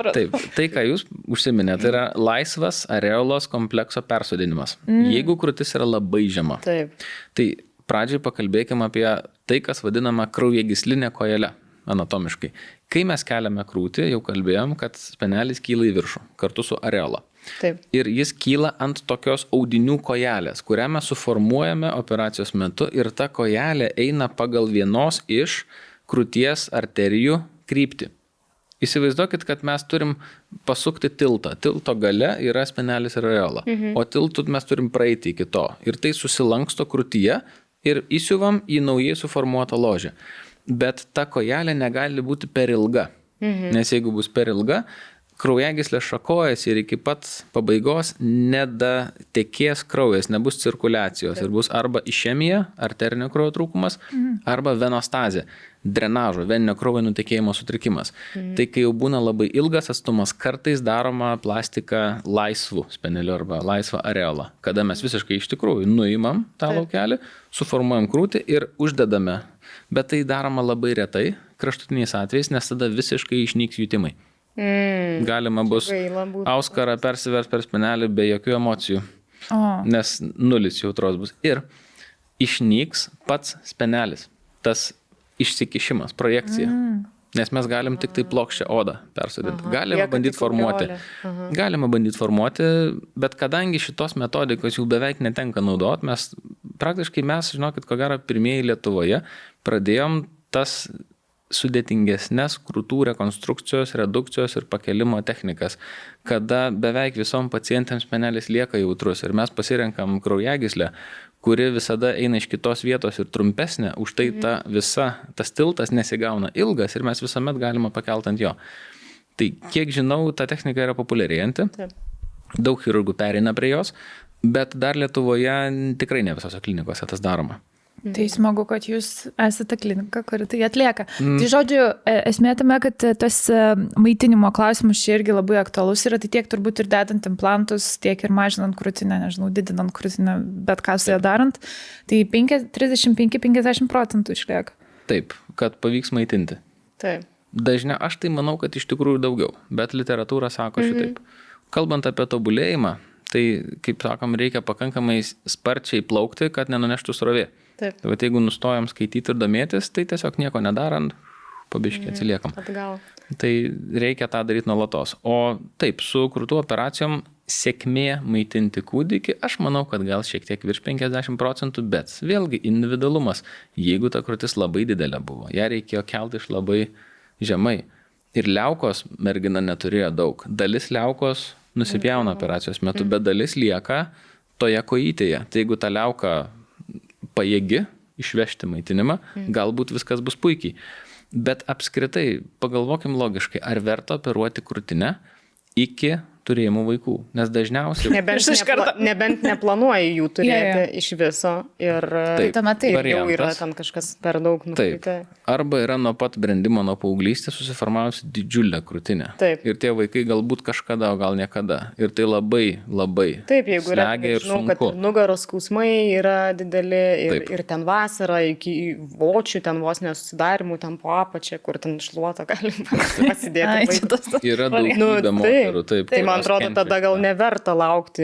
Taip, tai, ką jūs užsiminėte, tai yra laisvas areolos komplekso persodinimas. Jeigu krūtis yra labai žema. Taip. Tai pradžiai pakalbėkime apie tai, kas vadinama kraujagyslinė kojelė. anatomiškai. Kai mes keliame krūtį, jau kalbėjom, kad spenelis kyla į viršų kartu su areola. Taip. Ir jis kyla ant tokios audinių kojelės, kurią mes suformuojame operacijos metu ir ta kojelė eina pagal vienos iš krūties arterijų kryptį. Įsivaizduokit, kad mes turim pasukti tiltą. Tilto gale yra spenelis ir areola, o tiltų mes turim praeiti iki to. Ir tai susilanksto krūtyje ir įsiuvam į naujai suformuotą ložę. Bet ta kojelė negali būti per ilga, nes jeigu bus per ilga, kraujagyslė šakojasi ir iki pat pabaigos nedatekės kraujas, nebus cirkuliacijos ir bus arba išemija, arterinio kraujo trūkumas, arba venostazė, drenažo, veninio kraujo nutekėjimo sutrikimas. Tai kai jau būna labai ilgas atstumas, kartais daroma plastika laisvų spenelių arba laisvą areolą, kada mes visiškai iš tikrųjų nuimam tą laukelį, suformuojam krūtį ir uždedame. Bet tai daroma labai retai, kraštutiniais atvejais, nes tada visiškai išnyks jutimai. Galima bus auskarą persivers per spenelį be jokių emocijų, nes nulis jautros bus. Ir išnyks pats spenelis, tas išsikišimas, projekcija. Nes mes galim tik tai plokščią odą persodinti. Galima bandyti formuoti, bet kadangi šitos metodikos jau beveik netenka naudot, praktiškai mes, žinokit, ko gero pirmieji Lietuvoje pradėjom tas sudėtingesnės krūtų rekonstrukcijos, redukcijos ir pakelimo technikas, kada beveik visom pacientėms spenelis lieka jautrus ir mes pasirenkam kraujagyslę, kuri visada eina iš kitos vietos ir trumpesnė, už tai tas tiltas nesigauna ilgas ir mes visuomet galima pakelt ant jo. Tai kiek žinau, ta technika yra populiarėjanti, daug chirurgų pereina prie jos, bet dar Lietuvoje tikrai ne visose klinikose tas daroma. Tai smagu, kad jūs esate klinika, kuri tai atlieka. Tai žodžiu, esmė tame, kad tas maitinimo klausimus čia irgi labai aktualus yra, tai tiek turbūt ir dedant implantus, tiek ir mažinant krūtinę, nežinau, didinant krūtinę, bet ką su ją darant, tai 35-50% išlieka. Taip, kad pavyks maitinti. Taip. Dažniau, aš tai manau, kad iš tikrųjų daugiau, bet literatūra sako šitaip. Kalbant apie tobulėjimą, tai, kaip sakom, reikia pakankamai sparčiai plaukti, kad nenuneštų srovė. Taip. Tai jeigu nustojam skaityti ir domėtis, tai tiesiog nieko nedarant, pabiškiai atsiliekam. Atgal. Tai reikia tą daryti nuolatos. O taip, su krūtų operacijom sėkmė maitinti kūdikį, aš manau, kad gal šiek tiek virš 50%, bet vėlgi individualumas. Jeigu ta krūtis labai didelė buvo, ją reikėjo kelti iš labai žemai. Ir liaukos mergina neturėjo daug. Dalis liaukos nusipjauna operacijos metu, bet dalis lieka toje kojytėje. Tai jeigu ta liauka pajėgi išvežti maitinimą, galbūt viskas bus puikiai. Bet apskritai, pagalvokim logiškai, ar verta operuoti krūtinę iki turėjimų vaikų, nes dažniausiai... Nebent neplanuoji jų turėti iš viso ir jau yra tam kažkas per daug nukreipta. Arba yra nuo pat brendimo, nuo paauglystės susiformavusi didžiulė krūtinė. Taip. Ir tie vaikai galbūt kažkada, o gal niekada. Ir tai labai, labai slegia ir sunku. Kad nugaros skausmai yra dideli ir ten vasara iki vočių, ten vos nesusidarimų, ten po apačią, kur ten šluotą galim pasidėti. Yra daugybė moterų, taip. Man atrodo, tada gal neverta laukti,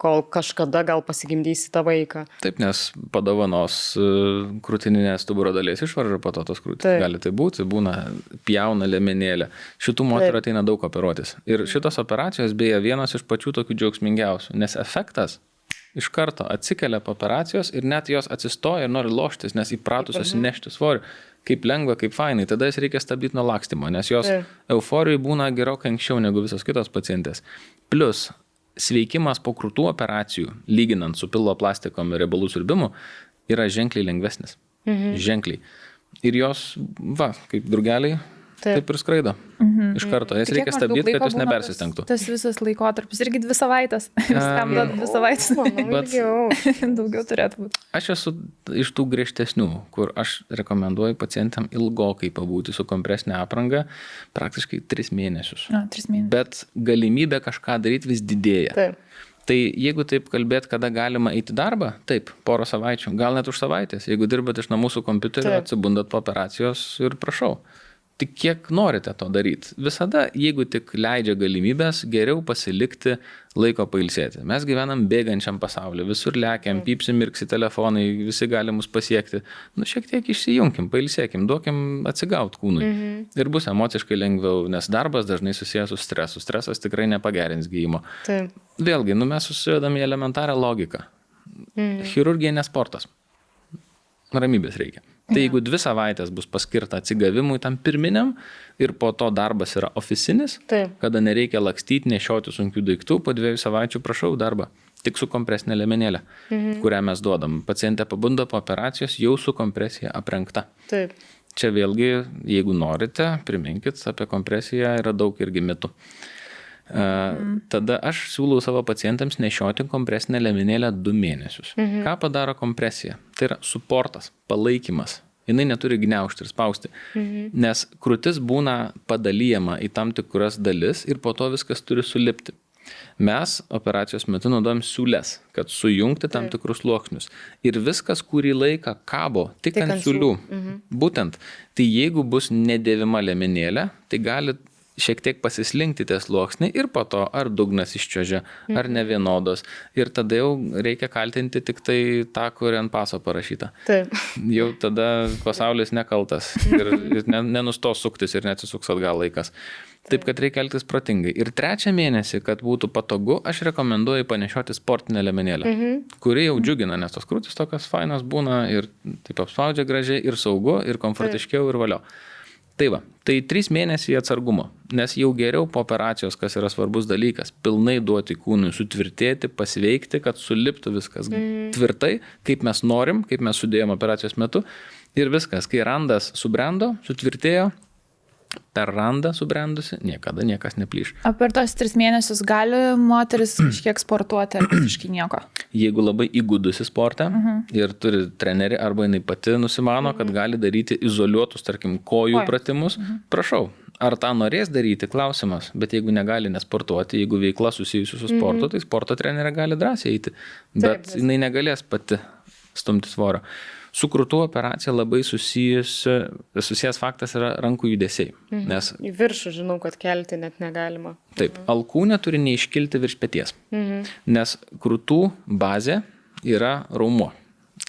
kol kažkada gal pasigimdysi tą vaiką. Taip, nes padovanos krūtininės stuburo dalies išvarža po to tos krūtys. Gali tai būti, būna pjauna liemenėlė. Šitų moterų ateina daug operuotis. Ir šitos operacijos beje vienas iš pačių tokių džiaugsmingiausių, nes efektas iš karto atsikelia po operacijos ir net jos atsistoja ir nori loštis, nes įpratusios nešti svorį. Kaip lengva, kaip fainai, tada jas reikia stabdyti nuo lakstymo, nes jos euforijai būna gerokai anksčiau negu visos kitos pacientės. Plus, sveikimas po krūtų operacijų, lyginant su pilvo plastikom ir riebalų siurbimu, yra ženkliai lengvesnis. Ženkliai. Ir jos, kaip drugeliai, taip ir skraido. Iš karto. Jas reikia stabdyti, kad jos nepersistengtų. Tas visas laikotarpis, irgi 2 savaitės. Viskam duoda 2 savaitės. Daugiau turėtų būti. Aš esu iš tų griežtesnių, kur aš rekomenduoju pacientam ilgokai pabūti su kompresinė apranga, praktiškai 3 mėnesius. 3 mėnesius. Bet galimybė kažką daryti vis didėja. Taip. Tai jeigu taip kalbėt, kada galima eiti darbą, taip, 1 savaičių, gal net už savaitės. Jeigu dirbat iš namų su kompiuteriu, atsibundat po operacijos ir prašau. tik kiek norite to daryti. Visada, jeigu tik leidžia galimybės, geriau pasilikti laiko pailsėti. Mes gyvenam bėgančiam pasauliu, visur lekiam, pypsi, mirksi telefonai, visi gali mus pasiekti. Šiek tiek išsijunkim, pailsėkim, duokim atsigauti kūnui. Ir bus emociškai lengviau, nes darbas dažnai susijęs su stresu. Stresas tikrai nepagerins gydymo. Taip. Vėlgi, mes susidedam į elementarią logiką. Chirurgija ne sportas. Ramybės reikia. Tai jeigu 2 savaitės bus paskirta atsigavimui tam pirminiam ir po to darbas yra oficinis, kada nereikia lakstyti, nešioti sunkių daiktų, po 2 savaičių prašau darbą. Tik su kompresinė liemenėlė, kurią mes duodam. Pacientė pabunda po operacijos jau su kompresija aprengta. Taip. Čia vėlgi, jeigu norite, priminkit, apie kompresiją yra daug irgi mitų. Tada aš siūlau savo pacientams nešioti kompresinę liemenėlę 2 mėnesius. Ką padaro kompresija? Tai yra suportas, palaikymas. Jinai neturi gniaužti ir spausti, nes krūtis būna padalyjama į tam tikras dalis ir po to viskas turi sulipti. Mes operacijos metu naudojam siūles, kad sujungti tam tikrus sluoksnius. Ir viskas kurį laiką kabo tik ant siūlių. Būtent, tai jeigu bus nedėvima liemenėlė, tai gali šiek tiek pasislinkti tie sluoksniai ir po to ar dugnas iščiuožia, ar nevienodos. Ir tada jau reikia kaltinti tik tai tą, kur ant paso parašyta. Taip. Jau tada pasaulis nekaltas ir nenustos suktis ir neatsisuks atgal laikas. Taip, kad reikia elgtis protingai. Ir 3 mėnesį, kad būtų patogu, aš rekomenduoju panešioti sportinę liemenėlę, kuri jau džiugina, nes tos krūtis tokios fainos būna ir taip apspaudžia gražiai ir saugu, ir komfortiškiau, ir valio. Tai va, tai 3 mėnesiai atsargumo, nes jau geriau po operacijos, kas yra svarbus dalykas, pilnai duoti kūnui sutvirtėti, pasveikti, kad suliptų viskas tvirtai, kaip mes norim, kaip mes sudėjom operacijos metu ir viskas, kai randas subrendo, sutvirtėjo, per randą subrendusi, niekada niekas neplyš. O per tos 3 mėnesius gali moteris kažkiek sportuoti ar visiškai nieko? Jeigu labai įgudusi sportą ir turi trenerį arba jinai pati nusimano, kad gali daryti izoliuotus, tarkim, kojų pratimus, prašau. Ar tą norės daryti, klausimas, bet jeigu negali nesportuoti, jeigu veikla susijusi su sportu, tai sporto trenerė gali drąsiai eiti, bet jinai negalės pati stumti svorio. Su krūtų operacija labai susijęs faktas yra rankų judesiai. Nes, į viršų žinau, kad kelti net negalima. Taip, alkūnė turi neiškilti virš peties, nes krūtų bazė yra raumuo.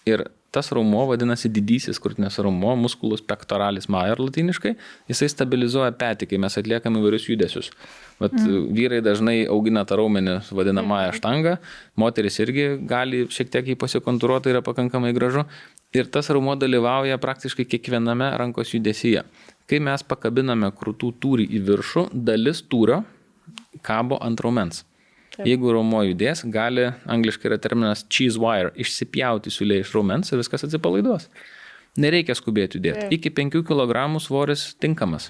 Ir tas raumuo vadinasi didysis krūtinės raumuo, musculus pectoralis major latiniškai, jisai stabilizuoja petį, kai mes atliekam įvairius judesius. Vat vyrai dažnai augina tą raumenį vadinamąją štangą, moteris irgi gali šiek tiek jį pasikontūruoti, yra pakankamai gražu. Ir tas raumuo dalyvauja praktiškai kiekviename rankos judesyje. Kai mes pakabiname krūtų tūrį į viršų, dalis tūrio kabo ant raumens. Taip. Jeigu raumuo judės, gali, angliškai yra terminas cheese wire, išsipjauti siūlė iš raumens ir viskas atsipalaiduos. Nereikia skubėti judėti. Iki 5 kg svoris tinkamas.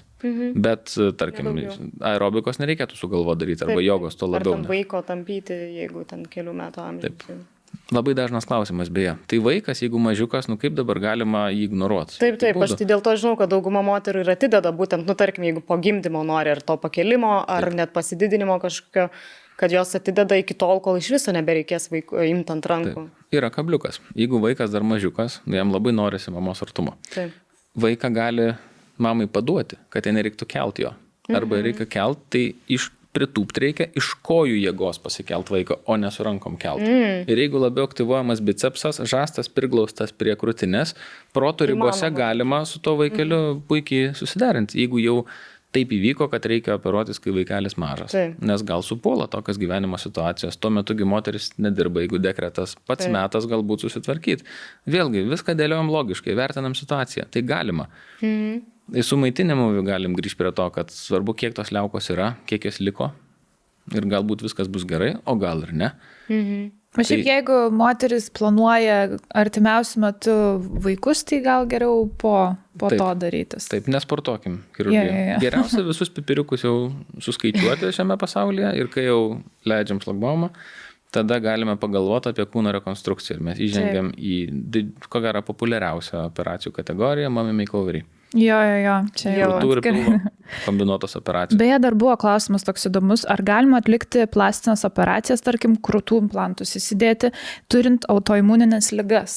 Bet, tarkim, aerobikos nereikėtų sugalvoti daryti, arba jogos to labiau. Ar tam vaiko tampyti, jeigu ten kelių metų amžiaus. Taip. Labai dažnas klausimas, beje. Tai vaikas, jeigu mažiukas, kaip dabar galima jį ignoruoti? Taip, aš tai dėl to žinau, kad dauguma moterų ir atideda būtent, tarkim, jeigu po gimdymo nori ar to pakelimo, ar net pasididinimo kažkokio, kad jos atideda iki tol, kol iš viso nebereikės imti ant rankų. Taip. Yra kabliukas. Jeigu vaikas dar mažiukas, jam labai norisi mamos artumo. Taip. Vaiką gali mamai paduoti, kad jai nereiktų kelti jo. Arba reikia kelti, tai pritūpti reikia iš kojų jėgos pasikelt vaiką, o ne su rankom kelt. Ir jeigu labiau aktyvuojamas bicepsas, žastas priglaustas prie krūtinės, proto ribose galima su to vaikeliu puikiai susiderinti. Jeigu jau taip įvyko, kad reikia operuotis, kai vaikelis mažas. Nes gal supuola tokios gyvenimo situacijos. Tuo metugi moteris nedirba, jeigu dekretas pats metas galbūt susitvarkyti. Vėlgi, viską dėliojam logiškai, vertinam situaciją. Tai galima. Su maitinimu galim grįžti prie to, kad svarbu, kiek tos liaukos yra, kiek jos liko ir galbūt viskas bus gerai, o gal ir ne. O šiaip jeigu moteris planuoja artimiausiu metu vaikus, tai gal geriau po to darytis. Taip, nesportuokim chirurgiją. Geriausia visus pipiriukus jau suskaičiuoti šiame pasaulyje ir kai jau leidžiam šlagbaumą, tada galime pagalvoti apie kūno rekonstrukciją. Ir mes įžengiam į, ko gero, populiariausią operacijų kategoriją, mommy makeoverį. Jo, čia jau kombinuotos operacijos. Beje, dar buvo klausimas toks įdomus, ar galima atlikti plastinės operacijas, tarkim, krūtų implantus įsidėti, turint autoimuninės ligas?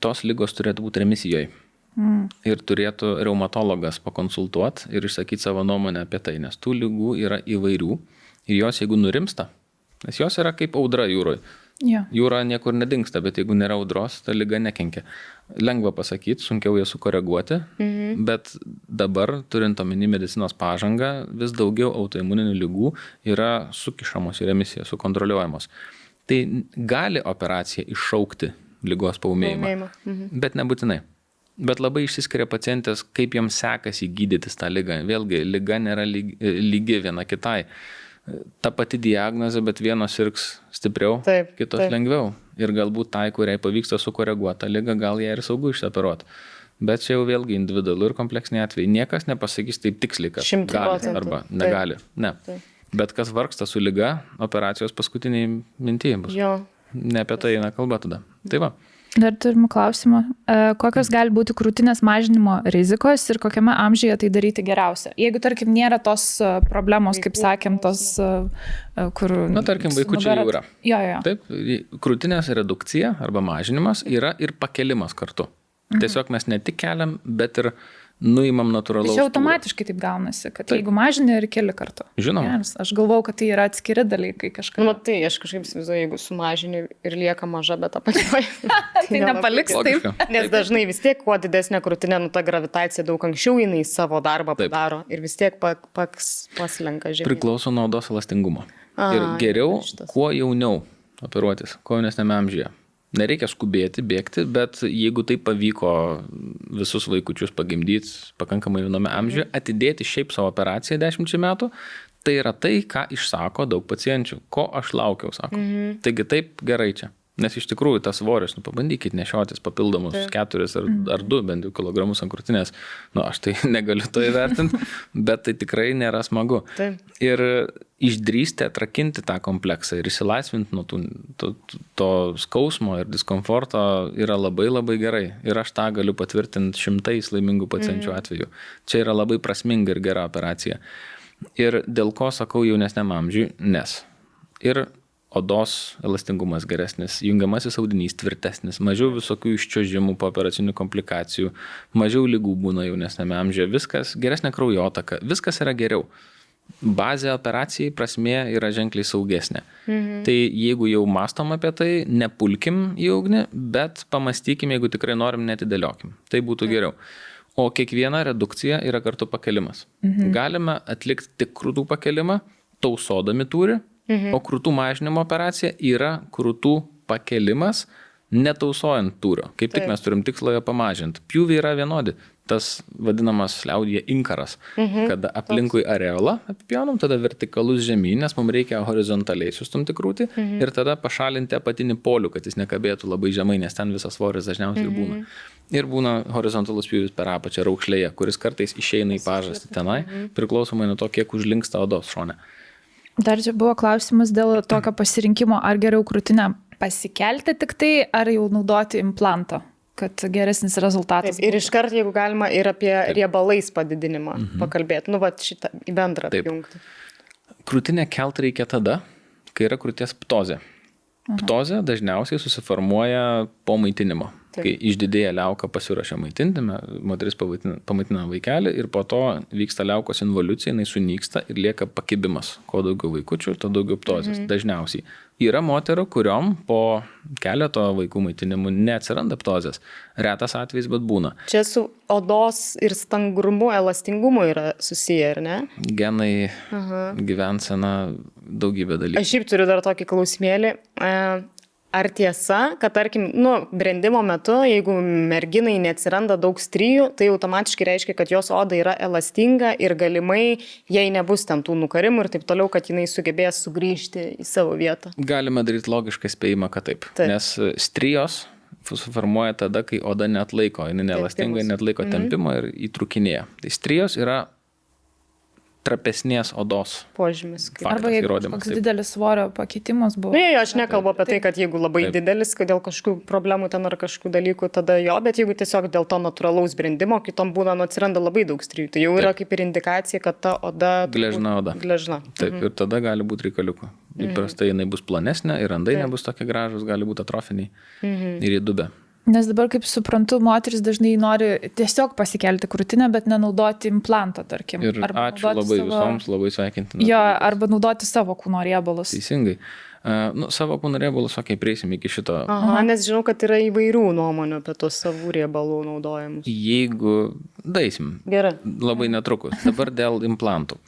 Tos ligos turėtų būti remisijoje. Ir turėtų reumatologas pakonsultuoti ir išsakyti savo nuomonę apie tai, nes tų ligų yra įvairių ir jos, jeigu nurimsta, nes jos yra kaip audra jūroje. Ja. Jūra niekur nedingsta, bet jeigu nėra audros, ta liga nekenkia. Lengva pasakyti, sunkiau ją sukoreguoti, bet dabar, turint omeny medicinos pažangą, vis daugiau autoimuninių ligų yra sukišamos į remisiją, sukontroliuojamos. Tai gali operacija iššaukti ligos paūmėjimą, bet nebūtinai. Bet labai išsiskiria pacientės, kaip jiems sekasi gydytis tą ligą. Vėlgi, liga nėra lygi viena kitai. Ta pati diagnozė, bet vienos sirgs stipriau, kitos lengviau. Ir galbūt tai, kuriai pavyksta sukoreguoti tą ligą, gal ją ir saugu išoperuoti. Bet čia jau vėlgi individualu ir kompleksiniai atvejai. Niekas nepasakys taip tiksliai, kad gali arba negali. Ne. Bet kas vargsta su liga, operacijos paskutiniai mintyje bus. Ne apie tai eina kalba tada. Tai va. Dar turim klausimą. Kokios gali būti krūtinės mažinimo rizikos ir kokiame amžiuje tai daryti geriausia? Jeigu, tarkim, nėra tos problemos, kaip sakėm, tos, kur... Na, tarkim, vaikučiai jau yra. Jo. Taip, krūtinės redukcija arba mažinimas yra ir pakelimas kartu. Tiesiog mes ne tik keliam, bet ir nuimam natūralaus. Tai automatiškai taip gaunasi, kad jeigu mažini ir keli kartu. Žinoma. Yes, aš galvau, kad tai yra atskiri dalykai kažkaip. Nu, tai aš kažkaip įsivaizduoju, jeigu sumažini ir lieka maža, bet apačioj. Tai nepaliks taip. Nes dažnai vis tiek, kuo didesnė krūtinė, ta gravitacija daug anksčiau jinai savo darbą padaro ir vis tiek paslenka žemyn. Priklauso nuo odos elastingumo. Ir geriau, kuo jauniau operuotis, kuo jaunesniame amžiuje. Nereikia skubėti, bėgti, bet jeigu tai pavyko visus vaikučius pagimdyti pakankamai jauname amžiuje, atidėti šiaip savo operaciją 10 metų, tai yra tai, ką išsako daug pacienčių. Ko aš laukiau, sako. Taigi taip gerai čia. Nes iš tikrųjų tas svoris, pabandykit nešiotis papildomus 4 ar 2 bent jau kilogramus ant krūtinės. Aš tai negaliu to įvertinti, bet tai tikrai nėra smagu. Ir išdrįsti atrakinti tą kompleksą ir įsilaisvinti nuo to skausmo ir diskomforto yra labai labai gerai. Ir aš tą galiu patvirtinti 100 laimingų pacienčių atveju. Čia yra labai prasminga ir gera operacija. Ir dėl ko sakau jaunesniam amžiui, nes ir odos elastingumas geresnis, jungiamasis audinys tvirtesnis, mažiau visokių iščiuožimų po operacinių komplikacijų, mažiau ligų būna jaunesniame amžiuje, viskas, geresnė kraujotaka, viskas yra geriau. Bazė operacijai prasmė yra ženkliai saugesnė. Tai jeigu jau mastom apie tai, nepulkim į ugnį, bet pamastykim, jeigu tikrai norim, netidėliokim. Tai būtų geriau. O kiekviena redukcija yra kartu pakelimas. Galime atlikti tik krūtų pakelimą, tausodami tūrį, o krūtų mažinimo operacija yra krūtų pakelimas, netausojant tūrio. Kaip tik mes turim tikslą jo pamažinti. Pjūviai yra vienodi. Tas vadinamas liaudyje inkaras, kada aplinkui areolą apipjaunam, tada vertikalus žemyn, nes mums reikia horizontaliai sustumti krūtį ir tada pašalinti apatinį polių, kad jis nekabėtų labai žemai, nes ten visas svoris dažniausiai būna. Ir būna horizontalus pjūvis per apačią raukšlėje, kuris kartais išeina į pažastį tenai, priklausomai nuo to, kiek užlinksta odos šone. Dar čia buvo klausimas dėl tokio pasirinkimo, ar geriau krūtinę pasikelti tik tai, ar jau naudoti implantą, kad geresnis rezultatas. Taip, ir iškart, jeigu galima, ir apie riebalais padidinimą pakalbėti. Šitą į bendrą apjungti. Krūtinę kelt reikia tada, kai yra krūties ptozė. Ptozė dažniausiai susiformuoja po maitinimo. Kai išdidėja liauka pasiruošia maitinti, moteris pamaitina vaikelį ir po to vyksta liaukos involucija, jinai sunyksta ir lieka pakibimas. Kuo daugiau vaikučių, to daugiau ptozės. Dažniausiai. Yra moterų, kuriom po keleto vaikų maitinimų neatsiranda ptozės. Retas atvejis, bet būna. Čia su odos ir stangrumu, elastingumu yra susiję, ar ne? Genai, gyvensena, daugybė dalykų. Aš šiaip turiu dar tokį klausimėlį. Ar tiesa, kad tarkim, brendimo metu, jeigu merginai neatsiranda daug strijų, tai automatiškai reiškia, kad jos oda yra elastinga ir galimai jai nebus ten tų nukarimų ir taip toliau, kad jinai sugebės sugrįžti į savo vietą? Galima daryti logišką spėjimą, kad taip. Nes strijos suformuoja tada, kai oda neatlaiko, jinai neelastinga, neatlaiko tempimo ir įtrūkinėja. Tai strijos yra trapesnės odos požymis. Arba jeigu koks didelis svorio pakeitimas buvo. Ne, aš nekalbu apie tai, kad jeigu labai didelis, kad dėl kažkokių problemų ten ar kažkokių dalykų, tada jo, bet jeigu tiesiog dėl to natūralaus brendimo, kitom būna atsiranda labai daug strijų. Tai jau yra kaip ir indikacija, kad ta oda... Gležna oda. Gležna. Taip, ir tada gali būti reikaliukų. Įprastai jinai bus plonesnė ir randai nebus tokie gražus, gali būti atrofiniai ir į dubę. Nes dabar, kaip suprantu, moteris dažnai nori tiesiog pasikelti krūtinę, bet nenaudoti implanto, tarkim. Ir ačiū labai visoms, labai sveikintina. Jo, arba naudoti savo kūno riebalus. Teisingai. Savo kūno riebalus, prieisim iki šito. Aha, nes žinau, kad yra įvairių nuomonių apie tos savų riebalų naudojimus. Jeigu daisim. Gerai. Labai netrukus. Dabar dėl implantų.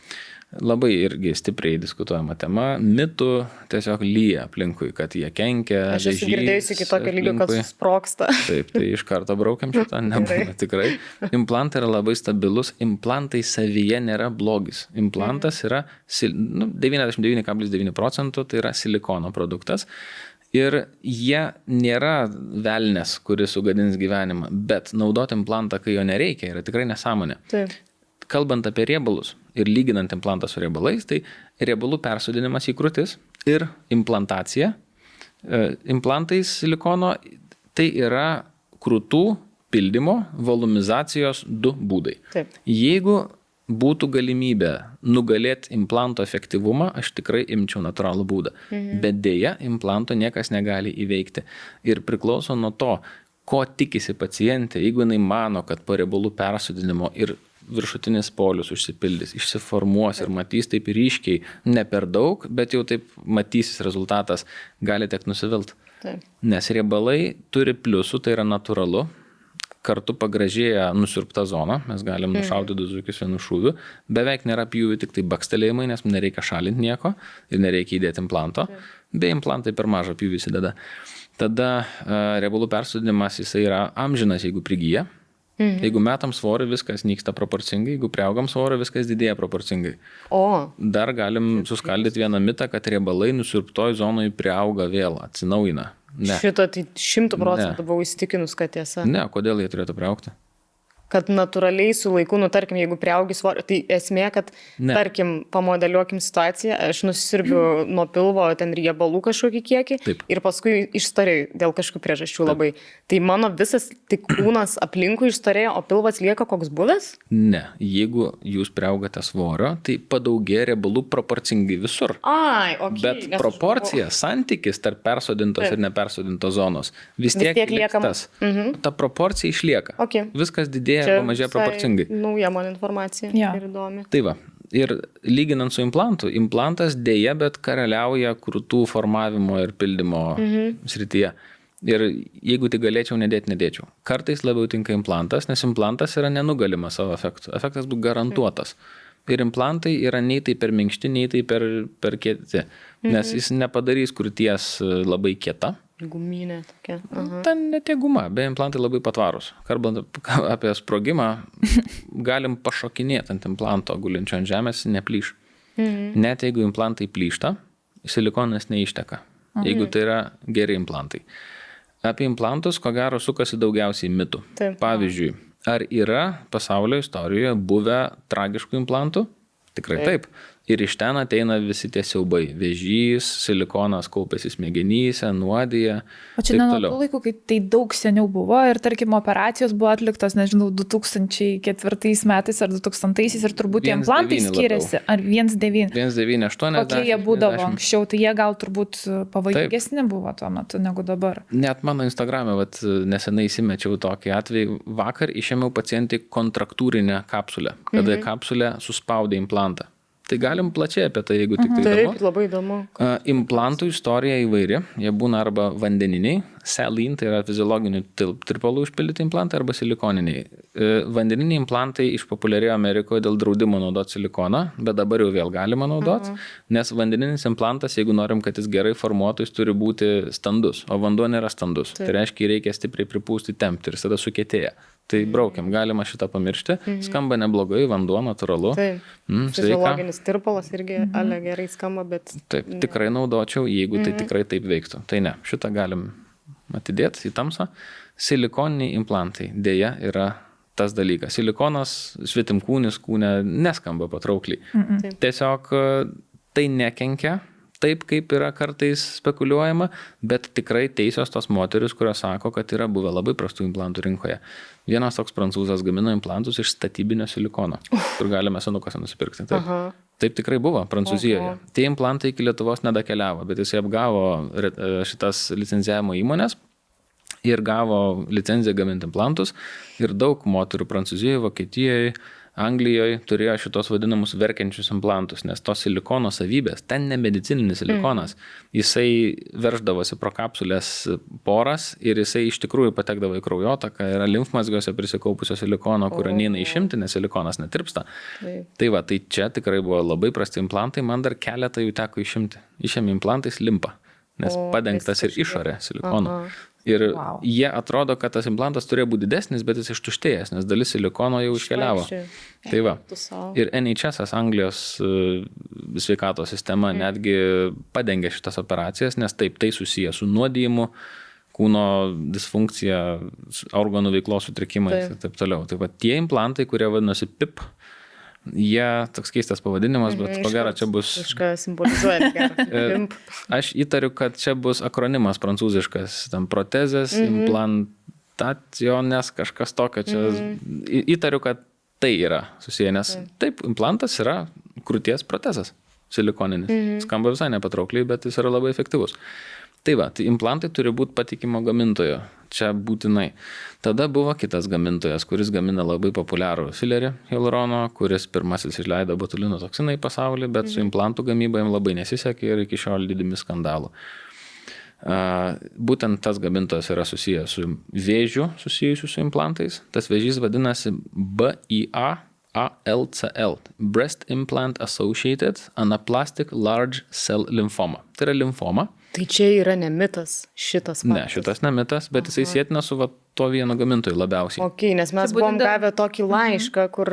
Labai irgi stipriai diskutuojama tema. Mitų tiesiog lyja aplinkui, kad jie kenkia. Aš esu girdėjusi iki tokio lygio, kad susprogsta. Taip, tai iš karto braukiam šitą, nebūna tikrai. Implantai yra labai stabilus, implantai savyje nėra blogis. Implantas yra 99,9% tai yra silikono produktas. Ir jie nėra velnės, kuris sugadins gyvenimą, bet naudoti implantą, kai jo nereikia, yra tikrai nesąmonė. Taip. Kalbant apie riebalus ir lyginant implantą su riebalais, tai riebalų persodinimas į krūtis ir implantacija. Implantais silikono tai yra krūtų pildymo, volumizacijos 2 būdai. Taip. Jeigu būtų galimybė nugalėti implanto efektyvumą, aš tikrai imčiau natūralų būdą. Bet dėja, implanto niekas negali įveikti. Ir priklauso nuo to, ko tikisi pacientė, jeigu jinai mano, kad po riebalų persodinimo ir viršutinis polius užsipildys, išsiformuos ir matys taip ryškiai, ne per daug, bet jau taip matysis rezultatas, gali tek nusivilt. Taip. Nes riebalai turi pliusų, tai yra natūralu, kartu pagražėja nusiurbta zona, mes galim nušauti 2 zuikius vienu šūviu, beveik nėra pjūvių, tik tai bakstelėjimai, nes nereikia šalinti nieko ir nereikia įdėti implanto, be implantai per mažą pjūvį įsideda. Tada riebalų persodinimas jisai yra amžinas, jeigu prigyja. Jeigu metam svorį, viskas nyksta proporcingai, jeigu priaugam svorį, viskas didėja proporcingai. Dar galim suskaldyti vieną mitą, kad riebalai nusiurbtoj zonoj priauga vėl, atsinaujina. Ne. Šito tai 100% buvau įsitikinus, kad tiesa. Ne, kodėl jie turėtų priaugti? Kad natūraliai su laiku, tarkim, jeigu priaugi svorio, tai esmė, kad, tarkim, pamodeliuokim situaciją, aš nusisirbiu nuo pilvo ten riebalų kažkokį kiekį. Taip. Ir paskui išstorėjau dėl kažkokių priežasčių labai. Tai mano visas tik kūnas aplinkui išstorėjo, o pilvas lieka koks buvęs? Ne, jeigu jūs priaugate svorio, tai padaugėja riebalų proporcingai visur. Bet proporcija, santykis tarp persodintos ir nepersodintos zonos vis tiek lieka tas. Ta proporcija išlieka. Viskas didėja. Pamažėja proporcingai. Nauja man informacija ir įdomi. Tai va, ir lyginant su implantu, implantas dėja, bet karaliauja krūtų formavimo ir pildymo srityje. Ir jeigu tik galėčiau, nedėčiau. Kartais labiau tinka implantas, nes implantas yra nenugalimas savo efektu. Efektas bus garantuotas. Ir implantai yra nei tai per minkšti, nei tai per kieti. Nes jis nepadarys krūties labai kieta. Guminė tokia. Ten net guma, be implantai labai patvarus. Kalbant apie sprogimą, galim pašokinėti ant implanto gulinčio ant žemės, neplyš. Net jeigu implantai plyšta, silikonas neišteka. Jeigu tai yra geri implantai. Apie implantus, ko gero, sukasi daugiausiai mitų. Pavyzdžiui, ar yra pasaulio istorijoje buvę tragiškų implantų? Tikrai taip. Ir iš ten ateina visi tie siaubai. Vėžys, silikonas kaupiasi smegenyse, nuodija. O čia ne nuo tų laikų, kai tai daug seniau buvo ir, tarkim, operacijos buvo atliktos, nežinau, 2004 metais ar 2000-aisiais ir turbūt tie implantai skiriasi. Ar 1,9? 1,980. Kokie jie būdavo anksčiau, tai jie gal turbūt pavojingesni buvo tuo metu negu dabar. Net mano Instagrame, nesenai įsimečiau tokį atvejį. Vakar išėmiau pacientai kontraktūrinę kapsulę, kada kapsulė suspaudė implantą. Tai galim plačiai apie tai, jeigu tik tai įdomu. Taip, labai įdomu. Implantų istorija įvairi. Jie būna arba vandeniniai, saline, tai yra fiziologinių tirpalų užpildyti implantai, arba silikoniniai. Vandeniniai implantai išpopuliarėjo Amerikoje dėl draudimo naudoti silikoną, bet dabar jau vėl galima naudoti, nes vandeninis implantas, jeigu norim, kad jis gerai formuotų, jis turi būti standus, o vanduo nėra standus. Tai reiškia, reikia stipriai pripūsti, tempti ir tada sukietėja. Tai braukiam, galima šitą pamiršti. Skamba neblogai, vanduo natūralu. Fiziologinis tirpalas irgi gerai skamba, bet... Taip, tikrai naudočiau, jeigu tai tikrai taip veiktų. Tai ne, šitą galim atidėti į tamsą. Silikoniniai implantai dėja yra tas dalykas. Silikonas, svetimkūnis kūne neskamba patraukliai. Tiesiog tai nekenkia. Taip, kaip yra kartais spekuliuojama, bet tikrai teisios tos moteris, kurios sako, kad yra buvę labai prastų implantų rinkoje. Vienas toks prancūzas gamino implantus iš statybinio silikono, kur galime senukose nusipirkti. Taip tikrai buvo Prancūzijoje. Tie implantai iki Lietuvos nedakeliavo, bet jis apgavo šitas licencijavimo įmonės ir gavo licenciją gaminti implantus ir daug moterų Prancūzijoje, Vokietijoje, Anglijoje turėjo šitos vadinamus verkiančius implantus, nes tos silikono savybės, ten ne medicininis silikonas, jisai verždavosi pro kapsulės poras ir jisai iš tikrųjų patekdavo į kraujotaką, yra limfmazgiuose prisikaupusio silikono, kurio neina išimti, nes silikonas netirpsta. Tai va, tai čia tikrai buvo labai prasti implantai, man dar keletą jų teko išimti. Išėmė implantais limpa, nes padengtas ir išorė silikonu. Ir jie atrodo, kad tas implantas turėjo būti didesnis, bet jis ištuštėjęs, nes dalis silikono jau iškeliavo. Tai va. Ir NHS, Anglijos sveikatos sistema, netgi padengė šitas operacijas, nes taip, tai susiję su nuodijimu, kūno disfunkcija, organų veiklos sutrikimais ir taip toliau. Tai va, tie implantai, kurie vadinasi PIP, jie, toks keistas pavadinimas, bet ko gero čia bus... Kažką simbolizuoja. Aš įtariu, kad čia bus akronimas prancūziškas, tam protezės, implantacionės, kažkas tokio čia. Įtariu, kad tai yra susiję, nes taip, implantas yra krūties protezas, silikoninis. Skamba visai nepatraukliai, bet jis yra labai efektyvus. Tai va, tai implantai turi būti patikimo gamintojo, čia būtinai. Tada buvo kitas gamintojas, kuris gamina labai populiarų filerį hialurono, kuris pirmasis išleido botulino toksiną į pasaulį, bet su implantų gamyba jam labai nesisekė ir iki šiol didimi skandalų. Būtent tas gamintojas yra susijęs su vėžiu susijusiu su implantais. Tas vėžys vadinasi BIALCL, Breast Implant Associated Anaplastic Large Cell Lymphoma. Tai yra limfoma. Tai čia yra ne mitas šitas faktas. Ne, šitas ne mitas, bet jisai sėtina su to vieno gamintojų labiausiai. Ok, nes mes buvom gavę tokį laišką, kur...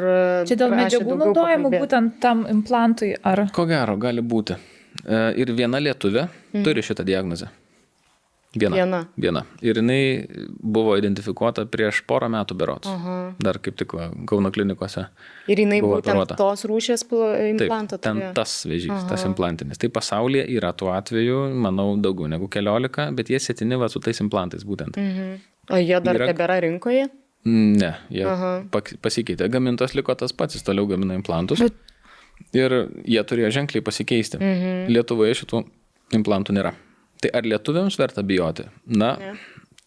Čia dėl medžiagų naudojimų būtent tam implantui, ar... Ko gero, gali būti. Ir viena lietuvė turi šitą diagnozę. Viena. Ir jinai buvo identifikuota prieš porą metų berods. Dar kaip tik Kauno klinikose. Ir jinai būtent tos rūšės implantą turėjo. Ten tas vėžys, tas implantinis. Tai pasaulyje yra tuo atveju, manau, daugiau negu 15, bet jie sėtini va su tais implantais būtent. O jie dar tebėra rinkoje? Ne, jie pasikeitė. Gamintos liko tas pats, jis toliau gamina implantus. Ir jie turėjo ženkliai pasikeisti. Lietuvoje šitų implantų nėra. Tai ar lietuviams verta bijoti? Na,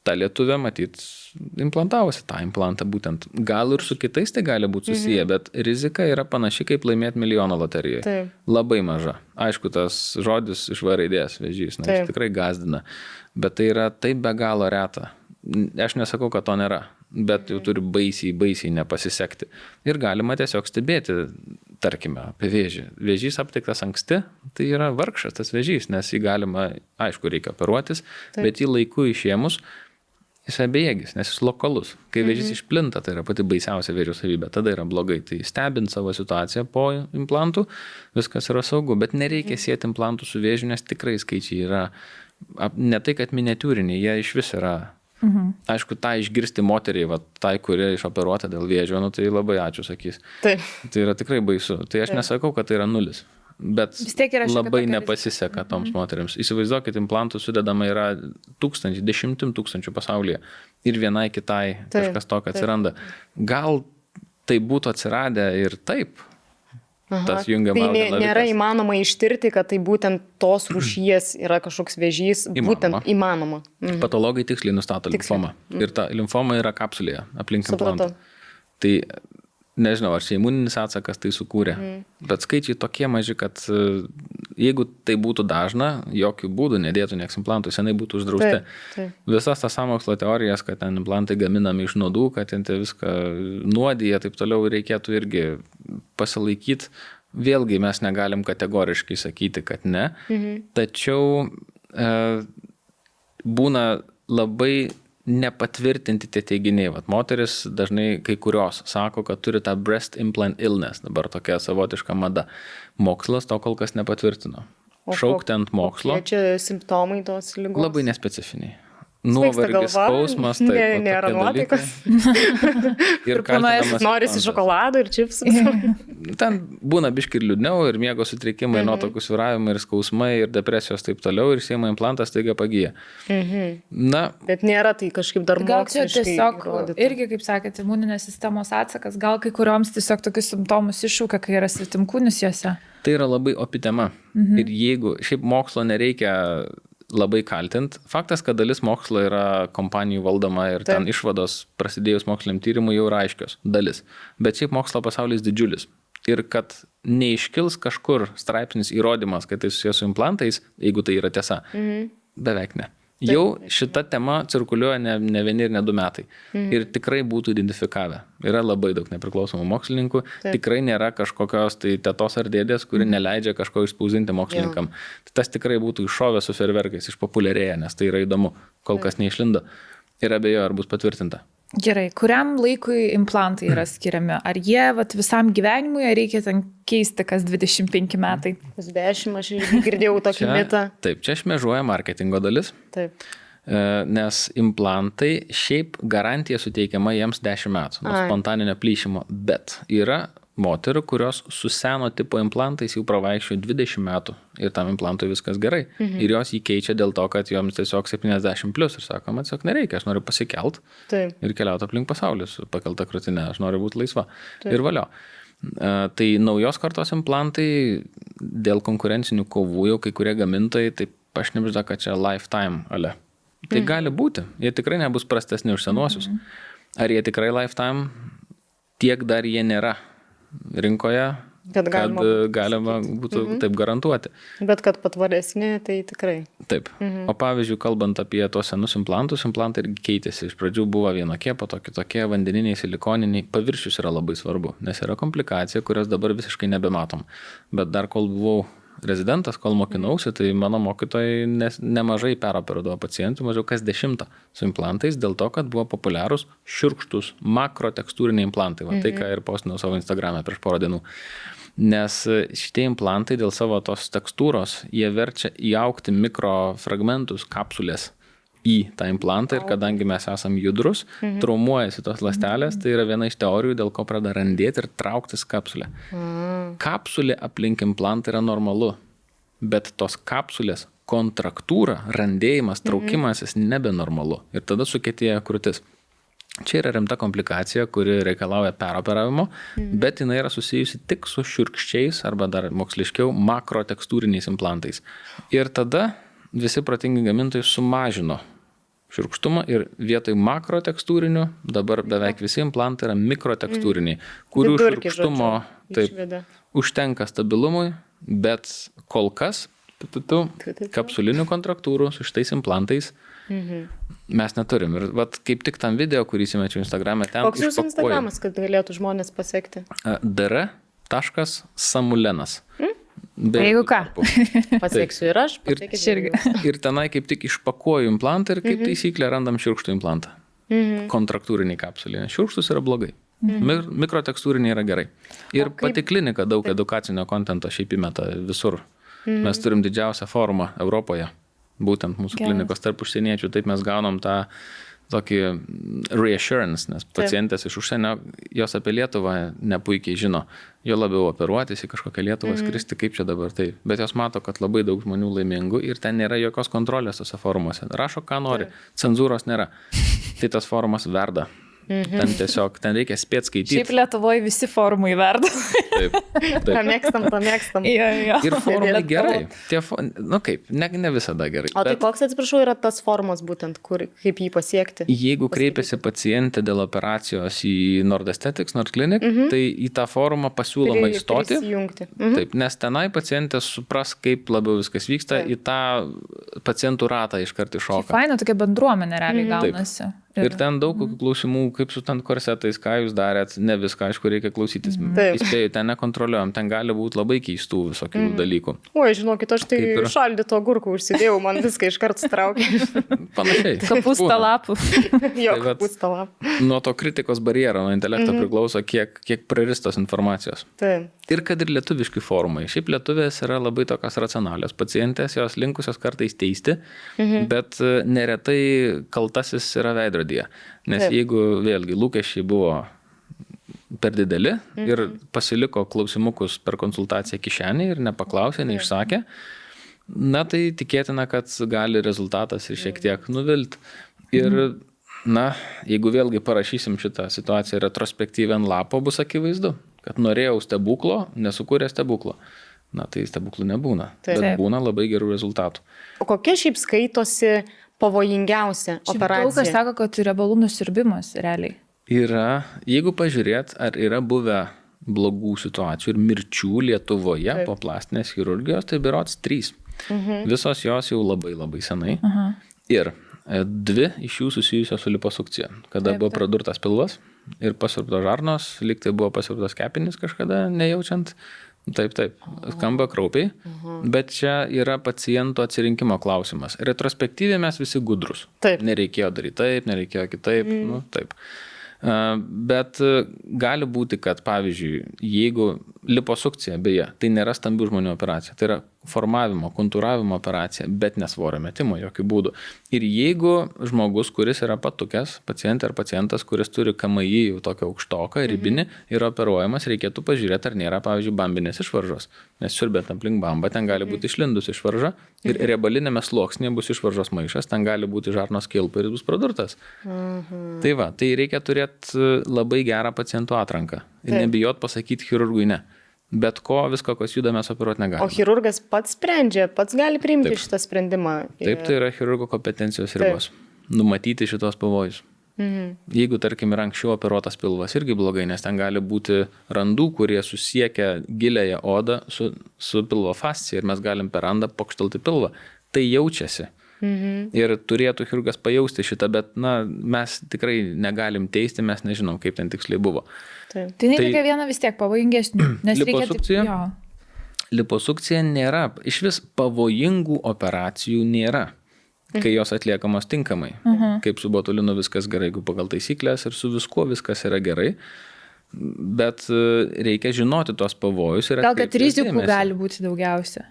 ta lietuvė, matyt, implantavosi tą implantą būtent. Gal ir su kitais tai gali būti susiję, bet rizika yra panaši kaip laimėti milijoną loterijoje. Taip. Labai maža. Aišku, tas žodis iš V raidės vėžys, jis tikrai gazdina. Bet tai yra taip be galo reta. Aš nesakau, kad to nėra, bet jau turi baisiai nepasisekti. Ir galima tiesiog stebėti, tarkime, apie vėžį. Vėžys aptiktas anksti, tai yra vargšas tas vėžys, nes jį galima, aišku, reikia operuotis, bet jį laiku išėmus, jis bejėgis, nes jis lokalus. Kai vėžys išplinta, tai yra pati baisiausia vėžio savybė, tada yra blogai. Tai stebint savo situaciją po implantų, viskas yra saugu, bet nereikia sieti implantų su vėžiu, nes tikrai skaičiai yra, ne tai, kad miniatiūriniai, jie iš vis yra. Aišku, tą išgirsti moteriai, tai, kurie išoperuota dėl vėžio, tai labai ačiū sakys. Taip. Tai yra tikrai baisu. Tai aš nesakau, kad tai yra nulis, bet labai nepasiseka toms moteriams. Įsivaizduokit, implantų sudedama yra 10 tūkstančių pasaulyje ir vienai kitai kažkas tokio atsiranda. Gal tai būtų atsiradę ir taip. Tas jungiama tai nėra įmanoma ištirti, kad tai būtent tos rūšies yra kažkoks vėžys, būtent įmanoma. Patologai tiksliai nustato limfomą. Ir ta limfoma yra kapsulėje aplink implantą. Tai nežinau, ar čia imuninis atsakas tai sukūrė, bet skaičiai tokie maži, kad jeigu tai būtų dažna, jokių būdų nedėtų nieks implantų, senai būtų uždrausti. Visas tas sąmokslo teorijas, kad ten implantai gaminami iš nuodų, kad ten viską nuodija, taip toliau reikėtų irgi pasilaikyti. Vėlgi mes negalim kategoriškai sakyti, kad ne, tačiau būna labai nepatvirtinti tie teiginiai. Moteris dažnai kai kurios sako, kad turi tą breast implant illness, dabar tokia savotiška mada. Mokslas to kol kas nepatvirtino. Šaukti ant mokslo. Kokie čia simptomai tos ligos? Labai nespecifiniai. Nuovargis, skausmas, taip. Nėra nuotaikas. Ir kaltinamas. Norisi šokolado ir čipsų. Ten būna biški ir liūdniau, ir miego sutrikimai, nuotaikų svyravimai, ir skausmai, ir depresijos taip toliau, ir siejama implantas taiga pagyja. Na, bet nėra tai kažkaip dar moksliškai. Gal čia tiesiog irgi, kaip sakėte, imuninės sistemos atsakas, gal kai kurioms tiesiog tokius simptomus iššaukia, kai yra svetimkūnis juose. Tai yra labai opi tema. Ir jeigu šiaip mokslo nereikia labai kaltint. Faktas, kad dalis mokslo yra kompanijų valdoma ir ten išvados prasidėjus moksliniam tyrimui jau yra aiškios dalis. Bet šiaip mokslo pasaulis didžiulis. Ir kad neiškils kažkur straipsnis įrodymas, kad tai susijęs su implantais, jeigu tai yra tiesa, beveik ne. Jau šita tema cirkuliuoja ne vieni ir ne 2 metai. Ir tikrai būtų identifikavę. Yra labai daug nepriklausomų mokslininkų. Tikrai nėra kažkokios tai tetos ar dėdės, kuri neleidžia kažko išspausdinti mokslininkam. Tas tikrai būtų iššovę su fejerverkais, išpopuliarėję, nes tai yra įdomu. Kol kas neišlindo. Ir abejo, ar bus patvirtinta. Gerai, kuriam laikui implantai yra skiriami? Ar jie visam gyvenimui, ar reikia ten keisti kas 25 metai? Kas 10, aš girdėjau tokį mitą. Taip, čia šmėžuoja marketingo dalis. Taip. Nes implantai šiaip garantija suteikiama jiems 10 metų nuo spontaninio plyšimo, bet yra moterų, kurios su seno tipo implantais jau pravaikščiojo 20 metų ir tam implantui viskas gerai. Ir jos jį keičia dėl to, kad joms tiesiog 70 plus ir sako, man tiesiog nereikia, aš noriu pasikelt ir keliauti aplink pasaulį su pakelta krūtine, aš noriu būti laisva. Ir valio. Tai naujos kartos implantai dėl konkurencinių kovų jau kai kurie gamintojai taip pašnibžda, kad čia lifetime ale. Tai gali būti, jie tikrai nebus prastesni už senuosius. Ar jie tikrai lifetime, tiek dar jie nėra rinkoje, kad galima būtų taip garantuoti. Bet kad patvaresni, tai tikrai. Taip. O pavyzdžiui, kalbant apie tuos senus implantus, implantai irgi keitėsi. Iš pradžių buvo vienokie, po to kitokie, vandeniniai, silikoniniai. Paviršius yra labai svarbu, nes yra komplikacija, kurios dabar visiškai nebematom. Bet dar kol buvau rezidentas, kol mokinausi, tai mano mokytojai nemažai peroperuodavo pacientų, mažiau kas 10 su implantais, dėl to, kad buvo populiarūs šiurkštus makrotekstūriniai implantai. Va, tai, ką ir postinau savo Instagram'e prieš porą dienų. Nes šitie implantai dėl savo tos tekstūros, jie verčia įaugti mikrofragmentus, kapsulės į tą implantą ir kadangi mes esam judrus, traumuojasi tos ląstelės, tai yra viena iš teorijų, dėl ko pradeda randėti ir trauktis kapsulė. Kapsulė aplink implantą yra normalu, bet tos kapsulės kontraktūra, randėjimas, traukimasis nebenormalu ir tada sukietėja krūtis. Čia yra rimta komplikacija, kuri reikalauja peroperavimo, bet jinai yra susijusi tik su šiurkščiais arba dar moksliškiau makrotekstūriniais implantais. Ir tada visi protingi gamintojai sumažino šiurkštumą ir vietoj makrotekstūrinių dabar beveik visi implantai yra mikrotekstūriniai, kurių šiurkštumo užtenka stabilumui, bet kol kas kapsulinių kontraktūrų su šitais implantais mes neturim. Ir vat, kaip tik tam video, kurį įsimečiau Instagram'e, ten koks jūsų Instagramas, kad galėtų žmonės pasiekti? dr.samulenas. Jeigu ką. Pasieksiu ir aš. Ir tenai kaip tik išpakuoju implantą ir kaip taisyklė randam šiurkštų implantą. Kontraktūriniai kapsulė. Šiurkštus yra blogai. Mikrotekstūriniai yra gerai. Ir pati klinika daug edukacinio kontento šiaip įmeta visur. Mes turim didžiausią forumą Europoje. Būtent mūsų klinikos tarp užsieniečių. Taip mes gaunam tą tokį reassurance, nes pacientės iš užsienio, jos apie Lietuvą nepuikiai žino. Jo labiau operuotis į kažkokią Lietuvą skristi, kaip čia dabar tai. Bet jos mato, kad labai daug žmonių laimingų ir ten nėra jokios kontrolės tose forumuose. Rašo, ką nori. Cenzūros nėra. Tai tas forumas verda. Ten tiesiog, ten reikia spėt skaityti. Šiaip Lietuvoje visi forumai verda. Taip. Pamėgstam. Ir forumai gerai. Ne visada gerai. O tai koks, atsiprašau, yra tas forumas būtent, kaip jį pasiekti? Jeigu kreipiasi pacientė dėl operacijos į Nord Aesthetics, Nord Clinic, tai į tą forumą pasiūloma įstoti. Taip, nes tenai pacientė supras, kaip labiau viskas vyksta, į tą pacientų ratą iškart iššoka. Faina, tokia bendruomenė realiai gaunasi. Ir ten daug klausimų, kaip su ten korsetais, ką jūs darėt, ne viską, aišku, reikia klausytis. Įspėju, ten nekontroliuojam, ten gali būti labai keistų visokių dalykų. Oi, žinokit, aš tai šaldyto agurkų užsidėjau, man viską iškart straukė. Panašiai. Kapustą lapų. Jo, kapustą lapų. Nuo to kritikos barjero, nuo intelekto priklauso, kiek praristos informacijos. Taip. Ir kad ir lietuviški forumai. Šiaip lietuvės yra labai tokios racionalios pacientės, jos linkusios kartais teisti, bet neretai kaltasis yra veidrodyje. Nes jeigu vėlgi lūkesčiai buvo per dideli ir pasiliko klausimukus per konsultaciją kišenį ir nepaklausė, neišsakė, na tai tikėtina, kad gali rezultatas ir šiek tiek nuvilti. Ir jeigu vėlgi parašysim šitą situaciją retrospektyviai ant lapo, bus akivaizdu, kad norėjau stebuklo, nesukūrė stebuklo. na tai stebuklų nebūna, bet būna labai gerų rezultatų. O kokia šiaip skaitosi pavojingiausia operacija? Daug kas sako, kad riebalų nusiurbimas realiai. Yra, jeigu pažiūrėt, ar yra buvę blogų situacijų ir mirčių Lietuvoje po plastinės chirurgijos, tai berods 3. Visos jos jau labai labai senai. Ir 2 iš jų susijusios su liposukcija, kada buvo pradurtas pilvas ir pasiurbtos žarnos, lyg tai buvo pasiurbtos kepenys kažkada, nejaučiant. Taip, skamba kraupiai, bet čia yra paciento atsirinkimo klausimas. Retrospektyviai mes visi gudrus. Nereikėjo daryti taip, nereikėjo kitaip, taip. Bet gali būti, kad pavyzdžiui, jeigu liposukcija, beje, tai nėra stambių žmonių operacija, tai yra formavimo, kontūravimo operacija, bet nesvorio metimo jokių būdų. Ir jeigu žmogus, kuris yra patukęs, pacientė ar pacientas, kuris turi KMI jau tokią aukštoką, ribinį, yra operuojamas, reikėtų pažiūrėti, ar nėra, pavyzdžiui, bambinės išvaržos. Nes siurbėt aplink bambą, ten gali būti išlindus išvarža ir riebalinėme sluoksnėje bus išvaržos maišas, ten gali būti žarnos kilpa ir bus pradurtas. Tai va, tai reikia turėti labai gerą pacientų atranką ir nebijot pasakyti chirurgui ne. Bet visko, kas juda, mes operuoti negalime. O chirurgas pats sprendžia, pats gali priimti šitą sprendimą? Taip, tai yra chirurgo kompetencijos ribos. Numatyti šitos pavojus. Jeigu, tarkim, yra anksčiau operuotas pilvas, irgi blogai, nes ten gali būti randų, kurie susiekia giliąją odą su pilvo fascija ir mes galim per randą pokštelti pilvą. Tai jaučiasi. Ir turėtų chirurgas pajausti šitą, bet mes tikrai negalim teisti, mes nežinom, kaip ten tiksliai buvo. Tai reikia vieną vis tiek pavojingesnių. Liposukcija nėra, iš vis pavojingų operacijų nėra, kai jos atliekamos tinkamai. Kaip su botulinu viskas gerai, jeigu pagal taisyklės ir su viskuo viskas yra gerai. Bet reikia žinoti tos pavojus ir gal kad rizikų gali būti daugiausia.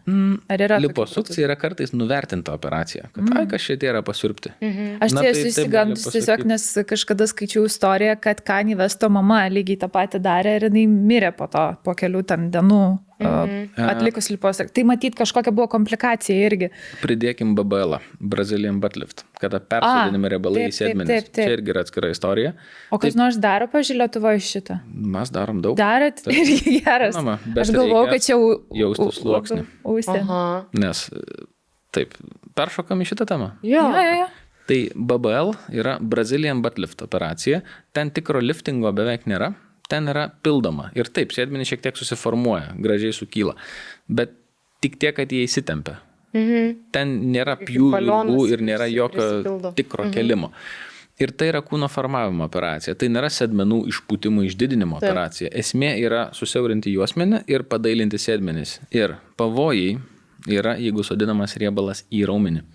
Ar yra liposukcija yra kartais nuvertinta operacija, kad kas čia yra pasiurbti. Aš esu įsigandus tiesiog, nes kažkada skaičiau istoriją, kad Kanye Westo mama lygiai tą patį darė ir jinai mirė po kelių ten dienų atlikus liposukciją. Tai matyt kažkokia buvo komplikacija irgi. Pridėkim BBL, Brazilian butt lift, kada persodinami riebalai į sėdmenis. Čia irgi yra atskira istorija. O kas nors daro, pavyzdžiui, Lietuvoje šitą? Mes darom daug. Darot? Irgi geras. Aš galvojau, kad čia jausti sluoksnį. Nes taip, peršokam į šitą temą. Jo. Tai BBL yra Brazilian butt lift operacija. Ten tikro liftingo beveik nėra. Ten yra pildoma. Ir taip, sėdmenys šiek tiek susiformuoja, gražiai sukyla. Bet tik tiek, kad jie įsitempia. Ten nėra pjūvių ir nėra jokio tikro kelimo. Ir tai yra kūno formavimo operacija. Tai nėra sėdmenų išpūtimų išdidinimo operacija. Esmė yra susiaurinti juosmenį ir padailinti sėdmenis. Ir pavojai yra, jeigu sodinamas riebalas į raumenį.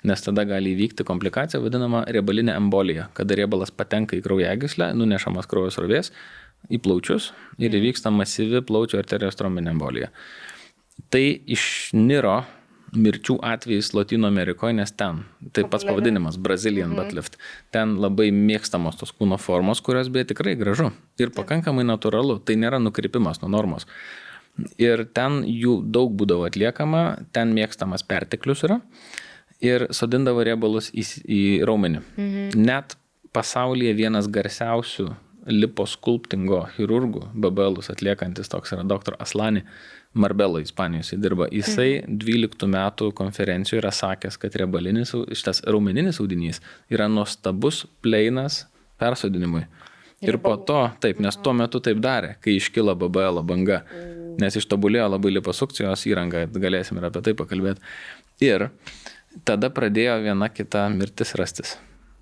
Nes tada gali įvykti komplikacija vadinama riebalinė embolija, kada riebalas patenka į kraujagyslę, nunešamas kraujo srovės į plaučius ir įvyksta masyvi plaučių arterijos trombinė embolija. Tai išniro mirčių atvejais Lotynų Amerikoje, nes ten, tai pats pavadinimas Brazilian butt lift, ten labai mėgstamos tos kūno formos, kurios beje tikrai gražu ir pakankamai natūralu, tai nėra nukrypimas nuo normos. Ir ten jų daug būdavo atliekama, ten mėgstamas perteklius yra ir sodindavo riebalus į raumenį. Net pasaulyje vienas garsiausių liposkulptingo chirurgų, BBLus atliekantis toks yra dr. Aslani Marbelo, Ispanijos įdirba. Jisai 12 metų konferencijoje yra sakęs, kad šitas raumeninis audinys yra nuostabus pleinas persodinimui. Ir po to, taip, nes tuo metu taip darė, kai iškilo BBL banga, nes ištobulėjo labai liposukcijos įranga, galėsim ir apie tai pakalbėti. Ir tada pradėjo viena kita mirtis rastis.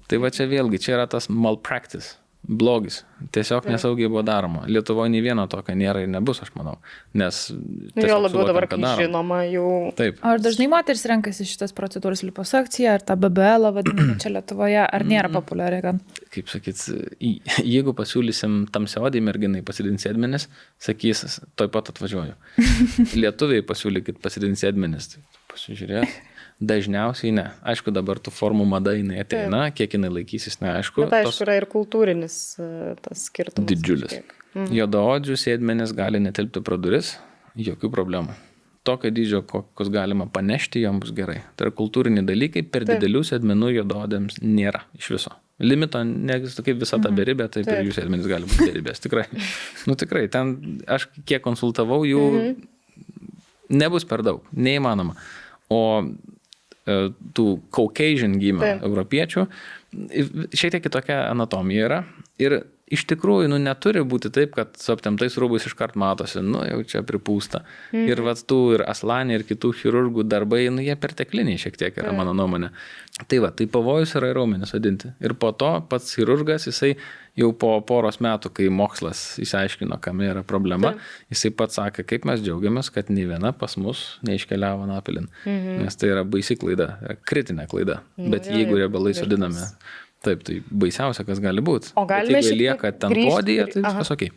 Tai va čia vėlgi, čia yra tas malpractice. Blogis. Tiesiog nesaugiai buvo daroma. Lietuvoje nei vieno tokio nėra ir nebus, aš manau. Nes jo labiau dabar, kai žinoma, jau... Taip. Ar dažnai moteris renkasi šitas procedūras liposukciją, ar tą BBL vadinamą čia Lietuvoje, ar nėra populiari gan? Kaip sakyt, jeigu pasiūlysim tamsiaodį merginai pasidinti sėdmenis, sakys, toj pat atvažiuoju. Lietuviai pasiūlykit pasidinti sėdmenis, tai pasižiūrėt. Dažniausiai ne. Aišku, dabar tų formų mada jinai ateina, kiek jinai laikysis, neaišku. Bet aišku, yra ir kultūrinis tas skirtumas. Didžiulis. Juodaodžių sėdmenis gali netilpti pro duris, jokių problemų. Tokio dydžio, kokius galima panešti, jom bus gerai. Tai yra kultūriniai dalykai, per didelių sėdmenų juodaodėms nėra iš viso. Limito neegzistuoja, kaip visa ta beribė, taip ir jų sėdmenis gali būti beribės. Tikrai. Tikrai, ten aš kiek konsultavau jų Nebus per daug, neįmanoma. O tų Caucasian gimę europiečių, šiek tiek kitokia anatomija yra. Ir iš tikrųjų, neturi būti taip, kad su aptemtais rūbais iškart matosi, jau čia pripūsta. Ir tų ir Aslanį, ir kitų chirurgų darbai, jie pertekliniai šiek tiek yra, mano nuomonė. Tai pavojus yra raumenį sodinti. Ir po to pats chirurgas, jisai jau po poros metų, kai mokslas išsiaiškino, kam yra problema, jisai pats sakė, kaip mes džiaugiamės, kad nei viena pas mus neiškeliavo anapilin. Nes tai yra baisi klaida, kritinė klaida. Bet jeigu riebalai sodinami, taip, tai baisiausia, kas gali būti. O galime šiek tiek lieka ten podyje, tai viskas okei.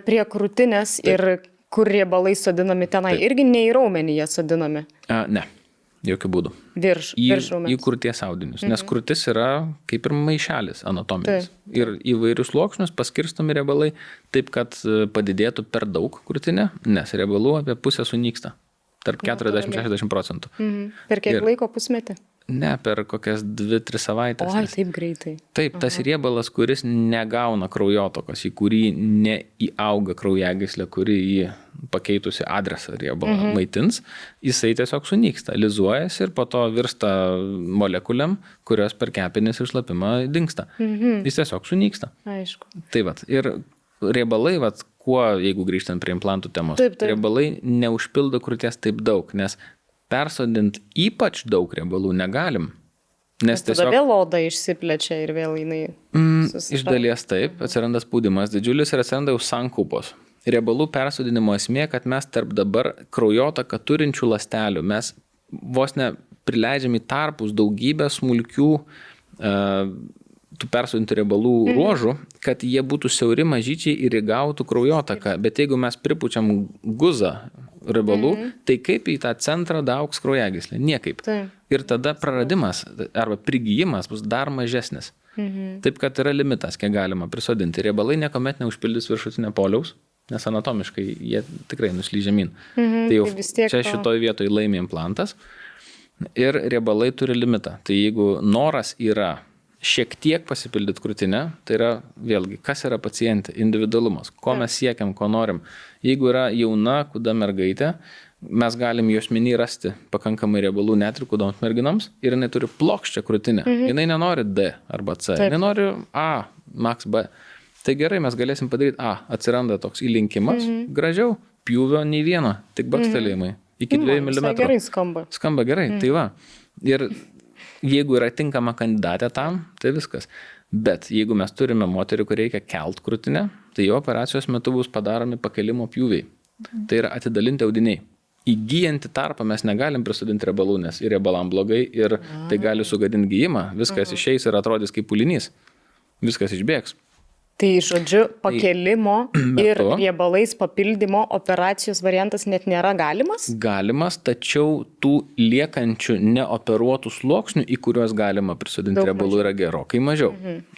Prie krūtinės ir kur riebalai sodinami tenai, irgi ne į raumenį jie sodinami? Ne, jokių būdų. Virš raumens. Į krūties audinius, nes krūtis yra kaip ir maišelis anatominis. Ir įvairius sluoksnius paskirstomi riebalai taip, kad padidėtų per daug krūtinė, nes riebalų apie pusę sunyksta. Tarp 40-60%. Per kiek laiko, pusmetį? Ne, per kokias 2-3 savaitės. Oi, taip greitai. Taip, tas riebalas, kuris negauna kraujotokos, į kurį neįauga kraujagyslė, kuri jį pakeitusi adresą riebalą maitins, jisai tiesiog sunyksta, lizuojasi ir po to virsta molekuliam, kurios per kepenis ir šlapimą dingsta. Jis tiesiog sunyksta. Aišku. Tai ir riebalai, kuo, jeigu grįžtant prie implantų temos, riebalai neužpildo krūties taip daug, nes persodint ypač daug riebalų negalim. Nes tada vėl oda išsiplečia ir vėl jinai iš dalies taip, atsiranda spaudimas didžiulis ir atsiranda jau sankaupos. Riebalų persodinimo esmė, kad mes tarp dabar kraujotaką turinčių ląstelių, mes vos ne prileidžiam į tarpus daugybę smulkių tų persodintų riebalų ruožų, kad jie būtų siauri mažyčiai ir įgautų kraujotaką. Bet jeigu mes pripučiam guzą riebalų, tai kaip į tą centrą daaugs kraujagyslė? Niekaip. Ir tada praradimas arba prigijimas bus dar mažesnis. Taip, kad yra limitas, kiek galima prisodinti. Riebalai niekuomet neužpildys viršutinio poliaus, nes anatomiškai jie tikrai nuslyja žemyn. Tai jau čia šitoj vietoj laimi implantas ir riebalai turi limitą. Tai jeigu noras yra šiek tiek pasipildyti krūtinę, tai yra vėlgi, kas yra pacientė, individualumas, ko mes siekiam, ko norim. Jeigu yra jauna, kuda mergaitė, mes galim juosmenį rasti pakankamai riebalų net ir kudoms merginoms ir jinai turi plokščią krūtinę. Jinai nenori D arba C, jinai nori A, max B. Tai gerai, mes galėsim padaryti A, atsiranda toks įlinkimas, gražiau, pjūvio nei vieno, tik bakstelėjimai, iki 2 mm. Gerai skamba. Skamba gerai, tai va. Ir jeigu yra tinkama kandidatė tam, tai viskas. Bet jeigu mes turime moterį, kur reikia kelt krūtinę, tai jo operacijos metu bus padaromi pakelimo pjūviai. Tai yra atidalinti audiniai. Įgyjantį tarpą mes negalim prisodinti riebalų, nes ir riebalam blogai, ir tai gali sugadinti gijimą. Viskas išeis ir atrodys kaip pūlinys. Viskas išbėgs. Tai žodžiu, pakelimo ir riebalais papildymo operacijos variantas net nėra galimas? Galimas, tačiau tų liekančių neoperuotų sluoksnių, į kuriuos galima prisodinti riebalų, yra gerokai mažiau.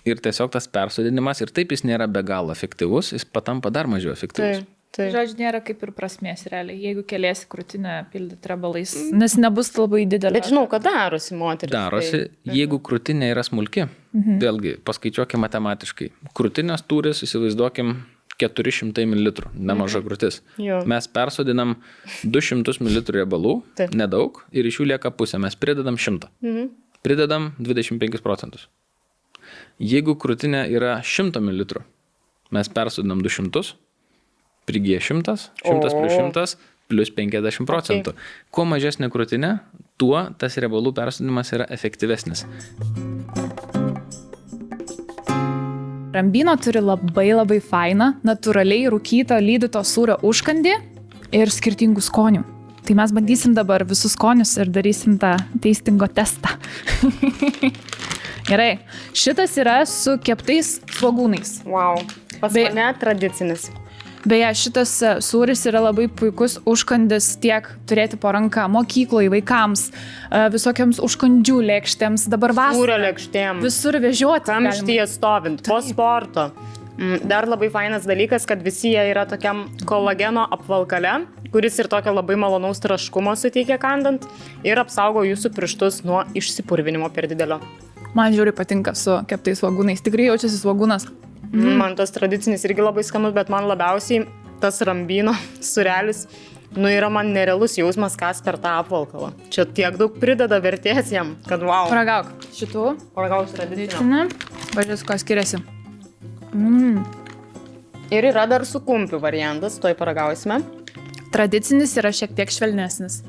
Ir tiesiog tas persodinimas, ir taip jis nėra be galo efektyvus, jis patampa dar mažiau efektyvus. Tai žodžiu, nėra kaip ir prasmės realiai, jeigu keliesi krūtinę pildyti riebalais, nes nebus labai didelė. Bet žinau, kad darosi moteris. Darosi, jeigu krūtinė yra smulki, vėlgi, paskaičiuokim matematiškai. Krūtinės tūris, įsivaizduokim, 400 ml, nemaža krūtis. Mes persodinam 200 ml riebalų, nedaug, ir iš jų lieka pusė, mes pridedam 100. Pridedam 25%. Jeigu krūtinė yra 100 ml, mes persodinam 200, prigyja 100, 100 plus 100 plus 50%. Kuo mažesnė krūtinė, tuo tas riebalų persodinimas yra efektyvesnis. Rambino turi labai fainą, natūraliai rūkyto lydyto sūrio užkandį ir skirtingų skonių. Tai mes bandysim dabar visus skonius ir darysim tą tastingo testą. Gerai, šitas yra su keptais svogūnais. Wow, pas mane tradicinis. Beje, šitas sūris yra labai puikus užkandis tiek turėti po ranką mokykloje, vaikams, visokiams užkandžių lėkštėms, dabar vasarą. Sūrio lėkštėm. Visur vežioti. Kamštyje stovint, po sporto. Dar labai fainas dalykas, kad visi jie yra tokiam kolageno apvalkale, kuris ir tokio labai malonaus traškumo suteikia kandant ir apsaugo jūsų pirštus nuo išsipurvinimo per didelio. Man žiūri patinka su keptais svogūnais. Tikrai jaučiasi svogūnas. Man tas tradicinis irgi labai skanus, bet man labiausiai tas Rambino sūrelis Nu, yra man nerealus jausmas, kas per tą apvalkalą. Čia tiek daug prideda vertės jam, kad wow. Paragauk šitų. Paragauk tradicinę. Pažiūrės, ko skiriasi. Ir yra dar su kumpiu variantas, toj paragausime. Tradicinis yra šiek tiek švelnesnis.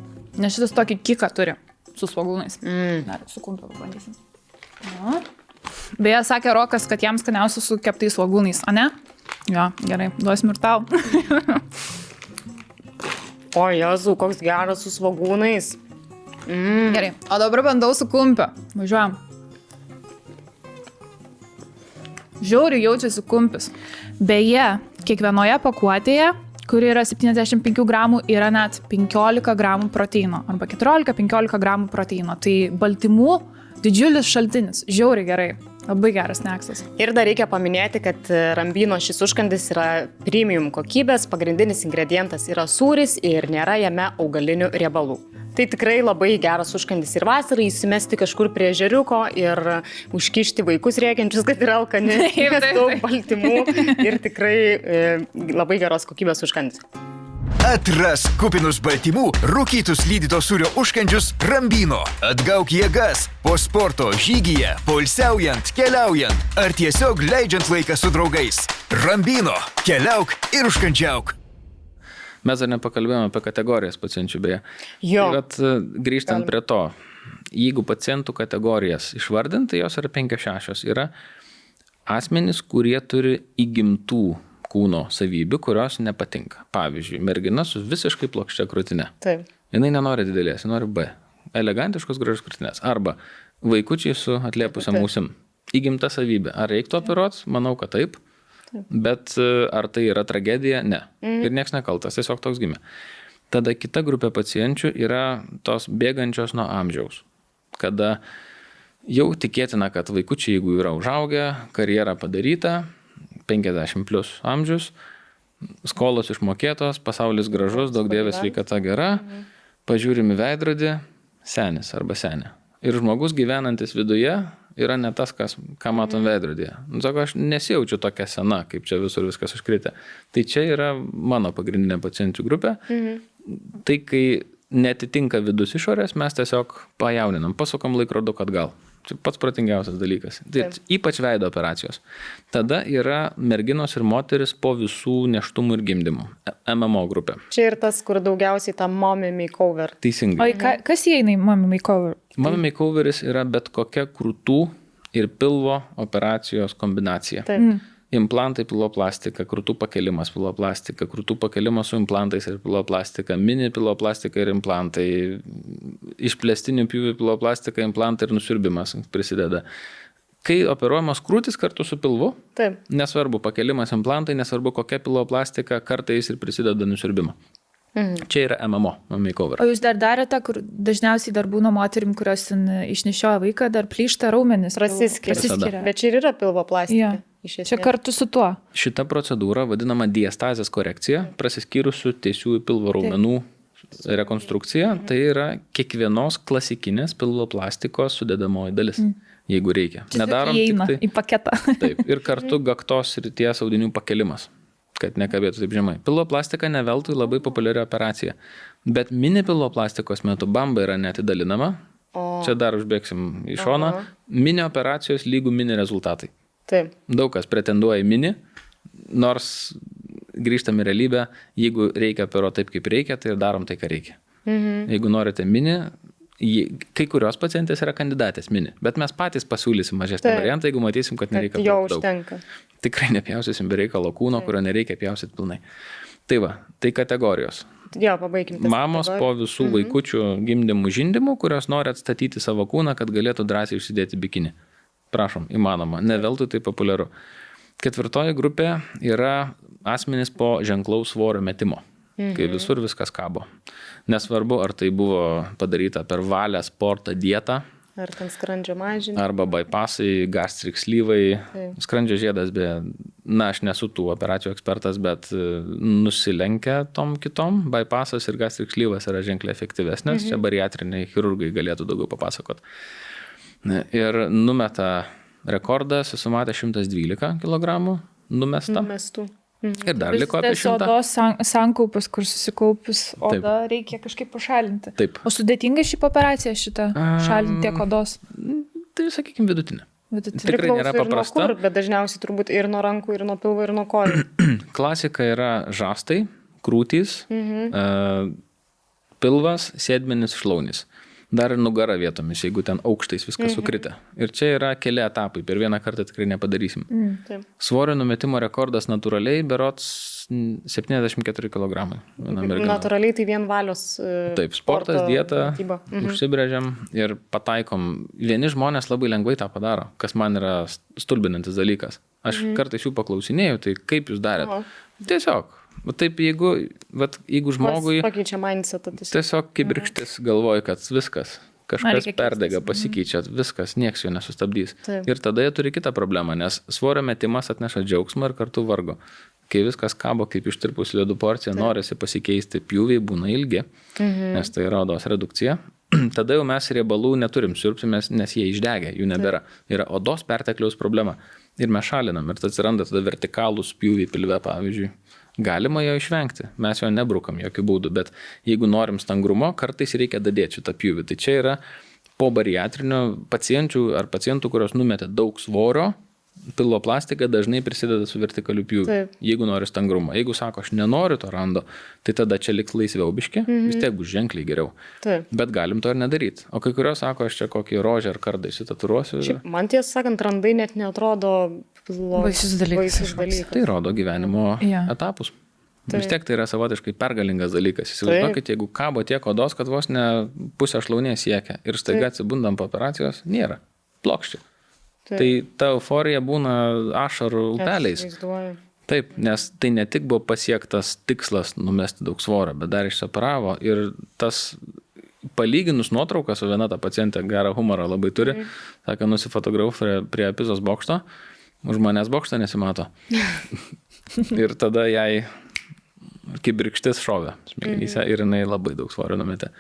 Nes šitas tokį kiką turi su svogūnais. Dar su kumpiu pabandysim. Na. Beje, sakė Rokas, kad jam skaniausia su keptais svogūnais, o ne? Jo, gerai, duosim ir tau. O Jezu, koks geras su svogūnais. Gerai, o dabar bandau su kumpiu. Važiuojam. Žiauriai jaučiasi kumpis. Beje, kiekvienoje pakuotėje, kuri yra 75 gramų, yra net 15 gramų proteino. Arba 14-15 gramų proteino. Tai baltymų didžiulis šaltinis. Žiauriai gerai. Labai geras sneksas. Ir dar reikia paminėti, kad Rambino šis užkandis yra premium kokybės, pagrindinis ingredientas yra sūris ir nėra jame augalinių riebalų. Tai tikrai labai geras užkandis ir vasarai įsimesti kažkur prie ežeriuko ir užkišti vaikus rėkiančius, kad yra alkani, daug baltymų ir tikrai labai geros kokybės užkandis. Atras kupinus baltymų, rūkytus lydyto sūrio užkandžius Rambino. Atgauk jėgas po sporto, žygyje, poilsiaujant, keliaujant ar tiesiog leidžiant laiką su draugais. Rambino. Keliauk ir užkandžiauk. Mes dar nepakalbėjome apie kategorijas pacienčių beje. Jo. Bet grįžtant prie to, jeigu pacientų kategorijas išvardinti, jos yra 5-6, yra asmenys, kurie turi įgimtų kūno savybių, kurios nepatinka. Pavyzdžiui, mergina su visiškai plokščia krūtine. Taip. Jinai nenori didelės, ji nori B. Elegantiškos gražios krūtinės. Arba vaikučiai su atliepusiam ausim. Įgimta savybė. Ar reiktų operuoti? Manau, kad taip. Bet ar tai yra tragedija? Ne. Ir nieks nekaltas, tiesiog toks gimė. Tada kita grupė pacienčių yra tos bėgančios nuo amžiaus. Kada jau tikėtina, kad vaikučiai, jeigu yra užaugę, karjera padaryta, 50 plus amžius, skolos išmokėtos, pasaulis gražus, daug dievės sveikata gera, pažiūrimi veidrodį, senis arba senė. Ir žmogus gyvenantis viduje yra ne tas, ką matom veidrodyje. Sako, aš nesijaučiu tokia sena, kaip čia visur viskas užkritę. Tai čia yra mano pagrindinė pacientų grupė. Tai kai netitinka vidus išorės, mes tiesiog pajauninam, pasukam laikroduką atgal. Čia pats protingiausias dalykas. Tai ypač veido operacijos. Tada yra merginos ir moteris po visų nėštumų ir gimdymų. MMO grupė. Čia ir tas, kur daugiausiai ta mommy makeover. Teisingai. O kas įeina į mommy makeover? Mommy makeoveris yra bet kokia krūtų ir pilvo operacijos kombinacija. Taip. Implantai, piloplastika, krūtų pakelimas, piloplastika, krūtų pakelimas su implantais ir piloplastika, mini piloplastika ir implantai, išplėstinių pjūvių piloplastika, implantai ir nusiurbimas prisideda. Kai operuojamos krūtis kartu su pilvu, taip, nesvarbu pakelimas implantai, nesvarbu kokia piloplastika, kartais ir prisideda nusiurbimą. Čia yra MMO, makeover. O jūs dar darėte, kur dažniausiai dar būna moterim, kurios išnešioja vaiką, dar plyšta raumenis. Prasiskiria. Bet čia ir yra pilvoplastika. Čia kartu su tuo. Šita procedūra vadinama diastazės korekcija, prasiskyrusių tiesiųjų pilvo raumenų rekonstrukcija. Tai yra kiekvienos klasikinės pilvoplastikos sudedamoji dalis, jeigu reikia. Nedarom tik tai į paketą. Taip, ir kartu gaktos srities audinių pakelimas, kad nekabėtų taip žemai. Pilvoplastika ne veltui labai populiari operacija. Bet mini pilvoplastikos metu bamba yra neatidalinama. Čia dar užbėgsim į šoną. Mini operacijos lygų mini rezultatai. Taip. Daug kas pretenduoja į mini, nors grįžtam į realybę, jeigu reikia operuoti taip, kaip reikia, tai ir darom tai, ką reikia. Jeigu norite mini, kai kurios pacientės yra kandidatės mini, bet mes patys pasiūlysim mažesnį variantą, jeigu matysim, kad nereikia jo užtenka. Tikrai nepjausysim be reikalo kūno, kurio nereikia pjausyti pilnai. Tai va, tai kategorijos. Jo, pabaikim. Mamos po visų vaikučių gimdymų, žindymų, kurios nori atstatyti savo kūną, kad galėtų drąsiai užsidėti bikinį. Prašom, įmanoma, ne veltui tai populiaru. 4 grupė yra asmenys po ženklaus svorio metimo, kai visur viskas kabo. Nesvarbu, ar tai buvo padaryta per valią, sportą, dietą. Ar ten skrandžio mažinimą. Arba bypassai, gastric sleeve, skrandžio žiedas, aš nesu tų operacijų ekspertas, bet nusilenkia tom kitom. Bypassas ir gastric sleeve'as yra ženkliai efektyvesnės, čia bariatriniai chirurgai galėtų daugiau papasakot. Ir numeta rekordą, susimatė 112 kg numesta. Numestų. Ir dar liko apie 100. Odos sankaupus, kur susikaupus oda reikia kažkaip pašalinti. Taip. O sudėtinga šį operaciją šitą šalinti tiek odos? Tai, sakykime, vidutinė. Tikrai nėra paprasta. Kur, bet dažniausiai turbūt ir nuo rankų, ir nuo pilvo, ir nuo kojų. Klasika yra žastai, krūtys, pilvas, sėdmenis, šlaunis. Dar ir nugara vietomis, jeigu ten aukštais viskas sukritę. Ir čia yra keli etapai, per vieną kartą tikrai nepadarysim. Svorio numetimo rekordas natūraliai berods 74 kg. Natūraliai tai vien valios. Taip, sportas, dieta, užsibrėžiam ir pataikom. Vieni žmonės labai lengvai tą padaro, kas man yra stulbinantis dalykas. Aš kartais jų paklausinėjau, tai kaip jūs darėt? Tiesiog. Taip, jeigu žmogui tiesiog kibirkštis galvoja, kad viskas, kažkas perdega, pasikeičia, viskas, nieks jo nesustabdys. Taip. Ir tada jie turi kitą problemą, nes svorio metimas atneša džiaugsmą ir kartu vargo. Kai viskas kabo kaip ištirpus ledų porcija, norisi pasikeisti, pjūviai būna ilgi, nes tai yra odos redukcija. Tada jau mes riebalų neturim siurbti, nes jie išdegė, jų nebėra. Yra odos pertekliaus problema. Ir mes šalinam, ir atsiranda tada vertikalūs pjūviai pilve, pavyzdžiui. Galima jo išvengti, mes jo nebrukam jokių būdų, bet jeigu norim stangrumo, kartais reikia dadėti šitą pjūvį. Tai čia yra po bariatrinio pacientų, kurios numetė daug svorio, pilvo plastika dažnai prisideda su vertikaliu pjūviu, jeigu nori stangrumo. Jeigu sako, aš nenoriu to rando, tai tada čia liks laisviau biški, vis tiek bus ženkliai geriau. Bet galim to ir nedaryti. O kai kurios sako, aš čia kokį rožę ar kardą įsitaturuosiu. Man tiesą sakant, randai net neatrodo baisus dalykas. Tai rodo gyvenimo etapus. Vis tiek tai yra savotiškai pergalingas dalykas. Įsivaizduokit, jeigu kabo tiek odos, kad vos ne pusę šlaunies siekia ir staiga atsibundam po operacijos, nėra. Plokščiai. Tai ta euforija būna ašarų upeliais. Taip, nes tai ne tik buvo pasiektas tikslas numesti daug svorio, bet dar išseparavo ir tas palyginus nuotraukas, o viena ta pacientė gerą humorą labai turi, sakė, nusifotografavo prie Pizos bokšto, už manęs bokštą nesimato. Ir tada jai kibirkštis šovė smegenyse ir jinai labai daug svorio numetė.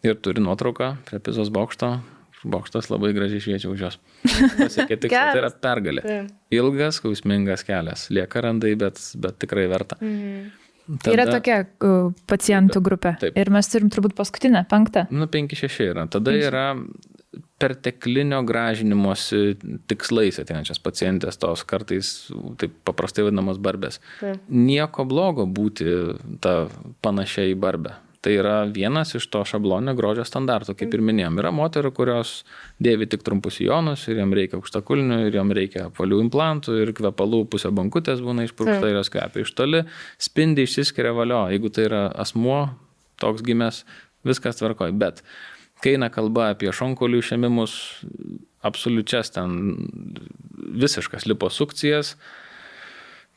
Ir turi nuotrauką prie Pizos bokšto. Bokštas labai gražiai šviečia už jos. Pasiekė tikslą, tai yra pergalė. Ilgas, skausmingas kelias. Lieka randai, bet tikrai verta. Tada, yra tokia pacientų grupė. Taip. Ir mes turim turbūt paskutinę, 5. 5-6 yra. Tada yra perteklinio gražinimosi tikslais ateinančias pacientės, tos kartais taip paprastai vadinamos barbės. Nieko blogo būti ta panašia į barbę. Tai yra vienas iš to šabloninio grožio standartų, kaip ir minėjom. Yra moterų, kurios dėvi tik trumpus sijonus ir jam reikia aukštakulnių, ir jam reikia apvalių implantų, ir kvepalų pusė bankutės būna išpurkšta ir jos kvepia iš toli, spindi, išsiskiria valio. Jeigu tai yra asmuo, toks gimęs, viskas tvarkoj. Bet kai eina kalba apie šonkaulių išėmimus, absoliučias ten visiškas liposukcijas,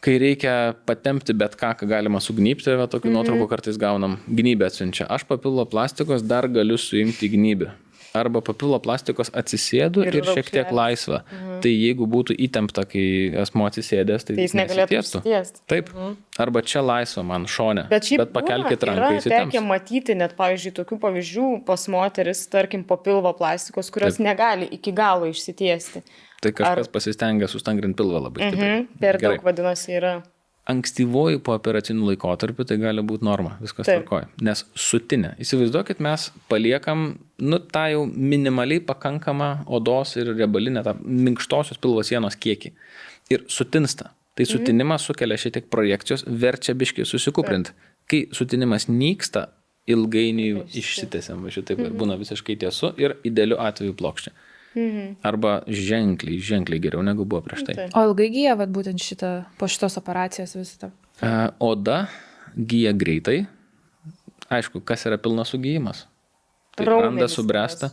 kai reikia patempti bet ką galima sugnypti, tokių nuotraukų kartais gaunam, gnybę atsiunčia. Aš papilvo plastikos dar galiu suimti gnybę. Arba papilvo plastikos atsisėdu ir šiek tiek laisva. Tai jeigu būtų įtempta, kai asmuo atsisėdęs, tai jis negalėtų užsitiesti. Taip. Arba čia laisva man šone. Bet pakelkit ranką įsitemps. Yra tekę matyti net, pavyzdžiui, tokių pavyzdžių pas moteris, tarkim, po pilvo plastikos, kurios negali iki galo išsitiesti. Tai kažkas pasistengia sustangrinti pilvą labai stipriai. Per daug vadinasi yra. Ankstyvoji po operacinių laikotarpių tai gali būti norma, viskas tvarkoja. Nes sutinė. Įsivaizduokit, mes paliekam, tą jau minimaliai pakankamą odos ir riebalinę, tą minkštosios pilvo sienos kiekį. Ir sutinsta. Tai sutinimas sukelia šiek tiek projekcijos, verčia biškį susikuprinti. Kai sutinimas nyksta, ilgainiui išsitęsiam, šitaip būna visiškai tiesu ir idealiu atveju plokščia. Arba ženkliai geriau negu buvo prieš tai. O ilgai gyja būtent po šitos operacijos visą? Oda gyja greitai. Aišku, kas yra pilnas sugyjimas? Tai randas subręsta.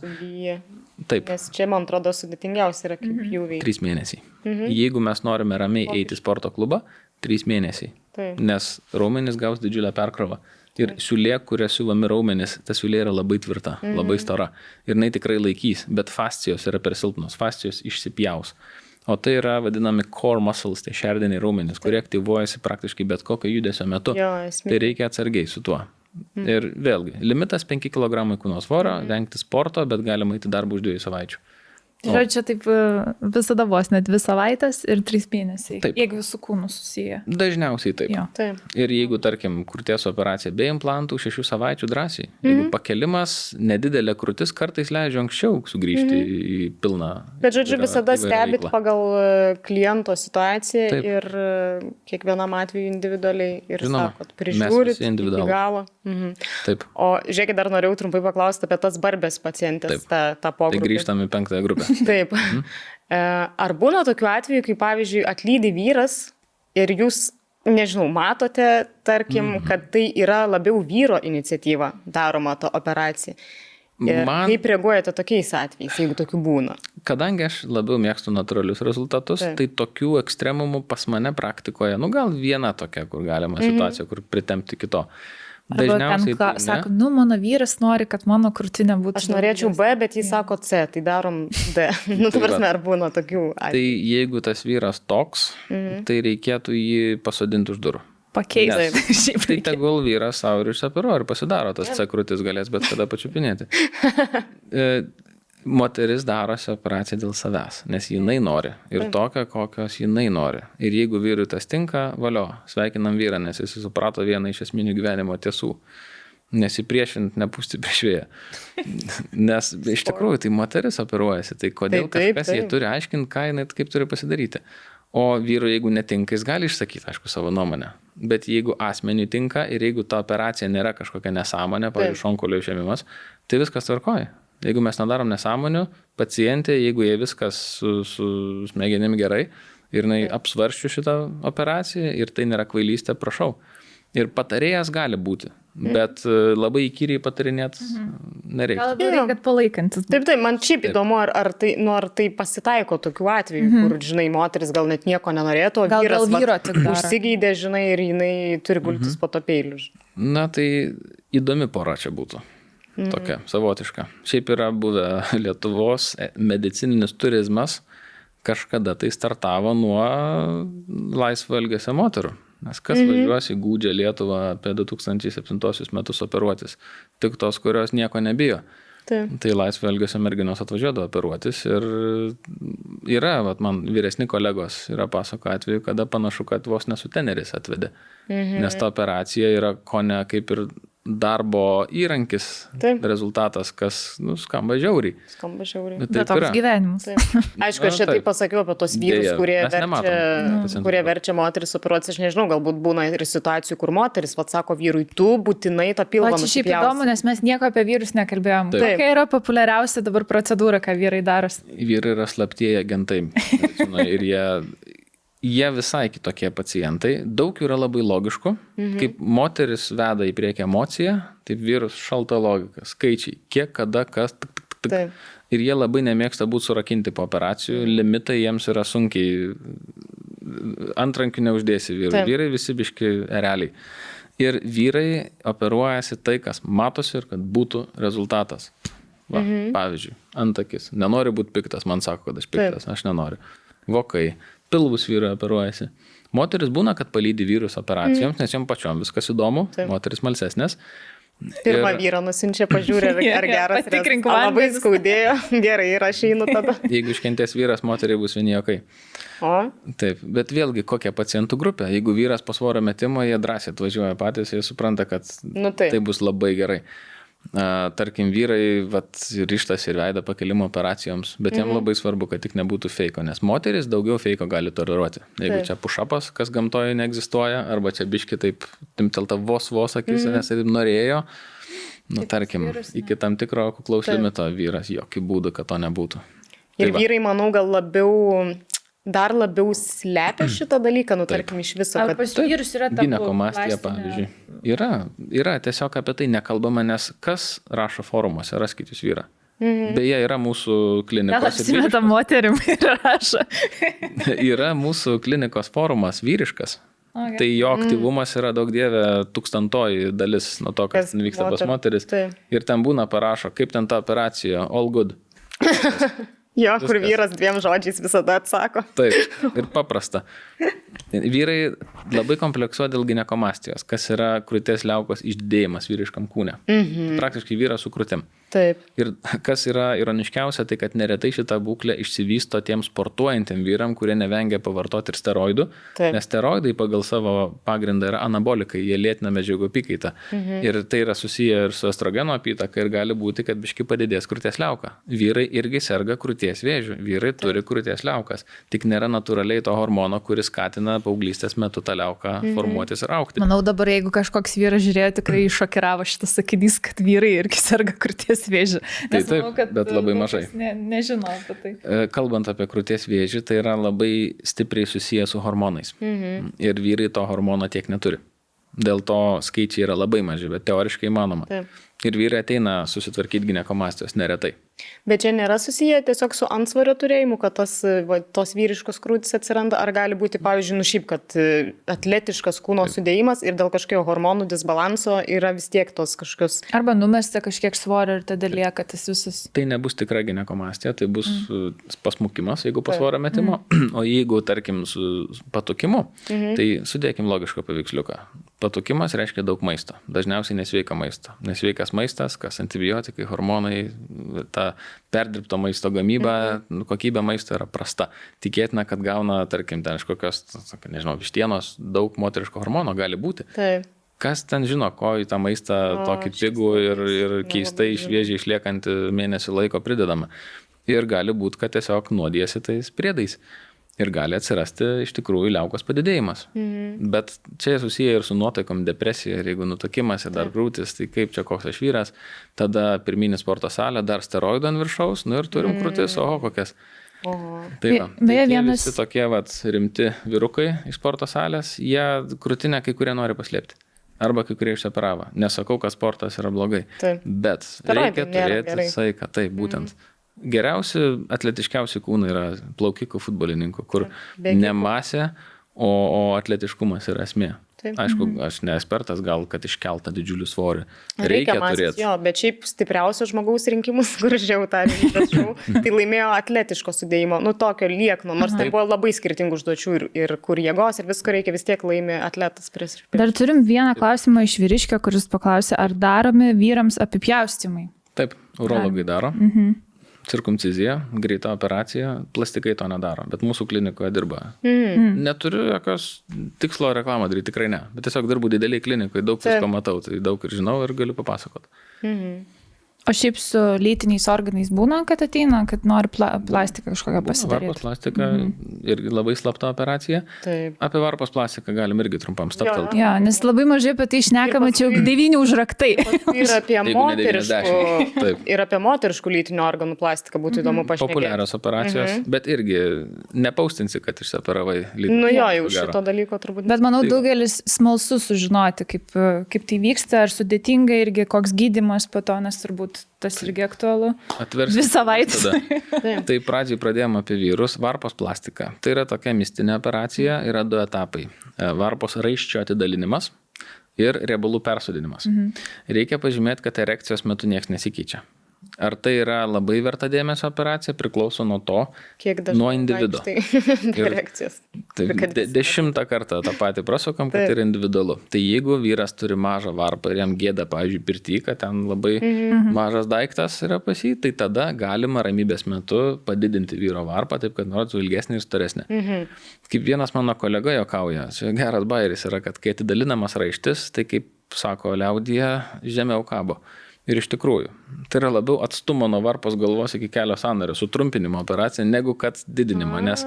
Taip. Nes čia, man atrodo, sudėtingiausia yra kaip pjūviai. 3 mėnesiai. Jeigu mes norime ramiai eiti į sporto klubą, 3 mėnesiai. Nes raumenys gaus didžiulę perkrovą. Ir siūlė, kuria siūlomi raumenys, ta siūlė yra labai tvirta, labai stora. Ir jinai tikrai laikys, bet fascijos yra per silpnos, fascijos išsipjaus. O tai yra vadinami core muscles, tai šerdiniai raumenys, kurie aktyvuojasi praktiškai bet kokio judesio metu. Tai reikia atsargiai su tuo. Ir vėlgi, limitas 5 kg kūno svorio, vengti sporto, bet galima eiti darbą už 2 savaičių. Žodžiu, taip visada vos net 2 savaitės ir 3 mėnesiai. Taip. Jeigu su kūnu susiję. Dažniausiai taip. Jo. Taip. Ir jeigu, tarkim, krūties operacija be implantų, 6 savaičių drąsiai. Jeigu pakelimas, nedidelė krūtis kartais leidžia anksčiau sugrįžti į pilną. Bet, žodžiu, visada stebit veiklą. pagal kliento situaciją Taip. ir kiekvienam atveju individualiai ir Žinoma, sakot, mes prižiūrit visi iki individualūs. galo. Taip. O žiūrėkit, dar norėjau trumpai paklausti apie tas barbės pacientės, tą Tai pogrupį. grįžtam į 5 grupę. Taip. Ar būna tokių atvejų, kai, pavyzdžiui, atlydi vyras ir jūs, nežinau, matote, tarkim, kad tai yra labiau vyro iniciatyva daroma ta operacija? Ir kaip reaguojate tokiais atvejais, jeigu tokių būna? Kadangi aš labiau mėgstu natūralius rezultatus, Taip. tai tokių ekstremumų pas mane praktikoje, gal viena tokia, kur galima situacija, kur pritempti kito. Arba ten sako, mano vyras nori, kad mano krūtinė būtų. Aš norėčiau B, bet jis sako C, tai darom D. Tu prasme, ar būna tokių atvejų? Tai jeigu tas vyras toks, tai reikėtų jį pasodinti už durų. Pakeisti. Tai tegul vyras savo ir išsioperuoja ir pasidaro, tas C krūtis galės bet kada pačiupinėti. Moteris darosi operaciją dėl savęs, nes jinai nori ir tokią, kokios jinai nori. Ir jeigu vyrui tas tinka, valio, sveikinam vyrą, nes jis suprato vieną iš esminių gyvenimo tiesų. Nesipriešint, nepūsti prieš vėją. Nes iš tikrųjų tai moteris operuojasi, tai kodėl kažkas jai turi aiškinti, ką jinai kaip turi pasidaryti. O vyrui, jeigu netinka, jis gali išsakyti, aišku, savo nuomonę. Bet jeigu asmeniui tinka ir jeigu ta operacija nėra kažkokia nesąmonė, pavyzdžiui, šonkaulio išėmimas, tai viskas tvarkoja. Jeigu mes nedarom nesąmonių, pacientė, jeigu jie viskas su smegenim gerai ir jinai apsvarščių šitą operaciją ir tai nėra kvailystė, prašau. Ir patarėjas gali būti, bet labai įkyriai patarinėt nereikia. Gal labiau reikia palaikantis. Taip, man šiaip įdomu, ar tai pasitaiko tokių atvejų, kur, žinai, moteris gal net nieko nenorėtų, o vyras užsigeidė, žinai, ir jinai turi gultis po to peiliu. Na, tai įdomi pora čia būtų. Tokia, savotiška. Šiaip yra buvę Lietuvos medicininis turizmas, kažkada tai startavo nuo laisvo elgesio moterų. Nes kas važiuos į gūdžią Lietuvą apie 2007 metus operuotis? Tik tos, kurios nieko nebijo. Tai laisvo elgesio merginos atvažiuodavo operuotis ir yra, man vyresni kolegos yra pasako atveju, kada panašu, kad vos nesu teneris atvedė. Nes ta operacija yra kone kaip ir darbo įrankis, rezultatas, kas skamba žiauriai. Bet toks gyvenimas. Aišku, aš čia taip pasakiau apie tos vyrus, kurie verčia moteris operuotis. Aš nežinau, galbūt būna ir situacijų, kur moteris sako vyrui, tu būtinai tą pilvą nusipjausi. Čia šiaip įdomu, nes mes nieko apie vyrus nekalbėjom. Kokia yra populiariausia dabar procedūra, ką vyrai daros? Vyrai yra slaptieji agentai. Ir jie visai kitokie pacientai. Daug yra labai logiškų. Kaip moteris veda į priekį emociją, taip vyrus šalta logika. Skaičiai. Kiek, kada, kas. Ir jie labai nemėgsta būti surakinti po operacijų. Limitai jiems yra sunkiai. Antrankių neuždėsi vyrų. Vyrai visi biški ereliai. Ir vyrai operuojasi tai, kas matosi ir kad būtų rezultatas. Pavyzdžiui, antakis. Nenori būti piktas, man sako, kad aš piktas. Aš nenoriu. Vokai. Pilvus vyrai operuojasi. Moteris būna, kad palydi vyrus operacijoms, nes jom pačiom viskas įdomu, moteris malsesnės. Pirmą vyrą nusinčia, pažiūrė, ar geras rezultatas. Labai skaudėjo, gerai, ir aš einu tada. Jeigu iškentės vyras, moteriai bus vieni jokai. Taip, bet vėlgi, kokia pacientų grupė. Jeigu vyras po svorio metimo, jie drąsiai atvažiuoja patys, jie supranta, kad tai bus labai gerai. Tarkim, vyrai ryžtas ir veidą pakelimo operacijoms, bet jam labai svarbu, kad tik nebūtų feiko, nes moteris daugiau feiko gali toleruoti. Jeigu čia pušapas, kas gamtoje neegzistuoja, arba čia biški taip timtelta vos akis, nes taip norėjo, tarkim, iki tam tikro kuklaus limito vyras, jokių būdų, kad to nebūtų. Ir vyrai, manau, gal dar labiau slepia šitą dalyką, tarkim, iš viso. Ar pas vyrus yra ta ginekomastija, pavyzdžiui. Yra, tiesiog apie tai nekalbama, nes kas rašo forumuose, raskit jūs vyrą. Beje, yra mūsų klinikos... Gal apsimeta moterim ir rašo. Yra mūsų klinikos forumas vyriškas. Tai jo aktyvumas yra daug dievė 1000 dalis nuo to, kas vyksta pas moteris. Ir ten būna parašo, kaip ten ta operacija, all good. Jo, kur vyras 2 žodžiais visada atsako. Taip, ir paprasta. Vyrai labai kompleksuoja dėl ginekomastijos, kas yra krūties liaukos išdėjimas vyriškam kūne. Praktiškai vyras su krūtim. Taip. Ir kas yra ironiškiausia, tai kad neretai šitą būklę išsivysto tiems sportuojantiem vyram, kurie nevengia pavartoti ir steroidų, nes steroidai pagal savo pagrindą yra anabolikai, jie lėtina medžiagų apykaitą. Ir tai yra susiję ir su estrogeno apytaka ir gali būti, kad biški padidės krūties liauka. Vyrai irgi serga krūties vėžiu, vyrai turi krūties liaukas, tik nėra natūraliai to hormono, kuris skatina paauglystės metu tą liauką formuotis ir augti. Manau, dabar jeigu kažkoks vyras žiūrėjo, tikrai šokiravo šitas sakinys, kad vyrai irgi serga krūties vėžiu. Tai taip, manau, bet labai mažai. Nežinau apie tai. Kalbant apie krūties vėžį, tai yra labai stipriai susiję su hormonais. Ir vyrai to hormono tiek neturi. Dėl to skaičiai yra labai maži, bet teoriškai įmanoma. Taip. Ir vyrai ateina susitvarkyti ginekomastijos neretai. Bet čia nėra susiję tiesiog su antsvorio turėjimu, kad tos vyriškos krūtys atsiranda, ar gali būti, pavyzdžiui, šiaip, kad atletiškas kūno sudėjimas ir dėl kažkokio hormonų disbalanso yra vis tiek tos kažkokios... Arba numesta kažkiek svorio ir tada lieka tas visas... Tai nebus tikra ginekomastija, tai bus pasmukimas, jeigu po svorio metimo, o jeigu, tarkim, su patukimu, tai sudėkim logišką paveiksliuką. Patukimas reiškia daug maisto, dažniausiai nesveika maisto. Nesveikas maistas, kas antibiotikai, hormonai, ta perdirbto maisto gamyba, kokybė maisto yra prasta. Tikėtina, kad gauna, tarkim, ten iš kokios, nežinau, vištienos, daug moteriško hormono gali būti. Taip. Kas ten žino, ko į tą maistą tokį pigų ir keistai šviežiai išliekantį mėnesį laiko pridedama. Ir gali būti, kad tiesiog nuodėsi tais priedais. Ir gali atsirasti iš tikrųjų liaukos padidėjimas. Bet čia susiję ir su nuotaikom, depresija, ir jeigu nutukimas ir dar krūtis, tai kaip čia koks aš vyras, tada pirminį sporto salę, dar steroidų ant viršaus, ir turim krūtis, oho kokias. Tai va, tai visi tokie rimti vyrukai iš sporto salės, jie krūtinę kai kurie nori paslėpti. Arba kai kurie išsioperavo. Nesakau, kad sportas yra blogai. Bet reikia turėti saiką, taip būtent. Geriausi, atletiškiausi kūnai yra plaukikų futbolininkų, kur ne masė, o atletiškumas yra esmė. Taip. Aišku, aš ne ekspertas, gal kad iškeltą didžiulį svorį. Reikia turėti. Jo, bet šiaip stipriausio žmogaus rinkimus, kur žiau tą rinkimus, tai laimėjo atletiško sudėjimo, tokio liekno, nors tai buvo labai skirtingų užduočių ir kur jėgos ir visko reikia, vis tiek laimė atletas prieš. Dar turim vieną klausimą iš vyriškio, kuris paklausė, ar daromi vyrams apipjaustymai? Taip, urologai daro. Cirkumcizija, greita operacija, plastikai to nedaro, bet mūsų klinikoje dirba. Neturiu jokios tikslo reklamą daryti, tikrai ne, bet tiesiog dirbu dideliai klinikoje, daug visko matau, tai daug ir žinau ir galiu papasakoti. O šiaip su lytiniais organais būna, kad ateina, kad nori plastiką kažkokią pasidaryti? Varpos plastika irgi labai slapta operacija. Taip. Apie varpos plastiką galim irgi trumpam staptelti. Jo, nes labai mažai apie tai šnekama, čia 9 užraktai. Ir apie moteriškų lytinių organų plastiką būtų įdomu pašnekėti. Populiarios operacijos, bet irgi nepaustinsi, kad išsioperavai lytinį. Jau šito dalyko turbūt. Bet manau, daugelis smalsu sužinoti, kaip tai vyksta, ar sudėtinga irgi, koks gydymas po to, nes turbūt tas irgi aktualu. Dvi savaitės. Tai pradžiai pradėjome apie vyrus. Varpos plastika. Tai yra tokia mistinė operacija, yra 2 etapai. Varpos raiščio atidalinimas ir riebalų persodinimas. Reikia pažymėti, kad erekcijos metu niekas nesikeičia. Ar tai yra labai verta dėmesio operacija, priklauso nuo to, nuo individo. Tai 10 kartą tą patį prasukam, kad yra individualu. Tai jeigu vyras turi mažą varpą ir jam gėda, pavyzdžiui, pirty, kad ten labai mažas daiktas yra pas jį, tai tada galima ramybės metu padidinti vyro varpą, taip kad norėtų ilgesnį ir storesnį. Kaip vienas mano kolega juokauja, čia geras bairis yra, kad kai atidalinamas raištis, tai kaip sako liaudyje, žemiau kabo. Ir iš tikrųjų, tai yra labiau atstumo nuo varpos galvos iki kelio sąnario sutrumpinimo operacija, negu kad didinimo, nes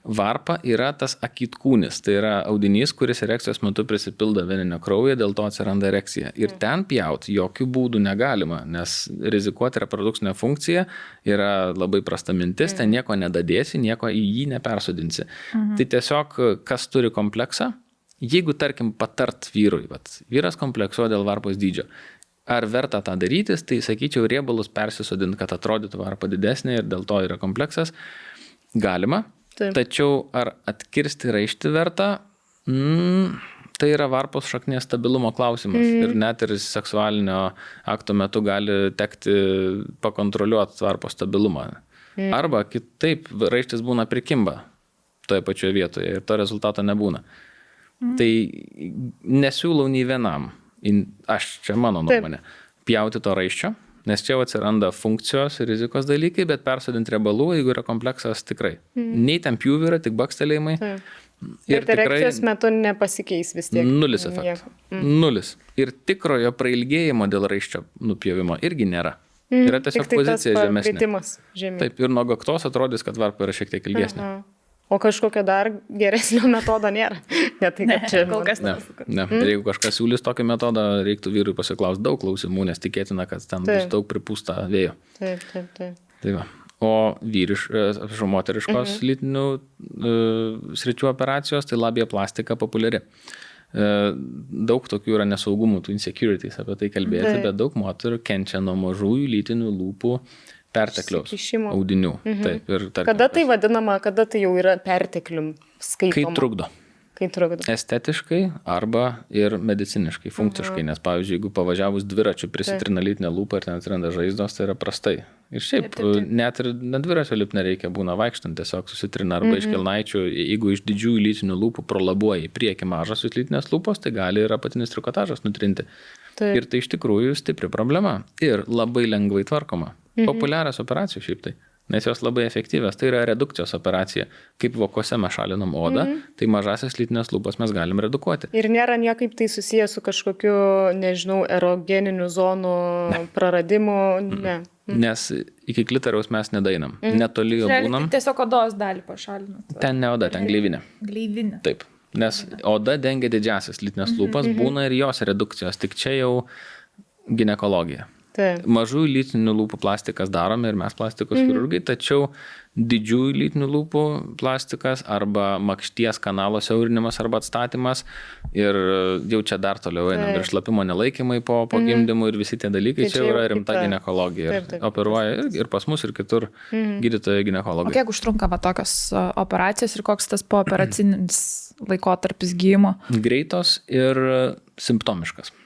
varpa yra tas akitkūnis, tai yra audinys, kuris erekcijos metu prisipildo veninio kraujo, dėl to atsiranda erekcija. Ir ten pjauti jokių būdų negalima, nes rizikuoti reprodukcinę funkciją yra labai prasta mintis, ten nieko nedadėsi, nieko į jį nepersodinsi. Tai tiesiog, kas turi kompleksą, jeigu, tarkim, patart vyrui, vyras kompleksuoja dėl varpos dydžio, ar verta tą darytis, tai sakyčiau, riebalus persisodinti, kad atrodytų varpa didesnė ir dėl to yra kompleksas. Galima. Taip. Tačiau ar atkirsti raištį verta, tai yra varpos šaknies stabilumo klausimas. Ir net ir seksualinio akto metu gali tekti pakontroliuoti varpos stabilumą. Arba kitaip raištis būna prikimba toje pačioje vietoje ir to rezultato nebūna. Tai nesiūlau nei vienam. Aš čia mano nuomonė. Pjauti to raiščio, Nes čia atsiranda funkcijos ir rizikos dalykai, bet persodinti riebalų, jeigu yra kompleksas, tikrai. Nei ten pjūvių yra, tik bakstelėjimai. Ir erekcijos metu nepasikeis vis tiek. Nulis efektų. Nulis. Ir tikrojo prailgėjimo dėl raiščio nupjovimo irgi nėra. Yra tiesiog pozicija žemesnė. Taip, ir nuo gaktos atrodys, kad varpa yra šiek tiek ilgesnė. O kažkokio dar geresnio metodo nėra. Ne, tai kad čia kol kas ne. Ir jeigu kažkas siūlys tokį metodą, reiktų vyrui pasiklausti daug klausimų, nes tikėtina, kad ten bus daug pripūsta vėjo. Taip. Tai va. O moteriškos lytinių sričių operacijos, tai labiaplastika populiari. Daug tokių yra nesaugumų, tų insecurities apie tai kalbėti, bet daug moterų kenčia nuo mažųjų lytinių lūpų pertekliaus audinių. Taip, ir kada tai vadinama, kada tai jau yra perteklium skaitoma? Kai trukdo. Estetiškai arba ir mediciniškai, funkciškai, nes pavyzdžiui, jeigu pavažiavus dviračiu prisitrina lytinę lūpą ir ten atsiranda žaizdos, tai yra prastai. Ir šiaip, net ir dviračio lipt nereikia, būna vaikštant, tiesiog susitrina arba iš kelnaičių, jeigu iš didžiųjų lytinių lūpų prolabuoja į priekį mažasios lytinės lūpos, tai gali ir apatinis trikotažas nutrinti. Ir tai iš tikrųjų stipri problema ir labai lengvai tvarkoma. Populiarios operacijos šiaip tai. Nes jos labai efektyvios. Tai yra redukcijos operacija. Kaip vokuose mes šalinam odą, tai mažasias lytinės lūpas mes galim redukuoti. Ir nėra niekaip tai susijęs su kažkokiu, nežinau, erogeninių zonų praradimu? Ne. Nes iki klitoriaus mes nedainam. Netoli jo būnam. Tiesiog odos dalį pašalinat. Ten ne oda, ten gleivinė. Gleivinė. Taip. Nes oda dengia didžiasias lytinės lūpas, būna ir jos redukcijos. Tik čia jau ginekologija. Mažųjų lytinių lūpų plastikas darome ir mes plastikos chirurgai, tačiau didžiųjų lytinių lūpų plastikas arba makšties kanalo siaurinimas arba atstatymas ir jau čia dar toliau einam ir šlapimo nelaikymai po gimdymų ir visi tie dalykai, čia yra rimta ginekologija. Operuoja ir pas mus ir kitur gydytojai ginekologai. O kiek užtrunka tokios operacijos ir koks tas pooperacinis laikotarpis gydymo? Greitos ir simptomiškas.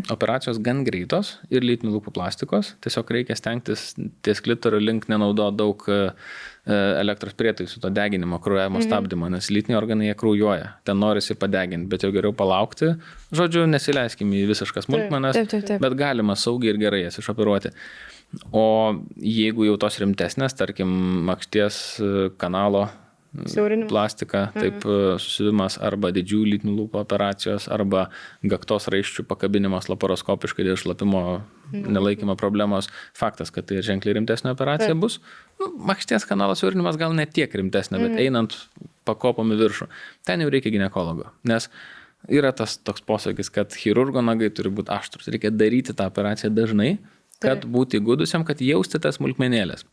Operacijos gan greitos ir lytinių lūpų plastikos. Tiesiog reikia stengtis ties klitorio link nenaudoti daug elektros prietaisų, to deginimo, kraujavimo stabdymo, nes lytiniai organai jie kraujuoja. Ten norisi padeginti, bet jau geriau palaukti. Žodžiu, nesileiskim į visiškas smulkmenas, bet galima saugiai ir gerai jas išoperuoti. O jeigu jau tos rimtesnės, tarkim, makšties kanalo plastika, taip susivimas arba didžiųjų lytinių lūpų operacijos, arba gaktos raiščių pakabinimas laparoskopiškai dėl šlapimo nelaikymo problemos. Faktas, kad tai ženkliai rimtesnė operacija bus. Makšties kanalo siaurinimas gal ne tiek rimtesnė, bet einant pakopom į viršų. Ten jau reikia ginekologo, nes yra tas toks posakis, kad chirurgo nagai turi būti aštrus. Reikia daryti tą operaciją dažnai, kad būti įgudusiam, kad jausti tas smulkmenėlės.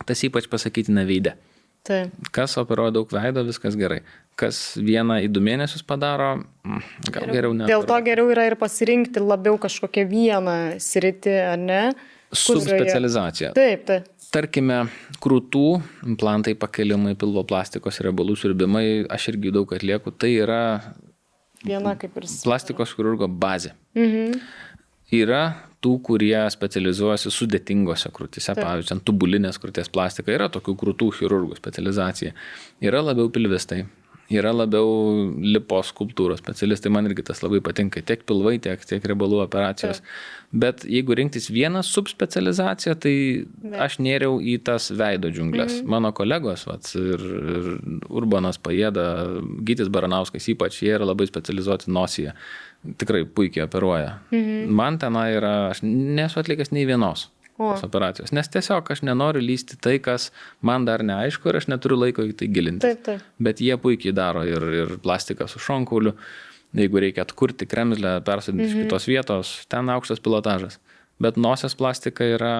Tas ypač pasakytina veide. Kas operuoja daug veido, viskas gerai. Kas 1-2 mėnesius padaro, gal geriau ne. Dėl to geriau yra ir pasirinkti labiau kažkokią vieną sritį, ar ne? Subspecializacija. Taip. Tarkime, krūtų implantai, pakelimai, pilvo plastikos, riebalų siurbimai, aš irgi daug atlieku, tai yra viena kaip ir plastikos chirurgo bazė. Yra tų, kurie specializuojasi sudėtingose krūtise, pavyzdžiui, tubulinės krūties plastika, yra tokių krūtų chirurgų specializacija. Yra labiau pilvistai, yra labiau lipos skulptūros specialistai, man irgi tas labai patinka, tiek pilvai, tiek riebalų operacijos. Bet jeigu rinktis vieną subspecializaciją, tai aš nėriau į tas veido džiunglės. Mano kolegos, ir Urbanas Pajėda, Gytis Baranauskas ypač, jie yra labai specializuoti nosyje. Tikrai puikiai operuoja. Man tenai yra, aš nesu atlikęs nei vienos operacijos, nes tiesiog aš nenoriu lysti tai, kas man dar neaišku ir aš neturiu laiko į tai gilintis. Bet jie puikiai daro ir plastiką su šonkauliu, jeigu reikia atkurti kremzlę, persodinti iš kitos vietos, ten aukštas pilotažas. Bet nosies plastika yra,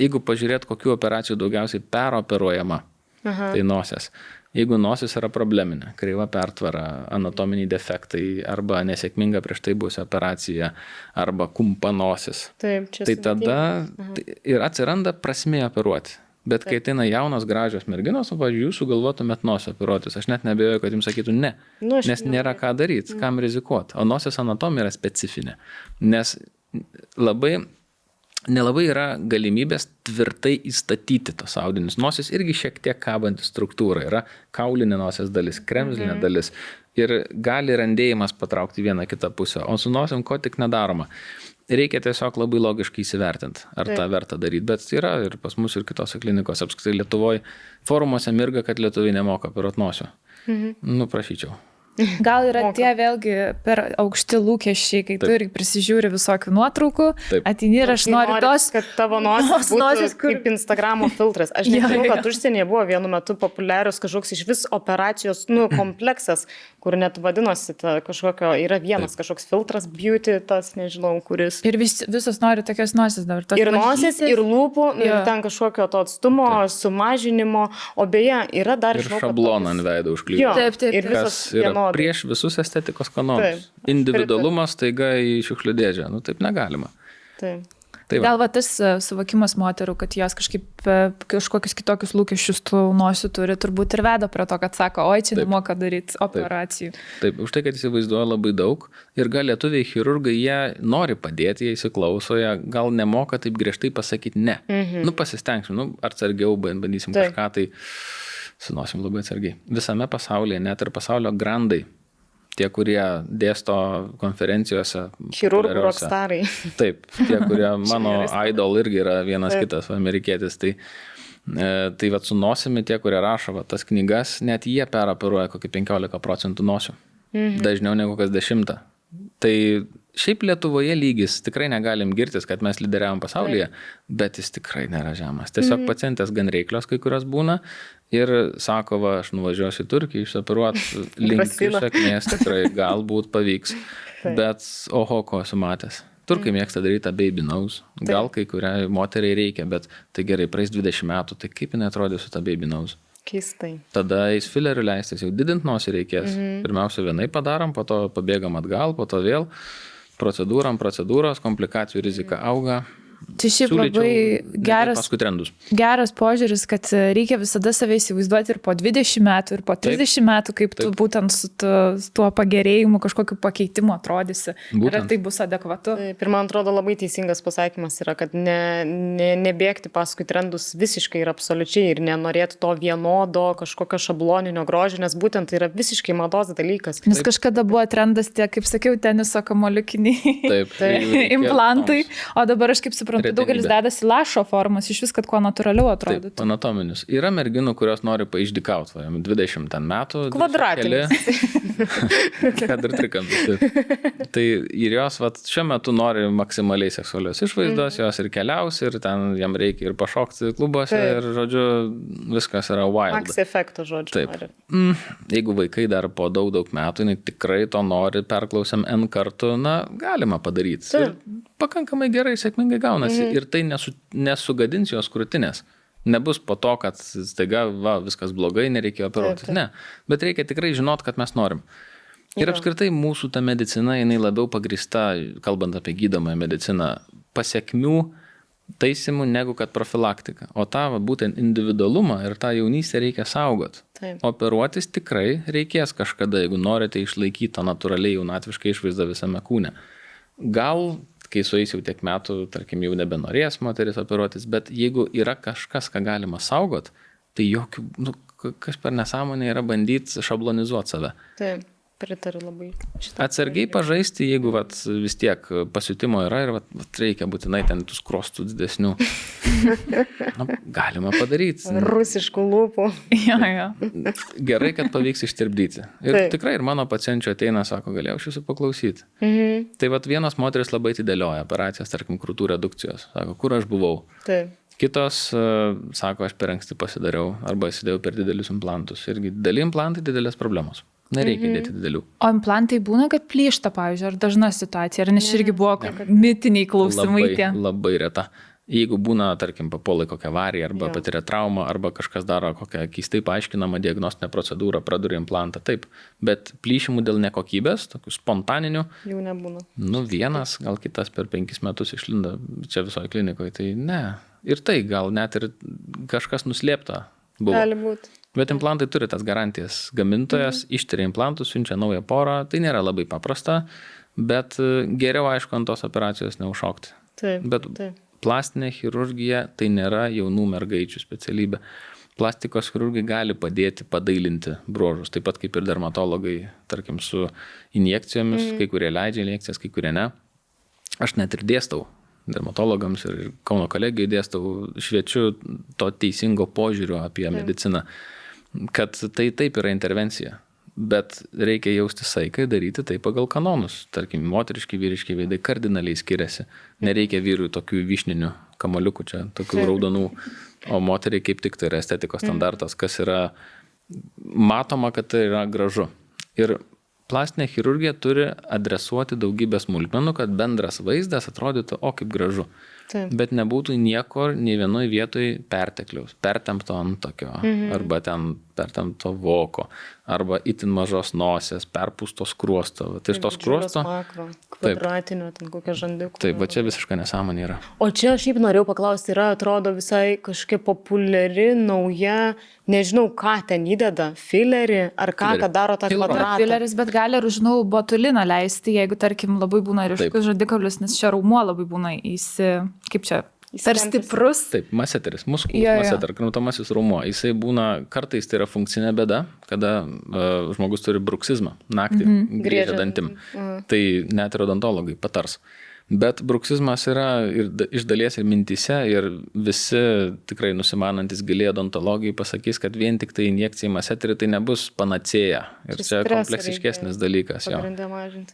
jeigu pažiūrėt, kokių operacijų daugiausiai peroperuojama, tai nosies. Jeigu nosis yra probleminė, kreiva pertvara, anatominiai defektai arba nesėkminga prieš tai buvusi operacija arba kumpa nosis, tai tada ir atsiranda prasmė operuoti. Bet kai ateina jaunos gražios merginos, pavyzdžiui, jūs sugalvotumėt nosį operuotis, aš net neabejoju, kad jums sakytų ne, nes nėra ką daryti, kam rizikuoti. O nosies anatomija yra specifinė, nes nelabai yra galimybės tvirtai įstatyti tos audinius. Nosis irgi šiek tiek kabanti struktūra. Yra kaulinė nosies dalis, kremzlinė dalis, Ir gali randėjimas patraukti vieną kitą pusę, o su nosim ko tik nedaroma. Reikia tiesiog labai logiškai įsivertinti, ar tą verta daryti, bet yra ir pas mus ir kitose klinikose, apskritai Lietuvoje forumuose mirga, kad lietuviai nemoka operuoti nosio. Nu, prašyčiau. Gal yra tie vėlgi per aukšti lūkesčiai, kai tu irgi prisižiūri visokių nuotraukų, ateini ir aš noriu tos, kad tavo nosis būtų kaip Instagramo filtras. Aš nežinau, kad užsienyje buvo vienu metu populiarius kažkoks iš vis operacijos kompleksas, kur net vadinosi kažkokio, yra vienas kažkoks filtras, beauty, tas nežinau, kuris. Ir visos nori tokios nosis dabar. Ir nosis, ir lūpų, ir ten kažkokio to atstumo, sumažinimo, o beje, yra dar ir šabloną ant veido užklijuoti. Taip. Ir visos prieš visus estetikos kanonus. Individualumas taiga į šiukšlių dėžę. Nu, taip negalima. Taip. Gal va tas suvokimas moterų, kad jos kažkokius kitokius lūkesčius tų nosių turi, turbūt ir veda prie to, kad sako, oi, čia nemoka daryti operacijų. Taip, už tai, kad įsivaizduoja labai daug ir gal lietuviai chirurgai, jie nori padėti, jie įsiklauso, jie gal nemoka taip griežtai pasakyti ne. Nu, pasistengsim, atsargiau bandysim kažką, tai sunosim labai atsargiai. Visame pasaulyje, net ir pasaulio grandai, tie, kurie dėsto konferencijose. Chirurgų rockstarai. Taip, tie, kurie mano idol irgi yra vienas kitas amerikietis. Tai vat su nosimi tie, kurie rašo tas knygas, net jie peroperuoja kokį 15% nosių. Dažniau negu kas 10. Tai šiaip Lietuvoje lygis, tikrai negalim girtis, kad mes lyderiavom pasaulyje, bet jis tikrai nėra žemas. Tiesiog pacientės gan reiklios kai kurios būna ir sako, va, aš nuvažiuosiu į Turkiją, išoperuoti linkiu sėkmės, tikrai galbūt pavyks, bet oho, ko esu matęs. Turkai mėgsta daryti baby nose, gal kai kuriai moteriai reikia, bet tai gerai, praeis 20 metų, tai kaip jinai atrodė su ta baby nose? Keistai. Tada eis filerių leistis, jau didint nosį reikės. Pirmiausia vienai padarom, po to pabėgam atgal, po to vėl procedūros, komplikacijų rizika auga. Tai šiaip labai geras požiūris, kad reikia visada save įsivaizduoti ir po 20 metų, ir po 30 metų, kaip tu būtent su tuo pagerėjimu, kažkokiu pakeitimu atrodysi. Ir tai bus adekvatu. Ir man atrodo labai teisingas pasakymas yra, kad nebėgti paskui trendus visiškai ir absoliučiai ir nenorėti to vienodo kažkokio šabloninio grožio, nes būtent tai yra visiškai mados dalykas. Nes kažkada buvo trendas tie, kaip sakiau, teniso kamuoliukiniai implantai, o dabar aš kaip suprantu, daugelis dedasi lašo formas, iš vis, kad kuo natūraliau atrodytų. Taip, anatominius. Yra merginų, kurios nori paišdykauti, 20 metų. Kvadratinis. Kad ir trikampis. Tai ir jos šiuo metu nori maksimaliai seksualios išvaizdos, jos ir keliaus, ir ten jam reikia ir pašokti klubuose, ir, žodžiu, viskas yra wild. Max efekto, žodžiu. Taip. Jeigu vaikai dar po daug metų, tikrai to nori, perklausiam N kartų, galima padaryti. Ir pakankamai gerai, sėkmingai gaunasi. Ir tai nesugadins jos krūtinės. Nebus po to, kad staiga viskas blogai, nereikėjo operuoti. Ne. Bet reikia tikrai žinot, kad mes norim. Ir apskritai mūsų ta medicina, jinai labiau pagrįsta, kalbant apie gydomąją mediciną, pasiekmių taisymų negu kad profilaktika. O tą būtent individualumą ir tą jaunystę reikia saugot. Taip. Operuotis tikrai reikės kažkada, jeigu norite išlaikyti tą natūraliai jaunatvišką išvaizdą visame kūne. Gal kai sueis jau tiek metų, tarkim, jau nebenorės moteris operuotis, bet jeigu yra kažkas, ką galima saugot, tai kas per nesąmonė yra bandyti šablonizuoti save. Taip, pritariu labai. Atsargiai pažaisti, jeigu vis tiek pasiutimo yra ir reikia būtinai ten tų skrostų didesnių. Galima padaryti. Rusiškų lūpų. Gerai, kad pavyks ištirpdyti. Ir tikrai ir mano pacienčių ateina, sako, galėjau aš jūsų paklausyti. Tai vienos moteris labai atidėlioja operacijas, tarkim, krūtų redukcijos. Sako, kur aš buvau? Taip. Kitos sako, aš per anksti pasidariau arba įsidėjau per didelius implantus. Irgi dideli implantai, didelės problemos. Nereikia dėti didelių. O implantai būna, kad plyšta, pavyzdžiui, ar dažna situacija, ar nes irgi buvo mitiniai klausimai tie? Labai reta. Jeigu būna, tarkim, papuolai kokią avariją arba patiria traumą, arba kažkas daro kokią keistai paaiškinamą diagnostinę procedūrą, praduria implantą, taip. Bet plyšimų dėl nekokybės, tokių spontaninių, jau nebūna. Vienas, gal kitas per 5 metus išlinda čia visoje klinikoje, tai ne. Ir tai gal net ir kažkas nuslėpta buvo. Gali būti. Bet implantai turi tas garantijas. Gamintojas ištiria implantus, siunčia naują porą. Tai nėra labai paprasta, bet geriau, aišku, ant tos operacijos neužšokti. Taip. Bet plastinė chirurgija tai nėra jaunų mergaičių specialybė. Plastikos chirurgai gali padėti padailinti bruožus, taip pat kaip ir dermatologai, tarkim, su injekcijomis, kai kurie leidžia injekcijas, kai kurie ne. Aš net ir dėstau dermatologams ir Kauno kolegijai dėstau, šviečiu to teisingo požiūrio apie mediciną, kad tai taip yra intervencija, bet reikia jausti saiką, daryti tai pagal kanonus. Tarkim, moteriški, vyriški veidai kardinaliai skiriasi. Nereikia vyrui tokių vyšninių kamaliukų čia, tokių raudonų, o moteriai kaip tik tai yra estetikos standartas, kas yra matoma, kad tai yra gražu. Ir plastinė chirurgija turi adresuoti daugybę smulkmenų, kad bendras vaizdas atrodytų, o kaip gražu. Taip. Bet nebūtų nieko, nei vienoje vietoje pertekliaus, pertempto antokio, arba ten pertempto voko, arba itin mažos nosės, perpūsto skruosto. Tai iš to skruosto... Makro, kvadratinio, ten kokia žandikų. Taip, va čia visiškai nesąmonė yra. O čia aš šiaip norėjau paklausti, yra, atrodo, visai kažkokia populiari, nauja, nežinau, ką ten įdeda, filerį, ar ką, kad daro tą kvadratą. Fileris, bet gali ir, žinau, botuliną leisti, jeigu, tarkim, labai būna ryškus žandikaulis, nes čia raumuo labai būna kaip čia, per stiprus. Taip, maseteris, maseter, kramtomasis raumuo. Jisai būna, kartais tai yra funkcinė bėda, kada žmogus turi bruksizmą, naktį griežia dantim. Tai net ir odontologai patars. Bet bruksizmas yra ir iš dalies ir mintyse, ir visi tikrai nusimanantis giliai odontologijai pasakys, kad vien tik tai injekcija į maseterį tai nebus panacėja. Ir čia kompleksiškesnis dalykas.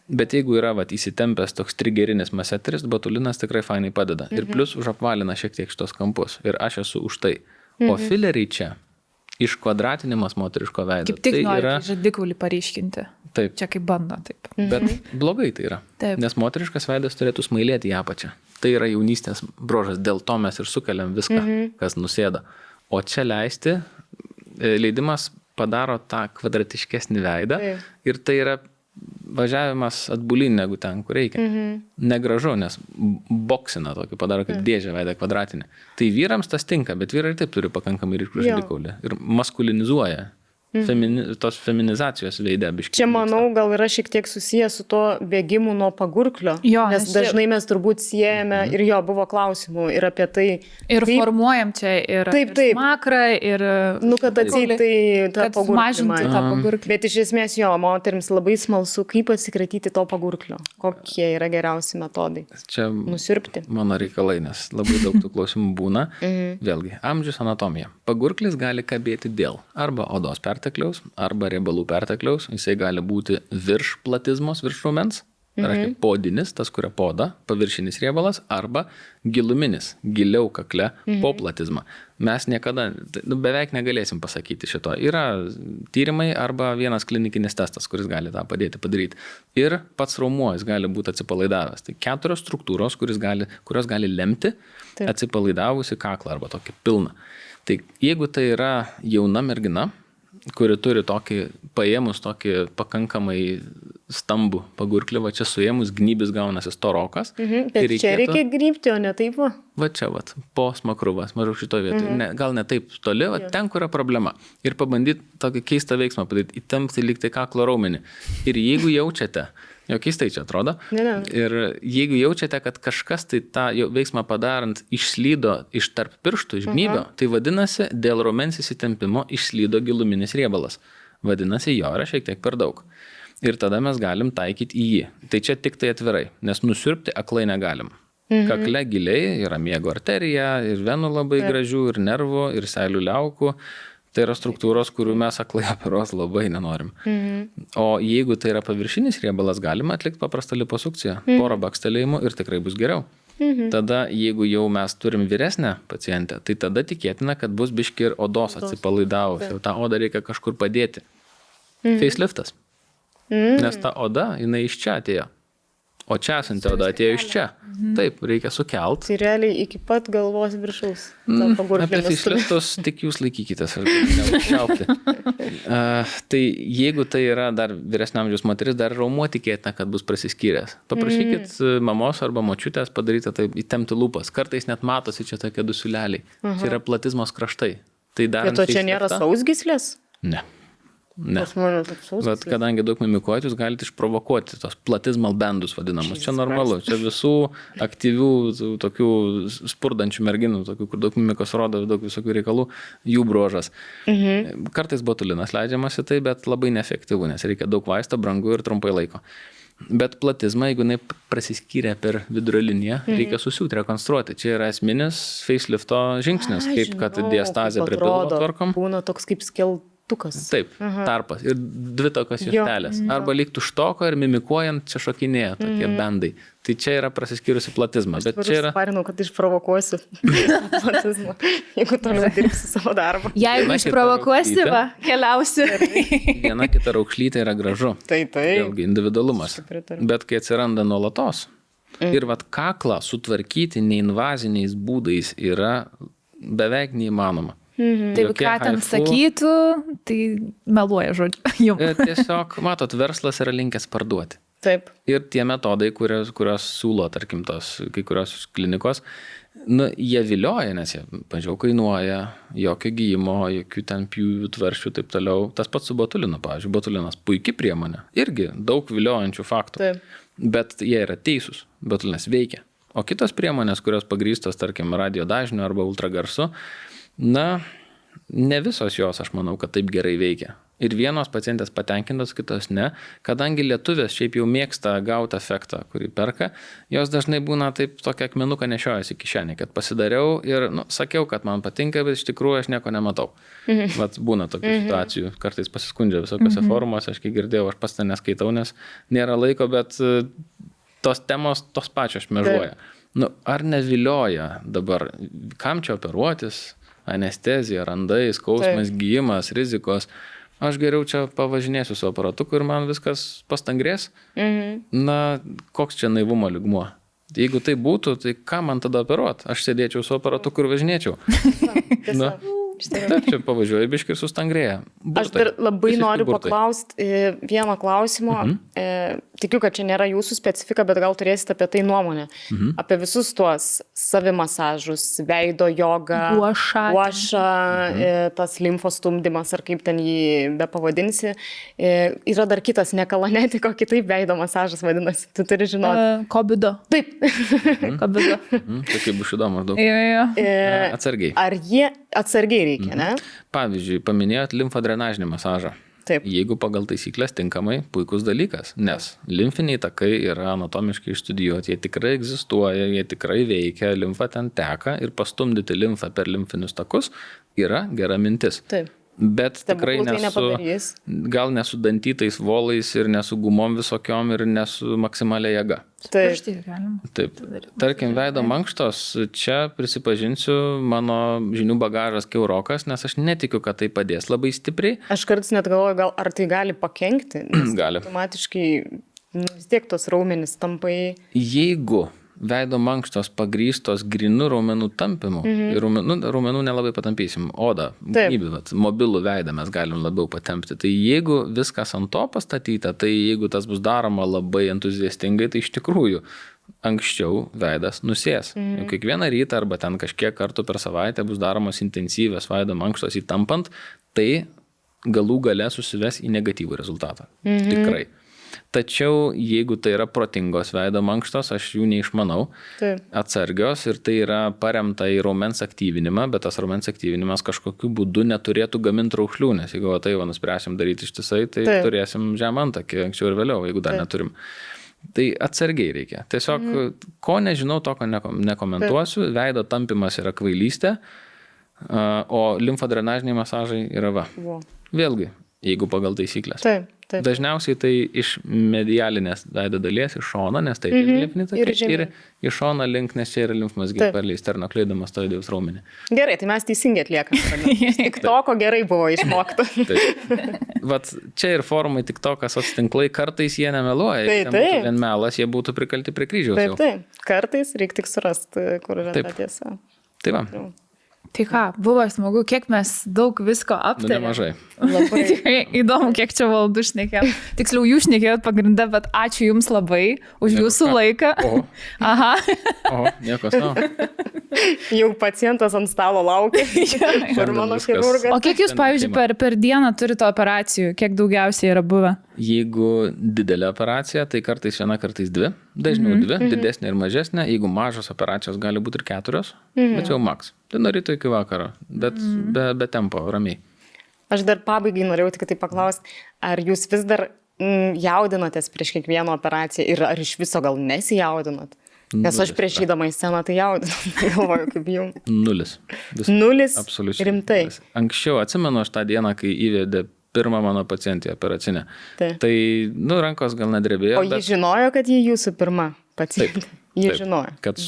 Bet jeigu yra įsitempęs toks trigerinis maseteris, botulinas tikrai fainai padeda. Ir plus užapvalina šiek tiek šitos kampus. Ir aš esu už tai. O fileriai čia, iškvadratinimas moteriško veido. Kaip tik nori žandikaulį paryškinti. Taip. Čia kaip bando, taip. Bet blogai tai yra. Taip. Nes moteriškas veidas turėtų smailėti į apačią. Tai yra jaunystės bruožas, dėl to mes ir sukeliam viską, kas nusėda. O čia leidimas padaro tą kvadratiškesnį veidą ir tai yra važiavimas atbulin negu ten, kur reikia. Negražu, nes boksina tokį padaro kaip dėžę veidą kvadratinį. Tai vyrams tas tinka, bet vyrai taip turi pakankamai ryškų žandikaulį ir maskulinizuoja. Tos feminizacijos veide biškiai. Čia, manau, gal yra šiek tiek susijęs su to bėgimu nuo pagurklio, nes dažnai mes turbūt siejame ir buvo klausimų ir apie tai. Ir kaip formuojam čia ir smakrą, ir... kad atseit tai tą pagurklį. Bet iš esmės moterims labai smalsu, kaip atsikratyti to pagurklio. Kokie yra geriausi metodai? Čia nusirpti. Mano reikalai, nes labai daug tų klausimų būna. Vėlgi, amžius, anatomija. Pagurklis gali kabėti dėl arba odos pertekliaus, arba riebalų pertekliaus. Jisai gali būti virš platizmos, virš raumens, reiškia podinis, tas, kuria poda, paviršinis riebalas, arba giluminis, giliau kakle po platizmą. Mes niekada, beveik negalėsim pasakyti šito. Yra tyrimai arba vienas klinikinis testas, kuris gali tą padėti padaryti. Ir pats raumuo, jis gali būti atsipalaidavęs. Tai 4 struktūros, kurios gali lemti atsipalaidavusi kaklą arba tokį pilną. Tai jeigu tai yra jauna mergina, kuri turi paėmus tokį pakankamai stambų pagurklį, va čia suėmus gnybis gaunasi storokas. Bet čia reikia grybti, o ne taip va? Va čia, po smakruvas, maždaug šitoje vietoje. Gal ne taip toli, ten, kur yra problema. Ir pabandyti tokį keistą veiksmą padaryti, įtempti lyg tai kaklo raumenį. Ir jeigu jaučiate, keistai čia atrodo, ir jeigu jaučiate, kad kažkas tai tą veiksmą padarant išslydo iš tarp pirštų, iš gnybio, tai vadinasi, dėl raumens įsitempimo išslydo giluminis riebalas. Vadinasi, jo yra šiek tiek per daug. Ir tada mes galim taikyti į jį. Tai čia tik tai atvirai, nes nusirpti aklai negalim. Kakle giliai yra miego arterija, ir venų labai gražių, ir nervų, ir seilių liaukų. Tai yra struktūros, kurių mes aklai operuos labai nenorim. O jeigu tai yra paviršinis riebalas, galima atlikti paprastą liposukciją, porą bakstelėjimų ir tikrai bus geriau. Tada, jeigu jau mes turim vyresnę pacientę, tai tada tikėtina, kad bus biški ir odos atsipalaidavus. Jau tą odą reikia kažkur padėti. Faceliftas. Nes ta oda, jinai iš čia atėjo. O čia esanti oda atėjo iš čia. Taip, reikia sukelt. Tai realiai iki pat galvos viršaus. Apie faceliftus tik jūs laikykitės, ar neužčiaupti. Tai jeigu tai yra dar vyresnio amžiaus moteris, dar raumuo tikėtina, kad bus prasiskyręs. Paprašykit mamos arba močiutės padaryti taip, įtempti lūpas. Kartais net matosi čia tokie du siūleliai. Čia yra platizmos kraštai. Tai bet to čia nėra sausgyslės? Ne. Ne. Bet kadangi daug mimikuojat, jūs galite išprovokuoti tos platizmal bendus vadinamus. Čia normalu. Čia visų aktyvių, tokių spurdančių merginų, tokių, kur daug mimikos rodo, daug visokių reikalų, jų bruožas. Kartais botulinas leidžiamas į tai, bet labai neefektyvu, nes reikia daug vaisto, brangu ir trumpai laiko. Bet platizmą, jeigu jinai prasiskyrė per vidurio liniją, reikia susiūti, rekonstruoti. Čia yra esminis facelifto žingsnis, kaip kad diastazė prie pilvo tvarkom. Būna toks kaip skeltukas. Taip, tarpas. Ir dvi tokios juostelės. Arba lyg tuštoko ir mimikuojant čia šokinėja tokie bendai. Tai čia yra prasiskyrusi platizma. Bet čia yra... Parinau, kad išprovokuosiu platizmą, jeigu toliau dirbsi savo darbą. Jeigu išprovokuosi, keliausi. Viena kita raukšlytė yra gražu. Tai. Vėlgi, individualumas. Bet kai atsiranda nuolatos ir vat kaklą sutvarkyti neinvaziniais būdais yra beveik neįmanoma. Tai ką ten sakytų, tai meluoja žodžiu. Tiesiog, matot, verslas yra linkęs parduoti. Taip. Ir tie metodai, kurios siūlo, tarkim, tos kai kurios klinikos, jie vilioja, nes jie, pažiūrėjau, kainuoja, jokio gyjimo, jokių ten pjūvių, tvaršių, taip toliau. Tas pats su botulinu, pavyzdžiui, botulinas puikiai priemonė, irgi daug viliojančių faktų. Taip. Bet jie yra teisūs, botulinas veikia. O kitos priemonės, kurios pagrįstos, tarkim, radio dažniu arba ultragarsu, ne visos jos, aš manau, kad taip gerai veikia. Ir vienos pacientės patenkintos, kitos ne. Kadangi lietuvės šiaip jau mėgsta gauti efektą, kurį perka, jos dažnai būna taip tokia akmenuką nešiojasi kišenį, kad pasidariau ir sakiau, kad man patinka, bet iš tikrųjų aš nieko nematau. Vat būna tokių situacijų, kartais pasiskundžia visokiose forumuose, aš kai girdėjau, aš pats ten neskaitau, nes nėra laiko, bet tos temos tos pačios šmėžuoja. Ar nevilioja dabar, kam čia operuotis? Anestezija, randai, skausmas, gyjimas, rizikos. Aš geriau čia pavažinėsiu su aparatuku ir man viskas pastangrės. Koks čia naivumo lygmuo? Jeigu tai būtų, tai ką man tada operuot? Aš sėdėčiau su aparatuku ir važinėčiau. Taip, čia pavažiuoju biškį ir sustangrėja. Aš dar labai noriu paklausti vieno klausimo. Tikiu, kad čia nėra jūsų specifika, bet gal turėsite apie tai nuomonę. Apie visus tuos savimasažus, veido jogą, guašą, tas limfos stumdymas, ar kaip ten jį bepavadinsi. Yra dar kitas nekalanetiko, kitaip veido masažas vadinasi. Tu turi žinoti. Kobido. Taip. Kobido. Tai kaip bus įdomu maždaug. Atsargiai. Ar jie atsargiai reikia, ne? Pavyzdžiui, paminėjot limfodrenažinį masažą. Taip. Jeigu pagal taisyklės tinkamai, puikus dalykas, nes limfiniai takai yra anatomiškai išstudijuoti, jie tikrai egzistuoja, jie tikrai veikia, limfa ten teka ir pastumdyti limfą per limfinius takus yra gera mintis. Taip. Bet tikrai gal nesu dantytais volais ir nesu gumom visokiom ir nesu maksimalia jėga. Taip. Tarkim, veido mankštos, čia prisipažinsiu, mano žinių bagažas kiaurokas, nes aš netikiu, kad tai padės labai stipriai. Aš kartais net galvoju, ar tai gali pakenkti, nes gali. Automatiškai vis tiek tos raumenys tampai. Jeigu veido mankštos pagrįstos grinu raumenų tampimu, ir raumenų nelabai patampysim, odą, mobilų veidą mes galim labiau patempti. Tai jeigu viskas ant to pastatyta, tai jeigu tas bus daroma labai entuziastingai, tai iš tikrųjų anksčiau veidas nusės. Kiekvieną rytą arba ten kažkiek kartų per savaitę bus daromos intensyvios veido mankštos įtampant, tai galų gale susives į negatyvų rezultatą. Tikrai. Tačiau jeigu tai yra protingos veido mankštos, aš jų neišmanau, atsargios ir tai yra paremta į raumens aktyvinimą, bet tas raumens aktyvinimas kažkokiu būdu neturėtų gaminti raukšlių, nes jeigu tai nuspręsim daryti ištisai, tai turėsim žemantakį anksčiau ir vėliau, jeigu dar neturim. Tai atsargiai reikia. Tiesiog, ko nežinau, to ko nekomentuosiu, veido tampimas yra kvailystė, o limfodrenažiniai masažai yra va. Vėlgi, jeigu pagal taisyklės. Taip. Dažniausiai tai iš medialinės veido dalies, iš šono, nes tai limfiniai takai, ir iš šono link, nes čia yra limfmazgiai per sternokleidomastoideus raumenį. Gerai, tai mes teisingai atliekame. Tik to, ko gerai buvo išmokta. Vat čia ir forumai tik to, kas tinklai, kartais jie nemeluoja. Jei būtų vien melas, jie būtų prikalti prie kryžiaus jau. Taip. Kartais reikia tik surasti, kur yra ta tiesa. Tai va. Tai ką, buvo smagu, kiek mes daug visko aptarėme. Nemažai. Tikrai įdomu, kiek čia valandų šnekėjom. Tiksliau, jūs šnekėjot pagrindę, bet ačiū Jums labai už Jūsų laiką. Nieko savo. Jau pacientas ant stalo laukia. Ir mano chirurgas. O kiek jūs, pavyzdžiui, per dieną turite operacijų? Kiek daugiausiai yra buvę? Jeigu didelė operacija, tai kartais viena, kartais dvi. Dažniau dvi, didesnė ir mažesnė. Jeigu mažos operacijos gali būti ir 4, bet jau maks. Tai nuo ryto iki vakaro, bet be tempo, ramiai. Aš dar pabaigai norėjau tik tai paklausti, ar jūs vis dar jaudinatės prieš kiekvieną operaciją ir ar iš viso gal nesijaudinat? Nes aš prieš įdama į sceną tai jaudinat, galvoju, kaip jums. 0. 0? Absoliučiai. Rimtai? Anksčiau atsimenu aš tą dieną, kai įvedė pirmą mano pacientį operacinę. Tai, rankos gal nedrebėjo. O ji žinojo, kad ji jūsų pirma pacientė? Ji žinojo. Kad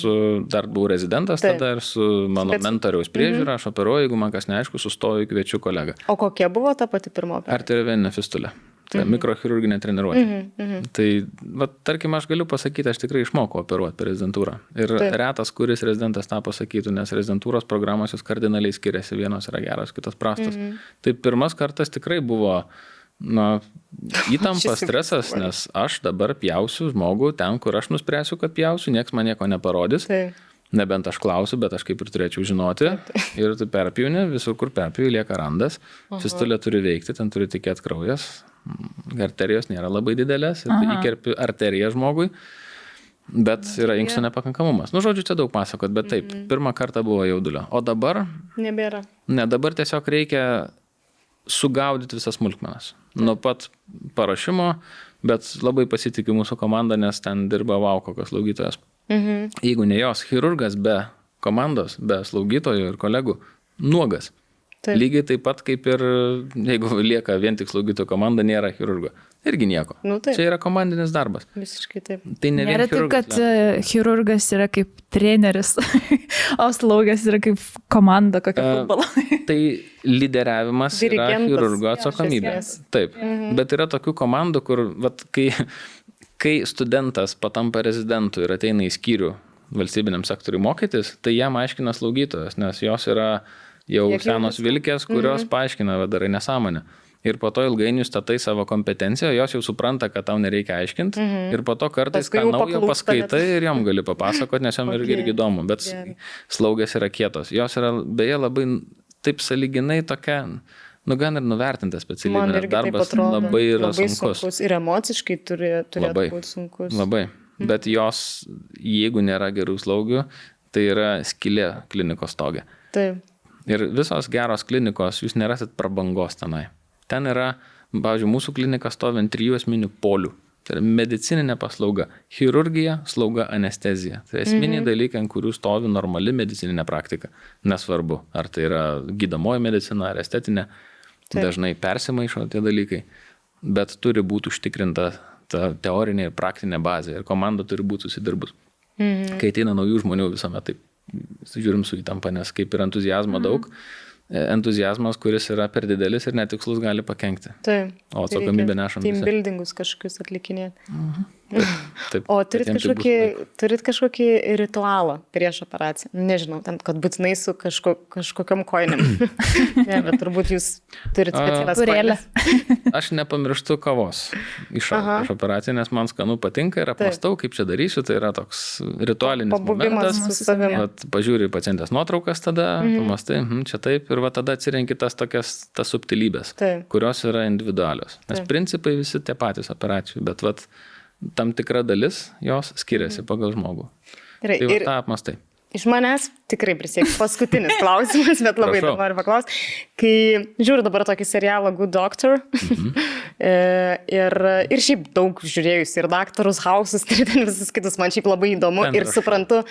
dar buvau rezidentas tada ir su mano mentoriaus priežiūra, aš operuoju, jeigu man kas neaišku, sustoju, kviečiu kolegą. O kokia buvo ta pati pirma operacija? Arterioveninė fistulė. Tai mikrochirurginė treniruotė. Tai, tarkim, aš galiu pasakyti, aš tikrai išmokau operuoti per rezidentūrą. Ir retas, kuris rezidentas tą pasakytų, nes rezidentūros programos jos kardinaliai skiriasi, vienos yra geros, kitos prastos. Tai pirmas kartas tikrai buvo įtampa, stresas, nes aš dabar pjausiu žmogų ten, kur aš nuspręsiu, kad pjausiu, nieks man nieko neparodys. Nebent aš klausiu, bet aš kaip ir turėčiau žinoti. Ir tu perpjauni, visur kur perpjauni, lieka randas. Fistulė turi veikti, ten turi tekėti kraujas. Arterijos nėra labai didelės, ir tai įkerpi arteriją žmogui, bet yra inkstų nepakankamumas. Žodžiu, čia daug pasakot, bet taip, pirmą kartą buvo jaudulio. O dabar? Nebėra. Ne, dabar tiesiog reikia sugaudyti visas smulkmenas. Nuo pat parašymo, bet labai pasitikiu mūsų komandą, nes ten dirba kokios slaugytojas. Jeigu ne jos, chirurgas be komandos, be slaugytojų ir kolegų, nuogas. Taip. Lygiai taip pat kaip ir, jeigu lieka vien tik slaugytojų komanda, nėra chirurgo. Irgi nieko. Čia yra komandinis darbas. Visiškai taip. Tai ne vien nėra taip, kad chirurgas yra kaip treneris, o slaugas yra kaip komanda kokia futbolo. Tai lyderiavimas yra chirurgo atsakomybė. Taip, bet yra tokių komandų, kur kai studentas patampa rezidentu ir ateina į skyrių valstybiniam sektoriui mokytis, tai jam aiškina slaugytojas, nes jos yra jau senos vilkės, kurios paaiškina, darai nesąmonę. Ir po to ilgainiui statai savo kompetenciją, jos jau supranta, kad tau nereikia aiškinti. Ir po to kartais ką naujo paskaitai ir jom gali papasakoti, nes jom irgi įdomu. Bet slaugės yra kietos. Jos yra beje labai taip sąlyginai tokia, gan ir nuvertinta specialybė, nes darbas labai yra sunkus. Ir emociškai turėtų būti sunkus. Labai. Bet jos, jeigu nėra gerų slaugių, tai yra skylė klinikos stoge. Taip. Ir visos geros klinikos, jūs nerasit prabangos tenai. Ten yra, pavyzdžiui, mūsų klinika stovi ant 3 esminių polių. Tai yra medicininė paslauga. Chirurgija, slauga, anestezija. Tai esminiai dalykai, ant kurių stovi normali medicininė praktika. Nesvarbu, ar tai yra gydomoji medicina, ar estetinė. Dažnai persimaišo tie dalykai. Bet turi būti užtikrinta ta teorinė ir praktinė bazė. Ir komanda turi būti susidirbus. Kai ateina naujų žmonių visuomet taip. Žiūrim su įtampa, nes kaip ir entuzijazmo daug, entuzijazmas, kuris yra per didelis ir netikslus, gali pakenkti. Taip. O atsakomybę nešam visi. Team buildingus kažkokius atlikinėti. Taip, o turit kažkokį ritualą prieš operaciją? Nežinau, ten, kad būtinai su kažkokiam koinėm. Ne, bet turbūt jūs turit specialias koinės. Aš nepamirštu kavos iš operacijų, nes man skanu patinka ir apmastau, kaip čia darysiu. Tai yra toks ritualinis momentas. Pažiūri pacientės nuotraukas tada, pamastai, čia taip, ir tada atsirenki tas subtilybės, kurios yra individualios. Nes principai visi tie patys operacijų, bet tam tikra dalis jos skiriasi pagal žmogų. Tai tą apmastai. Iš manęs tikrai prisiekiu paskutinis klausimas, bet labai dabar noriu paklausti. Kai žiūriu dabar tokį serialą Good Doctor, ir šiaip daug žiūrėjus ir Daktarus House'us, ir visus kitus, man šiaip labai įdomu ir suprantu,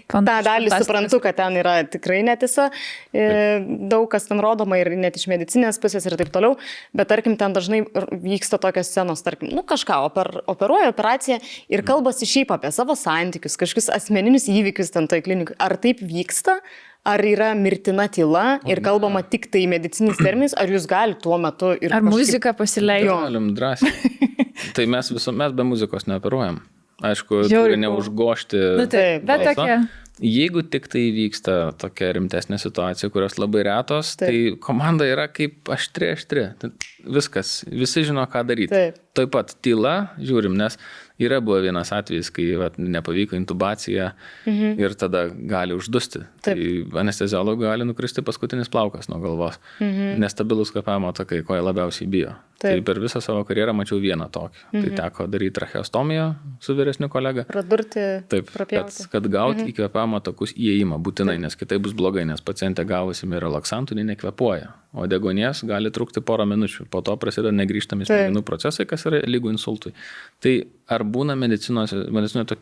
tą dalį suprantu, kad ten yra tikrai netiesa, daug kas ten rodoma ir net iš medicinės pusės ir taip toliau, bet tarkim ten dažnai vyksta tokios scenos, tarkim, kažką, operuoja operaciją ir kalbasi šiaip apie savo santykius, kažkokius asmeninius įvykius ten toj klinikui. Ar taip vyksta? Ar yra mirtina tyla ir kalbama tik tai medicininis terminis, ar jūs galite tuo metu ir... Ar muziką pasileisti? Galim drąsiai. Tai mes be muzikos neoperuojam. Aišku, turi neužgošti balsą. Jeigu tik tai vyksta tokia rimtesnė situacija, kurios labai retos, tai komanda yra kaip aštri. Viskas, visi žino, ką daryti. Taip pat tyla, žiūrim, nes Yra buvo vienas atvejis, kai nepavyko intubacija ir tada gali uždusti. Tai anesteziologui gali nukristi paskutinis plaukas nuo galvos. Nestabilus kvėpavimo takai, ko jie labiausiai bijo. Tai per visą savo karjerą mačiau vieną tokį. Tai teko daryti tracheostomiją su vyresniu kolega. Pradurti, prapjauti. Kad gauti į kvėpavimo takus įėjimą būtinai, nes kitai bus blogai, nes pacientė gavusi relaksantų, nekvėpuoja. O deguonies gali trukti porą minučių. Po to prasideda negrįžtami smegenų procesai, kas yra lygu insultui. Tai ar būna medicinoje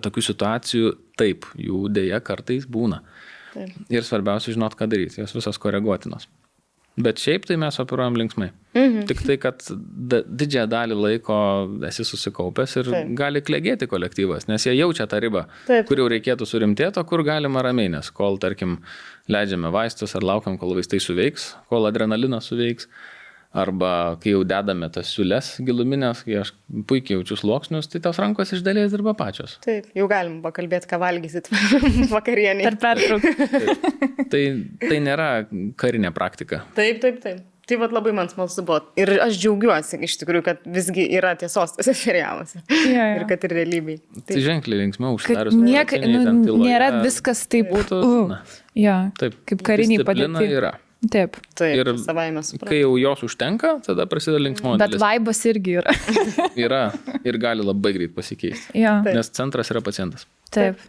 tokių situacijų? Taip, jų dėja kartais būna. Ir svarbiausia žinot, ką daryti. Jos visos koreguotinos. Bet šiaip tai mes operuojam linksmai. Tik tai, kad didžiąją dalį laiko esi susikaupęs ir gali klegėti kolektyvas, nes jie jaučia tą ribą, kur jau reikėtų surimtėti, o kur galima ramiai, nes kol, tarkim, leidžiame vaistus ar laukiam, kol vaistai suveiks, kol adrenalinas suveiks, arba kai jau dedame tas siūles giluminės, kai aš puikiai jaučiu sluoksnius, tai tos rankos iš dalies dirba pačios. Taip, jau galim pakalbėti, ką valgysit vakarienį. Per pertrauką. Tai nėra karinė praktika. Taip. Tai labai man smalsu buvo. Ir aš džiaugiuosi iš tikrųjų, kad visgi yra tiesos tose serialuose. Ir kad ir realybėj. Tai ženkliai linksmiau užsidarius. Nėra viskas taip būtų. Kaip kariniai padėti. Yra. Taip. Ir kai jau jos užtenka, tada prasideda linksmoji dalis. Bet vaibas irgi yra. Yra ir gali labai greit pasikeisti. Nes centras yra pacientas. Taip.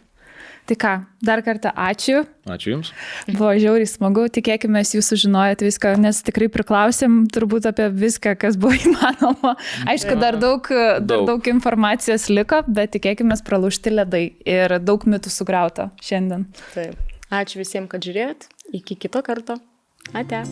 Tai ką, dar kartą ačiū. Ačiū Jums. Buvo žiauriai smagu, tikėkime, jūs sužinojot viską, nes tikrai priklausėm turbūt apie viską, kas buvo įmanoma. Aišku, dar daug informacijos liko, bet tikėkime, pralaužti ledai ir daug mitų sugriauta šiandien. Taip. Ačiū visiems, kad žiūrėjot. Iki kito karto. Ate.